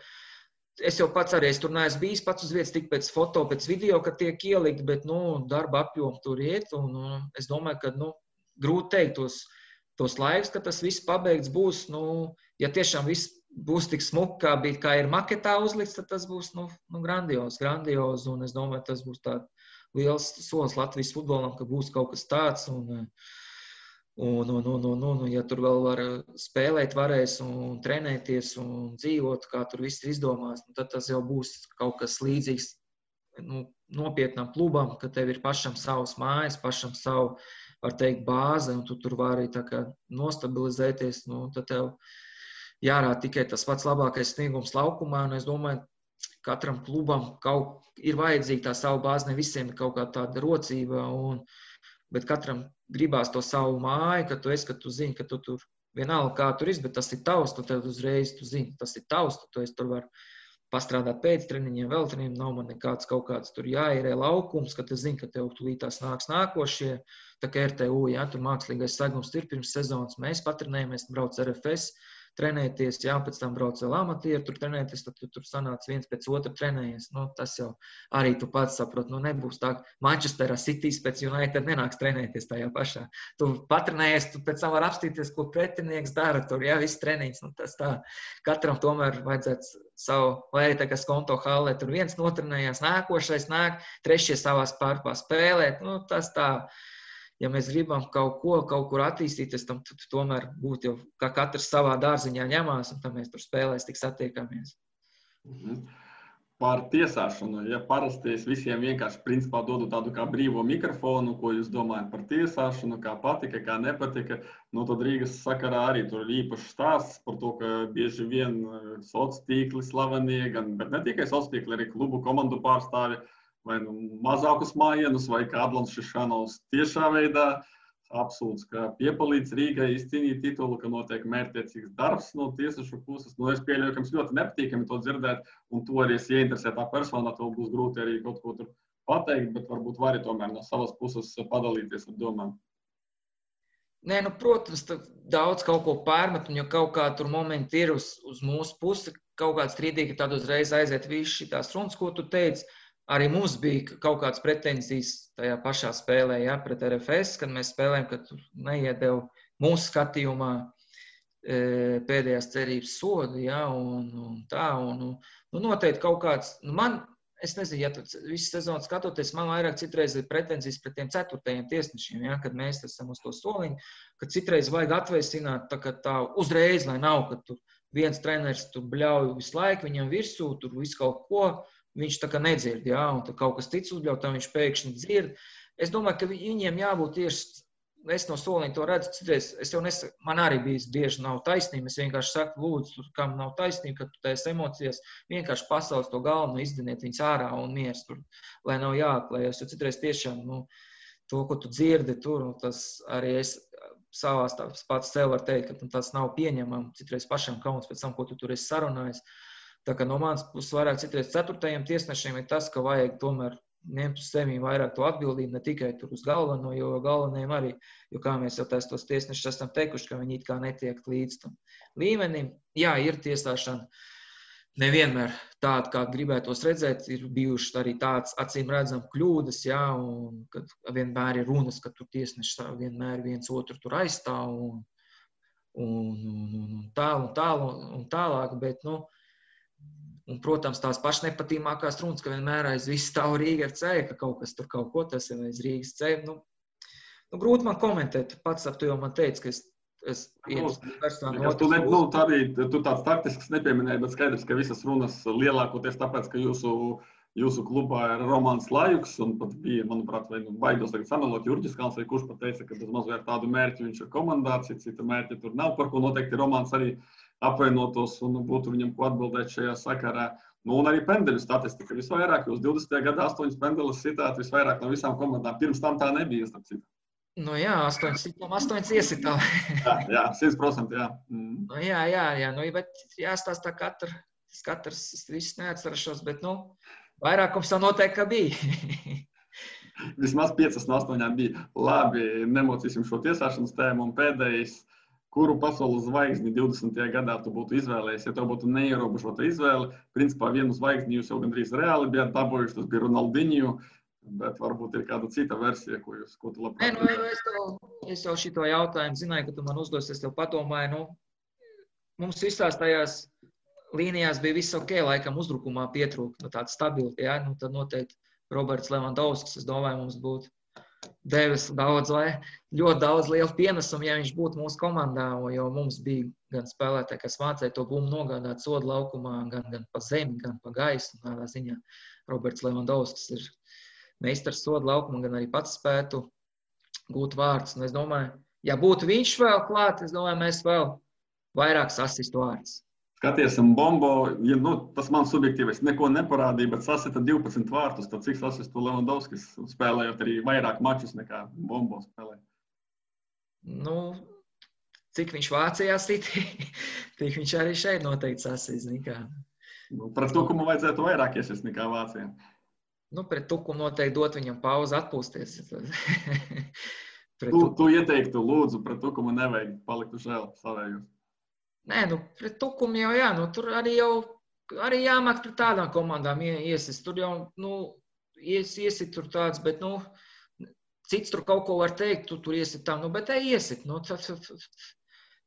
Es jau pats arī, es tur neesmu bijis pats uz vietas, tik pēc foto, pēc video, kad tiek ielikt, bet, darba apjomu tur iet, un es domāju, ka, grūti teikt tos laikus, ka tas viss pabeigts būs, ja tiešām viss būs tik smuki, kā ir maketā uzlikts, tad tas būs, grandiozi, un es domāju, tas būs tāds liels solis Latvijas futbolam, ka būs kaut kas tāds, ja tur vēl var spēlēt, varēs un trenēties un dzīvot, kā tur viss ir izdomās, tad tas jau būs kaut kas līdzīgs nopietnam klubam, ka tev ir pašam savas mājas, pašam savu, var teikt, bāze, un tu tur vari tā kā nostabilizēties, tad tev jārāda tikai tas pats labākais sniegums laukumā, un es domāju, katram klubam ir vajadzīga tā savu bāzi, ne visiem ir kaut kā tāda rocība, bet katram gribās to savu māju, ka tu zini, ka tu tur vienalga kā tur bet tas ir tavs, tu tev uzreiz, tu zini, tas ir tavs, tu tur var pastrādāt pēc treniņiem, vēl treniņiem, nav man nekāds kaut kāds tur jāierē laukums, ka tu zini, ka tev tulītās nāks nākošie, tā kā RTU, tur mākslīgais segums ir pirms sezonas, mēs patrenējamies, brauc RFS, trenēties, pēc tam brauc vēl amatieri, tur trenēties, tad tu tur sanāc viens pēc otru trenējies. Tas jau arī tu pats saprot, nebūs tā, Manchesterā Citys pēc United nenāks trenēties tajā pašā. Tu patrenējies, tu pēc tam var apstīties, ko pretinieks dara tur, viss treniņš, tas tā. Katram tomēr vajadzētu savu, vai tā kā Skonto hallē, tur viens notrenējās, nākošais nāk, trešie savā starpā spēlēt, tas tā. Ja mēs gribam kaut kur attīstīties, tam tomēr būtu jau, kā katrs savā dārziņā ņemās, un tam mēs tur spēlēs tik satiekamies. Par tiesāšanu. Ja parasti es visiem vienkārši principā dodu tādu kā brīvo mikrofonu, ko jūs domājat par tiesāšanu, kā patika, kā nepatika, tad Rīgas sakarā arī tur ir īpašs stāsts par to, ka bieži vien sociālie tīkli slavenie, bet ne tikai sociālie tīkli, arī klubu komandu pārstāvi, vai mazākus mājienus, vai kā Adlons Šišanovs tiešā veidā apsūdz, ka piepalīdz Rīgai izcīnīt titulu, ka notiek mērķtiecīgs darbs no tiesašu puses. Es pieļauju, ka jums ļoti nepatīkami to dzirdēt, un to arī es ieinteresētā personā, to būs grūti arī kaut ko tur pateikt, bet varbūt vari tomēr no savas puses padalīties ar domām. Nē, protams, daudz kaut ko pārmet, un ja kaut kā tur momenti ir uz mūsu pusi, kaut kāds strīdīgi, tad uzreiz aiziet visu šitās runas, ko tu teici. Arī mums bija kaut kādas pretenzijas tajā pašā spēlē, pret RFS, kad mēs spēlējam, ka tur neiedeva mūsu skatījumā pēdējās cerības sodu, un tā, un noteikti kaut kāds, es nezinu, ja tu visu sezonu skatoties, man vairāk citreiz ir pretenzijas pret tiem 4. tiesnešiem, ja, kad mēs esam uz to soliņu, kad citreiz vajag atvēsināt tā uzreiz, lai nav, ka tur viens treneris tur bļauj visu laiku, viņam virsū, tur visu kaut ko, viņš tā kā nedzird, ja, un tad kaut kas cits uzbļauj, tā viņš pēkšņi dzird. Es domāju, ka viņiem jābūt tieši, es no soliņa to redzu, citreiz, es jau nesaku, man arī bieži nav taisnība, es vienkārši saku, lūdzu, kam nav taisnība, ka tu tās emocijas vienkārši pasaules to galveno izdiniet viņas ārā un miers tur, lai nav jāaklējas, jo citreiz tiešām, to, ko tu dzirdi tur, tas arī es savās pats sev var teikt, ka tas nav pieņemam, citreiz pašam kauns pēc tam, ko tu tur esi sarunājis. Tā kā no manas puses vairāk citreiz 4. tiesnešiem ir tas, ka vajag tomēr ņemt uz sevi vairāk to atbildību, ne tikai tur uz galveno, jo galvenajiem arī, jo kā mēs jau tos tiesnešus esam teikuši, ka viņi it kā netiek līdz tam līmenim. Jā, ir tiesāšana nevienmēr tāda, kā gribētos redzēt, ir bijušas arī tāds acīm redzam kļūdas, jā, un kad vienmēr ir runas, ka tur tiesneši vienmēr viens otru tur aizstāv un tālāk, bet, un, protams, tās pašas nepatīkamākās runas, ka vienmēr aiz visu stāv Rīga FC, ka kaut kas tur kaut ko tas ir aiz Rīgas FC. Grūti man komentēt, pats tu jau man teici, ka es tu tāds taktisks nepieminēji, bet skaidrs, ka visas runas lielākoties tāpēc, ka jūsu klubā ir Romāns Lajuks, un pat bija, manuprāt, baidos tagad samelot Jurģis Kalns, vai kurš pat teica, ka bez mazliet tādu mērķi viņš ir komandā, cita mērķi tur nav, par ko noteikti Romāns arī apvienotos un būtu viņam ko atbildēt šajā sakarā. Un arī pendeļu statistika visvairāk, jūs 20. gadā 8 pendeļus sitāt visvairāk no visām komandām. Pirms tam tā nebija, starp citu. Jā, 8 iesitām. jā, 100%, jā. Jā, bet jāstāstā katrs viss neatcerašos, bet, vairākums jau noteikti, ka bija. Vismaz 5 no 8 bija. Labi, nemocīsim šo tiesāšanas tēmu un pēdējais. Kuru pasaules zvaigzni 20. gadā tu būtu izvēlējies, ja tev būtu neierobežota izvēle? Principā vienu zvaigzni jūs jau gandrīz reāli bijāt dabūjuši, tas bija Ronaldinho, bet varbūt ir kāda cita versija, ko tu labprāt. Es jau šito jautājumu zināju, ka tu man uzdos, es tev padomāju, mums visās tajās līnijās bija viss ok, laikam uzbrukumā pietrūka, tāda stabilitāte, jā, tad noteikti Roberts Levandovskis, es domāju, mums būtu devis ļoti daudz lielu pienesumu, ja viņš būtu mūsu komandā, jo mums bija gan spēlētāji, kas mācīja to bumbu nogādāt sodu laukumā, gan pa zemi, gan pa gaisu. Tādā ziņā Roberts Levandovskis ir meistars sodu laukumā, gan arī pats spētu gūt vārdus. Un es domāju, ja būtu viņš vēl klāt, es domāju, mēs vēl vairāk sasistu vārdus. Skaties, Bombo, tas man subjektīvais neko neparādīja, bet sasita 12 vārtus, tad cik sasistu Levandovskis spēlējot arī vairāk mačus nekā Bombo spēlē? Cik viņš Vācijā siti, tik viņš arī šeit noteikti sasist. Pret Tukumu vajadzētu vairāk iesist nekā Vācijā. Pret Tukumu noteikti dot viņam pauzi atpūsties. Tu ieteiktu, lūdzu, pret Tukumu nevajag palikt uz žēl savējos. Nē, pret Tukumu jau jā, tur arī jāmāk pret tādām komandām iesist. Tur jau, iesit tur tāds, bet, cits tur kaut ko var teikt, tu tur iesit tam, bet iesit.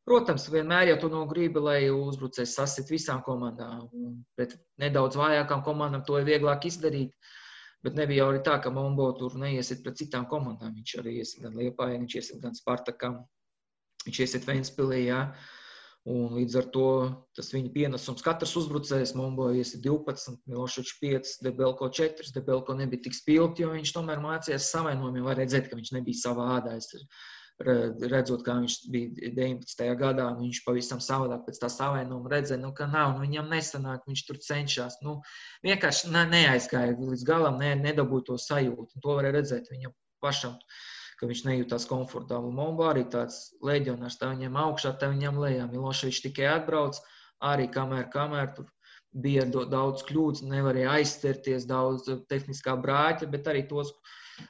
Protams, vienmēr jau tu gribi, lai uzbrucējs sasit visām komandām. Pret nedaudz vājākām komandām to ir vieglāk izdarīt, bet nebija jau arī tā, ka Mombo tur neiesit pret citām komandām. Viņš arī iesit gan Liepājai, viņš iesit gan Spartakam, viņš iesit Ventspilī, jā. Un līdz ar to tas viņa pienesums katrs uzbrucējs, Mombo iesit 12, Miloševičs 5, Debelko 4. Debelko nebija tik spilgti, jo viņš tomēr mācījās savainojumiem. Var redzēt, ka viņš nebija savā ādā. Redzot, kā viņš bija 19. gadā, viņš pavisam savādāk pēc tā savainojuma redzēja, ka nav, viņam nesanāk, viņš tur cenšas. Vienkārši neaizgāja līdz galam, nedabūja to sajūtu. Un to varēja redzēt viņam pašam, ka viņš nejūtās komfortabli. Mombo arī tāds leģionārs, tā viņam augšā, tā viņam lejā. Miloševičs tikai atbrauc, arī kamēr tur bija daudz kļūdas, nevarēja aizsterties, daudz tehniskā brāķa, bet arī tos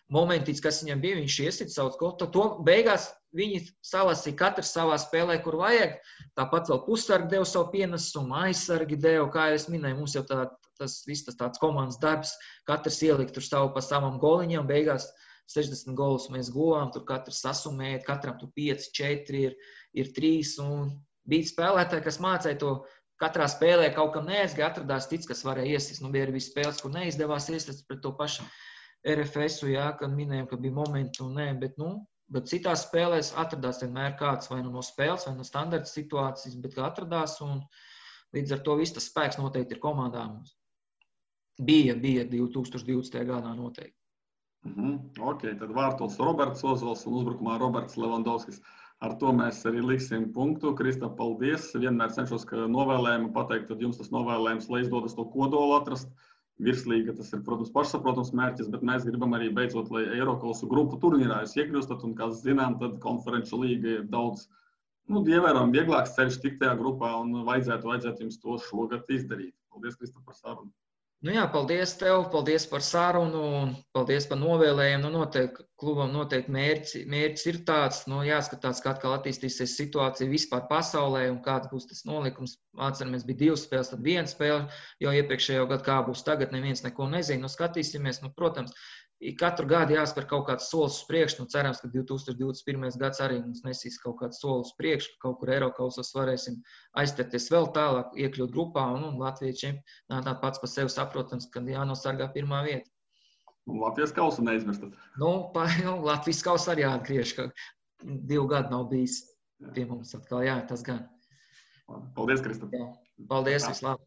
momentīts, kas viņam bija, viņš iesit savus gotu. To beigās viņi salasīja katrs savā spēlē, kur vajag. Tāpat vēl pussargi deva savu pienesumu, aizsargi deva, kā es minēju, mums jau tas tāds komandas darbs, katrs ielikt tur savu pa savam goliņam, beigās 60 golus mēs guvām, tur katrs sasumēja, katram tur 5, 4 ir 3, un bija spēlētāji, kas mācīja to katrā spēlē kaut kam neaizgāja, atradās cits, kas varēja iesist. Bija arī spēles, kur neizdevās iesist pret to pašu RFS-u, kad minējām, ka bija momenti un nē, bet citās spēlēs atradās vienmēr kāds vai no spēles, vai no standarta situācijas, bet kā atradās, un līdz ar to viss tas spēks noteikti ir komandā mums. Bija 2020. gadā noteikti. Ok, tad vārtos Roberts Ozols un uzbrukumā Roberts Levandovskis. Ar to mēs arī liksim punktu. Kristap, paldies. Vienmēr cenšos, ka novēlējumu pateikt, tad jums tas novēlējums, lai izdodas to kodolu atrast. Virslīga, tas ir, protams, pašsaprotams mērķis, bet mēs gribam arī beidzot, lai Eirokausu grupu turnīrā jūs iekļūstat, un, kā zinām, tad konferenču līga ir daudz, ievērojami vieglāks ceļš tikt tajā grupā, un vajadzētu jums to šogad izdarīt. Paldies, Kristap, par sarunu. Paldies tev, paldies par sarunu un paldies par novēlējumu. Noteikti klubam noteikti mērķis ir tāds, jāskatās, kā atkal attīstīsies situācija vispār pasaulē un kāds būs tas nolikums. Atceramies, bija 2 spēles, tad 1 spēle, jo iepriekšējo gadu kā būs tagad, neviens neko nezina. Skatīsimies, protams, katru gadu jāspēr kaut kāds solis uz priekšu. Cerams, ka 2021. gads arī mums nesīs kaut kāds solis uz priekšu, ka kaut kur Eirokausos varēsim aizterties vēl tālāk, iekļūt grupā, un Latvijas čempionātā pats par sevi saprotams, ka jānosargā 1. vieta. Un Latvijas kausu neizmirstat. Latvijas kausu arī jāatgriež, ka 2 gadu nav bijis pie mums atkal, tas gan. Paldies, Kristap. Paldies, vislabāk.